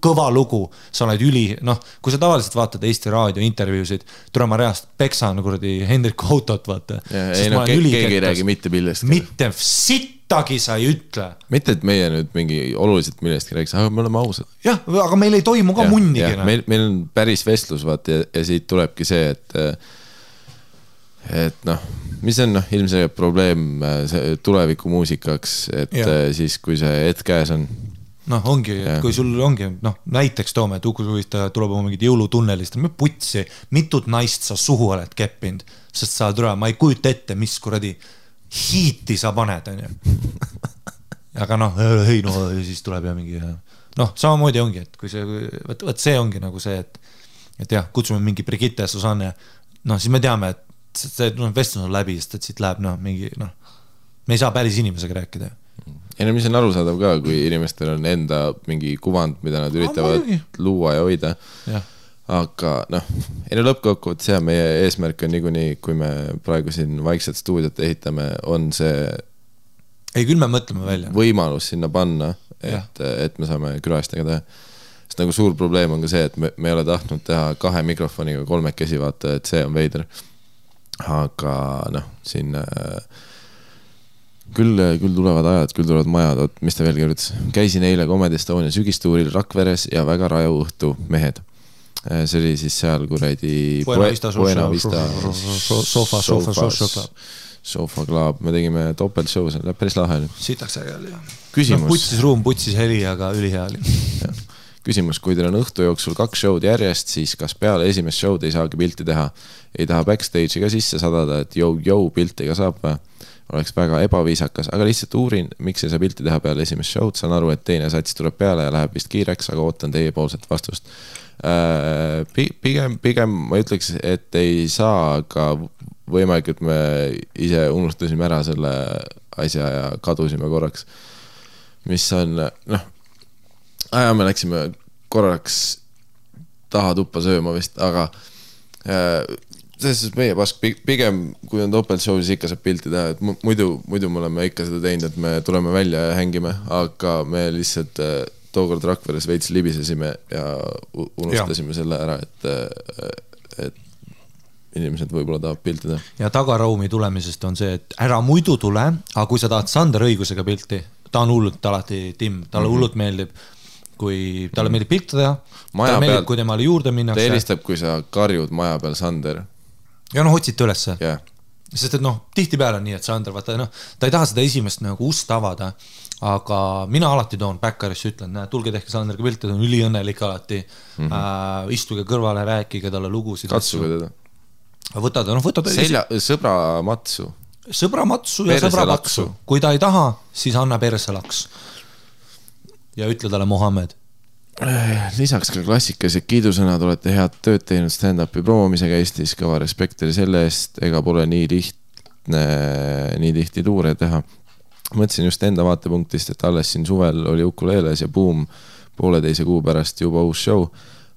kõva lugu, sa oled kui sa tavaliselt vaatad Eesti raadio intervjuusid, tule ma reast peksan kuradi Hendriku autot, vaata. Keegi ei räägi mitte millest. Mitte sittagi sa ei ütle. Mitte, et meie nüüd mingi oluliselt millestki räägiks, aga me oleme ausad. Jah, aga meil ei toimu ka munnigi. Meil on päris vestlus, vaata, ja siit tulebki see, et mis on ilmselt probleem tuleviku muusikaks, et siis, kui see hetk käes on, ongi, kui sul ongi, näiteks toome, et Uku Suviste tuleb oma mingid jõulutunnelist, putsi, mitut naist sa suhu oled keppinud, sest sa tuleb, ma ei kujuta ette, mis kuradi hiiti sa paned, on ju. Aga siis tuleb ja mingi, samamoodi ongi, et kui see, võt see ongi nagu see, et jah, kutsume mingi Brigitte ja Susanne, siis me teame, et see vestlus on läbi, sest et siit läheb, mingi, me ei saa päris inimesega rääkida. Ja mis on arusaadav ka, kui inimestel on enda mingi kuvand, mida nad üritavad luua ja hoida. Ja. Aga lõppkokkuvõttes see meie eesmärk on niikuinii, kui me praegu siin vaikselt stuudiot ehitame, on see ei, küll me mõtleme välja. Võimalus sinna panna, et me saame külalistega teha. Sest nagu suur probleem on ka see, et me ei ole tahtnud teha 2 mikrofoniga 3 vaata, et see on veider. Aga siin küll tulevad ajad, küll tulevad majad, mis ta veel kirjutas. Käisin eile Comedy Estonia sügistuuril Rakveres ja väga raju õhtu mehed. See oli siis seal kuradi Buena Vista Sofa Club. Me tegime topeltshow, see läheb päris lahe. Sitaks ägel, jah. Küsimus. Putsis ruum, putsis heli, aga ülihea oli. Küsimus, kui teil on õhtu jooksul 2 showd järjest, siis kas peale esimest showd ei saagi pilti teha? Ei taha backstage'i ka sisse sadada, et piltiga saab või? Oleks väga ebaviisakas, aga lihtsalt uurin, miks ei saa pilti teha peale esimest showd. Saan aru, et teine sats tuleb peale ja läheb vist kiireks, aga ootan teie poolset vastust. Pigem ma ütleks, et ei saa, aga võimalik, et me ise unustasime ära selle asja ja kadusime korraks. Mis on, me läksime korraks taha tuppa sööma vist, aga selles meie pask, pigem kui on topeltshow, siis ikka saab pilti teha, et muidu me oleme ikka seda teinud, et me tuleme välja ja hängime, aga me lihtsalt tookord Rakveres veits libisesime ja unustasime selle ära, et inimesed võib-olla tahab pilti teha. Ja tagaraumi tulemisest on see, et ära muidu tule, aga kui sa tahad Sander õigusega pilti, ta on hullult alati timm, talle hullult meeldib, kui talle meeldib pilti teha, talle meeldib, kui temale juurde minnakse. Ta helistab, kui sa karjud maja peal Sander. Ja otsite ülesse. Yeah. Sest et tihti peale on nii, et Sander, vaata, ta ei taha seda esimest ust avada, aga mina alati toon backerisse, ütlen, tulge tehke Sanderga pilti, ta on üliõnnelik alati, istuge kõrvale, rääkige talle lugusid. Katsuge teda. Võtad sõbra matsu. Sõbra matsu ja sõbra patsu. Kui ta ei taha, siis anna perselaks. Ja ütle talle Mohammed. Lisaks ka klassikalised kiidusõnad, olete head tööd teinud stand-upi promomisega Eestis, kõva respekteri selle eest, ega pole nii tihti tuure teha. Mõtlesin just enda vaatepunktist, et alles siin suvel oli Ukuleeles ja boom, 1,5 kuu pärast juba uus show,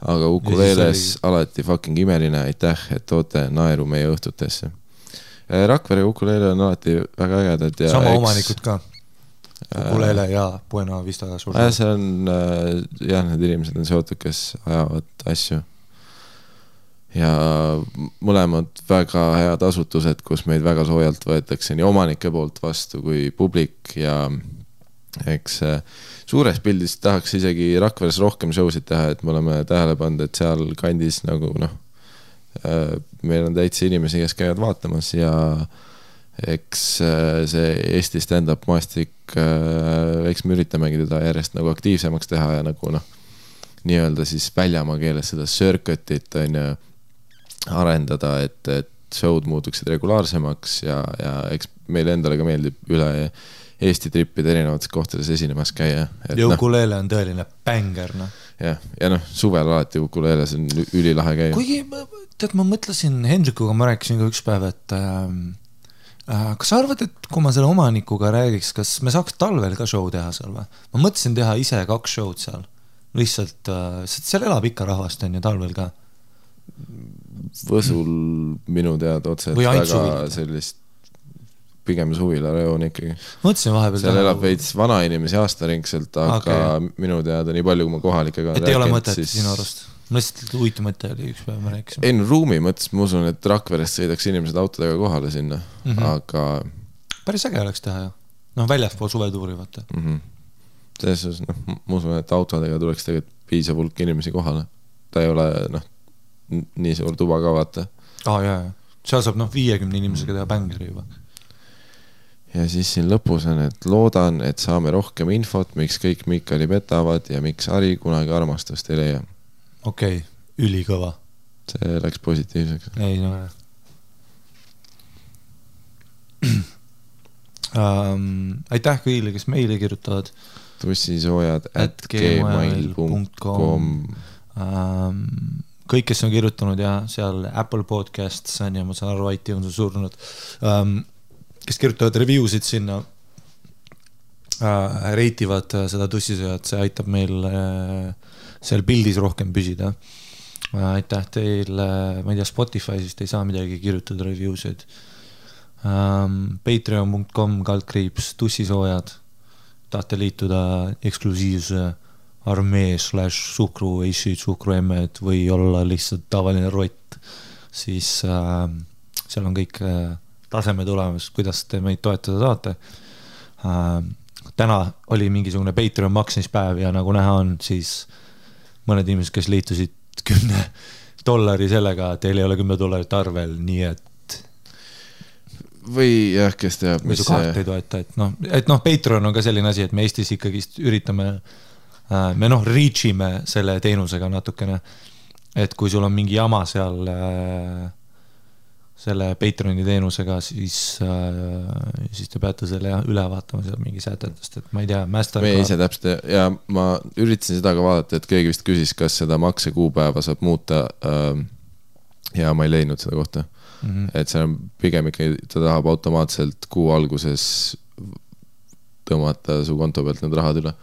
aga Ukuleeles alati fucking imeline, aitäh, et toote naeru meie õhtutesse. Rakvere ja Ukuleele on alati väga ägedad. Sama omanikud ka. Ukulele ja Buena Vista suur. See on, need inimesed on seotud, kes ajavad asju. Ja mõlemad väga head asutused, kus meid väga soojalt võetakse nii omanike poolt vastu kui publik ja eks suures pildis tahaks isegi Rakveres rohkem showsid teha, et me oleme tähele pannud, et seal kandis nagu meil on täitsa inimesi, kes käivad vaatamas ja eks see Eesti stand-up maastik, eks me üritamegi teda järjest nagu aktiivsemaks teha ja nagu nii-öelda siis väljamaa keeles seda circuitit arendada, et showd muutuksid regulaarsemaks ja eks meile endale ka meeldib üle Eesti trippide erinevates kohtades esinemas käia. Ja ukulele on tõeline bänger, noh. Ja suvel alati ukulele, see on ülilahe käia. Kuigi, tead, ma mõtlesin Hendrikuga, ma rääkisin ka üks päev, et kas sa arvad, et kui ma selle omanikuga räägiks, kas me saaks talvel ka show teha seal või? Ma mõtlesin teha ise 2 show'd seal. Lihtsalt, seal elab ikka rahvast on ja talvel ka. Võsul minu tead otse, et väga sellist pigem suvila-reoon ikkagi. Mõtlesin vahepeal seal elab veits vana inimesi aastaringselt, aga minu teada nii palju, kui ma kohalikega et ei ole mõtet sinu arust? Ma lihtsalt uitu mõte oli üks päev, ma rääkisin. Ei, ruumi mõttes, ma usun, et Rakverest sõidaks inimesed autodega kohale sinna, aga... Päris äge oleks teha, jah. Noh, väljaspool suvetuuri, vaata. Selles suhtes, ma usun, et autodega tuleks tegelikult piisav hulk inimesi kohale. Ta ei ole, nii suur tuba ka, vaata. Jaa. Seal saab, 50 inimesega teha bängeri juba. Ja siis siin lõpus on, et loodan, et saame rohkem infot, miks kõik Mikali petavad ja miks Ari kunagi armastust ei leia. Okei, ülikõva. See läks positiivseks. Ei, aitäh kõigile, kes meile kirjutavad. tussisoojad@gmail.com Kõik, kes on kirjutanud ja seal Apple Podcasts on ja ma saan aru, iTunes on surnud, kes kirjutavad reviewsid sinna, reitivad seda tussisööjat, see aitab meil seal pildis rohkem püsida. Aitäh teile, ma ei tea, Spotify'sist ei saa midagi kirjutada reviewsid. Patreon.com/, tussisoojad, tahate liituda eksklusiivse armee /suhkru, suhkruemmed või olla lihtsalt tavaline rott, siis seal on kõik taseme tulemas, kuidas te meid toetada saate. Täna oli mingisugune Patreon maksmispäev ja nagu näha on, siis mõned inimesed, kes liitusid $10 sellega, teil ei ole $10 arvel, nii et või jah, kes teab, mis kaart ei toeta, et Patreon on ka selline asi, et me Eestis ikkagi üritame, me reachime selle teenusega natukene, et kui sul on mingi jama seal selle Patreoni teenusega, siis te peate selle üle vaatama seal mingi sätetest, et ma ei tea, me ise täpselt ja ma üritasin seda ka vaadata, et keegi vist küsis, kas seda maksekuupäeva saab muuta ja ma ei leidnud seda kohta. Et see on pigem ikkagi, ta tahab automaatselt kuu alguses tõmmata su konto pealt need rahad üle.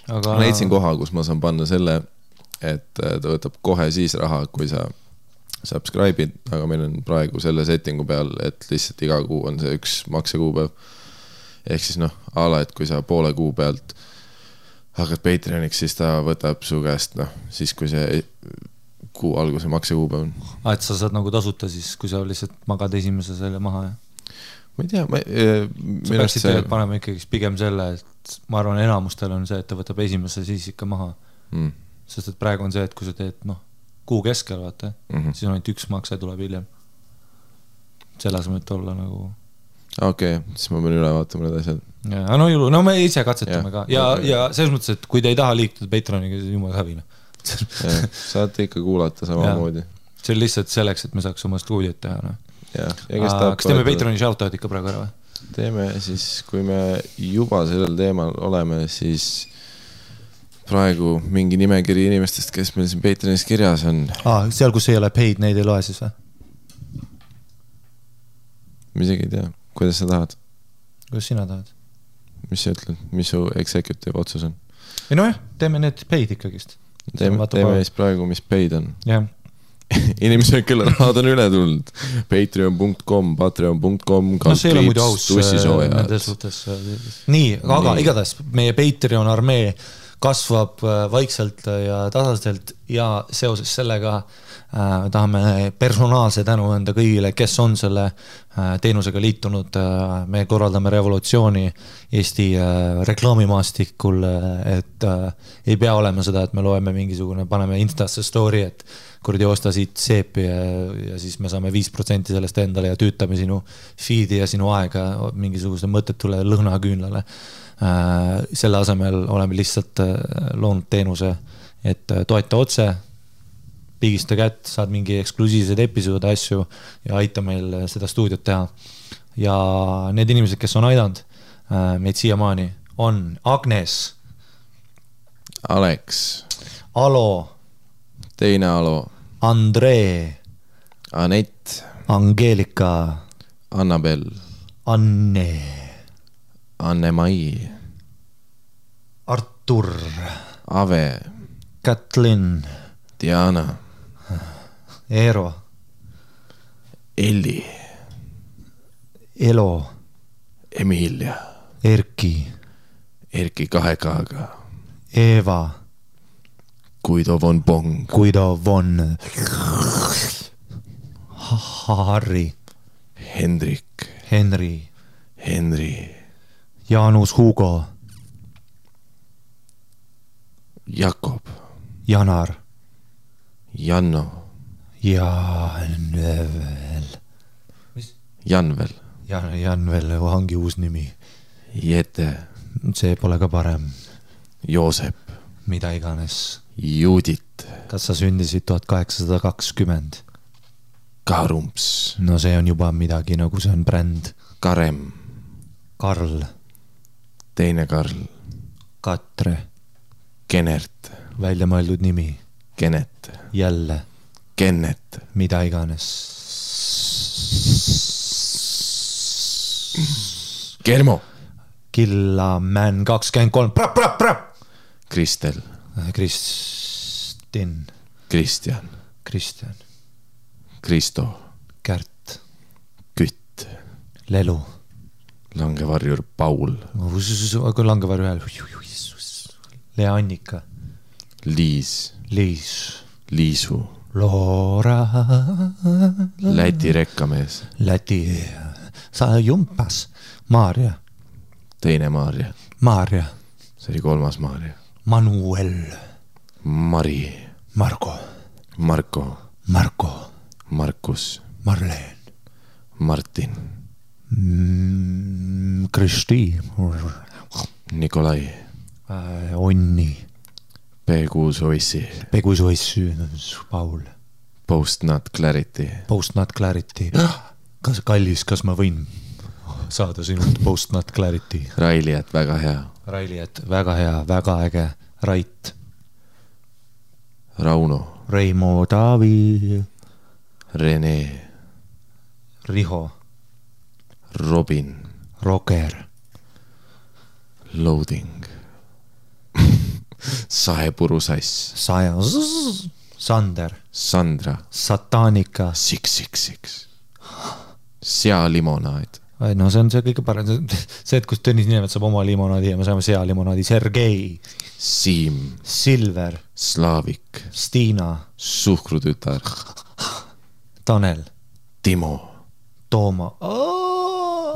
Ma leidsin koha, kus ma saan panna selle, et ta võtab kohe siis raha, kui sa subscribe'id, aga meil on praegu selle settingu peal, et lihtsalt iga kuu on see üks maksekuupäev. Ehk siis ala, et kui sa poole kuu pealt hakkad Patreoniks, siis ta võtab su käest, siis kui see kuu alguse maksekuupäev on. Et sa saad nagu tasuta siis, kui sa lihtsalt magad esimese selle maha, jah? Ma ei tea, sa peaksid teed panema ikkagi pigem selle, et ma arvan, enamustel on see, et ta võtab esimese siis ikka maha. Sest et praegu on see, et kui sa teed, kuu keskel, vaata, siis on ainult üks makse tuleb hiljem. Selle asemel et olla nagu... Okei, siis ma pean üle vaatama need asjad. No me ise katsetame ka. Ja selles mõttes, et kui te ei taha liikuda Patreoniga, siis jumal hävina. Saate ikka kuulata samamoodi. See on lihtsalt selleks, et me saaks oma stuudiot teha. Kas teeme Patreoni shoutout ikka praegu ära või? Teeme siis, kui me juba sellel teemal oleme, siis praegu mingi nimekiri inimestest, kes meil siin Patreonis kirjas on. Seal, kus ei ole paid, neid ei loe siis või? Ma isegi ei tea, kuidas sa tahad? Kuidas sina tahad? Mis sa ütled, mis su executive otsus on? Ei teeme need paid ikkagist. Teeme siis praegu, mis paid on. Jah. Inimesed, kelle rahad on üle tulnud. Patreon.com tussisoojad. Nii, aga igatahes meie Patreon armee kasvab vaikselt ja tasaselt ja seoses sellega tahame personaalse tänu anda kõigile, kes on selle teenusega liitunud. Me korraldame revolutsiooni Eesti reklaamimaastikul, et ei pea olema seda, et me loeme mingisugune, paneme Instasse story, et kuradi osta siit seepi ja siis me saame 5% sellest endale ja tüütame sinu feed'i ja sinu aega mingisuguse mõttetule lõhnaküünlale. Selle asemel oleme lihtsalt loonud teenuse, et toeta otse, pigista kätt, saad mingi eksklusiivsed episoode asju ja aita meil seda stuudiot teha. ja need inimesed, kes on aidanud meid siiamaani, on Agnes, Alex, Alo, teine Alo, Andree, Anett, Angeelika, Annabel, Anne, Anne-Mai, Artur, Ave, Kätlin, Diana, Eero, Elli, Elo, Emilia, Erki, Erki 2K-ga, Eeva, Guido von Bong, Guido von Harri, Hendrik, Henri, Henri, Jaanus Hugo, Jakob, Janar Janno, Janvel. Janvel, Janvel ongi uus nimi. Jete, See pole ka parem. Joosep, Mida iganes. Judit, Kas sa sündisid 1820? Karumps, No see on juba midagi, nagu see on bränd. Karem, Karl, teine Karl, Katre, Kenert, välja mõeldud nimi. Kenet, Jälle, Kennet, mida iganes. Kermo, Killaman 23. Prap. Kristel, Kristin, Kristjan, Kristjan, Kristo, Kärt, Kütt, Lelu. langevarjur Paul, Aga langevarju hääl. Lea Annika, Liis, Liis, Liisu, Loora, Läti rekkamees, Läti, sa jumpas, Maarja, teine Maarja, Maarja, see oli kolmas Maarja, Manuel, Mari, Margo, Marko, Marko, Markus, Marleen, Martin, Kristi, Nikolai, Onni, P6 Oissi, Pegusoissu, Paul, Post Not Clarity, Post Not Clarity. Kas kallis, kas ma võin saada sinult Post Not Clarity? Railiat, väga hea, Railiet, väga hea, väga äge. Rait, Rauno, Reimo, Taavi, Rene, Riho, Robin, Roger, Loading, Saepuru-sass, Sander, Sandra, Satanika. 666, sealimonaad, No see on see kõige parem. See, et kus Tõnis Niinemet saab oma limonaadi ja me saame sealimonaadi. Sergei, Siim, Silver, Slaavik, Stiina, Suhkrutütar, Tanel, Timo, Tooma.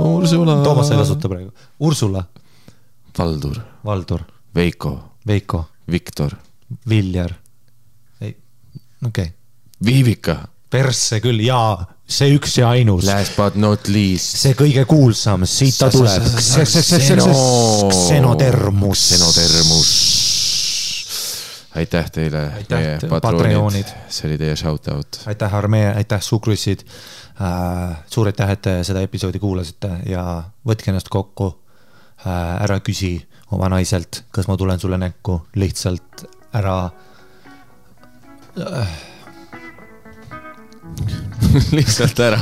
Ursula, Toomas ei kasuta praegu. Ursula, Valdur, Valdur, Veiko, Veiko, Viktor, Viljar. Okei. Viivika, Persse küll, jaa, see üks ja ainus. last but not least, See kõige kuulsam, siit ta tuleb. Xenotermus. Aitäh teile, Aitäh, meie Patreonid. patroonid, see oli teie shoutout. Aitäh Armee, aitäh Sukrussid. Suur aitäh, et te seda episoodi kuulasite ja võtke ennast kokku. Ära küsi oma naiselt, kas ma tulen sulle näkku, lihtsalt ära lihtsalt ära.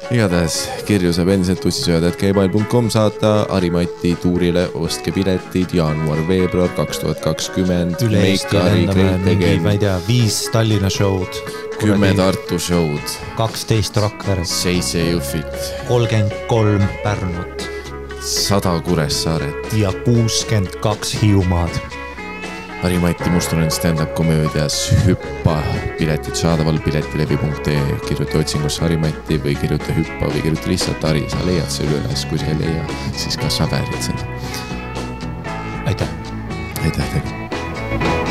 Igatahes kirju saab endiselt tussisööjad@gmail.com saata Harimati tuurile, ostke piletid jaanuar-veebruar 2020. üle Eesti lendame mingi, ma ei tea, 5 Tallinna show'd, 10 Tartu show'd, 12 Rakveres, 7 Jõhvit, 33 Pärnut 100 Kuressaaret. ja 62 Hiiumaad. Harimati Mustonen stand-up komöödias Hüppa, piletid saadaval piletilevi.ee, kirjuta otsingusse Harimati või kirjuta Hüppa või kirjuta lihtsalt Hari, sa leiad selle üles, kui sa ei leia, siis kas sa väärid seda. Aitäh. Aitäh teile.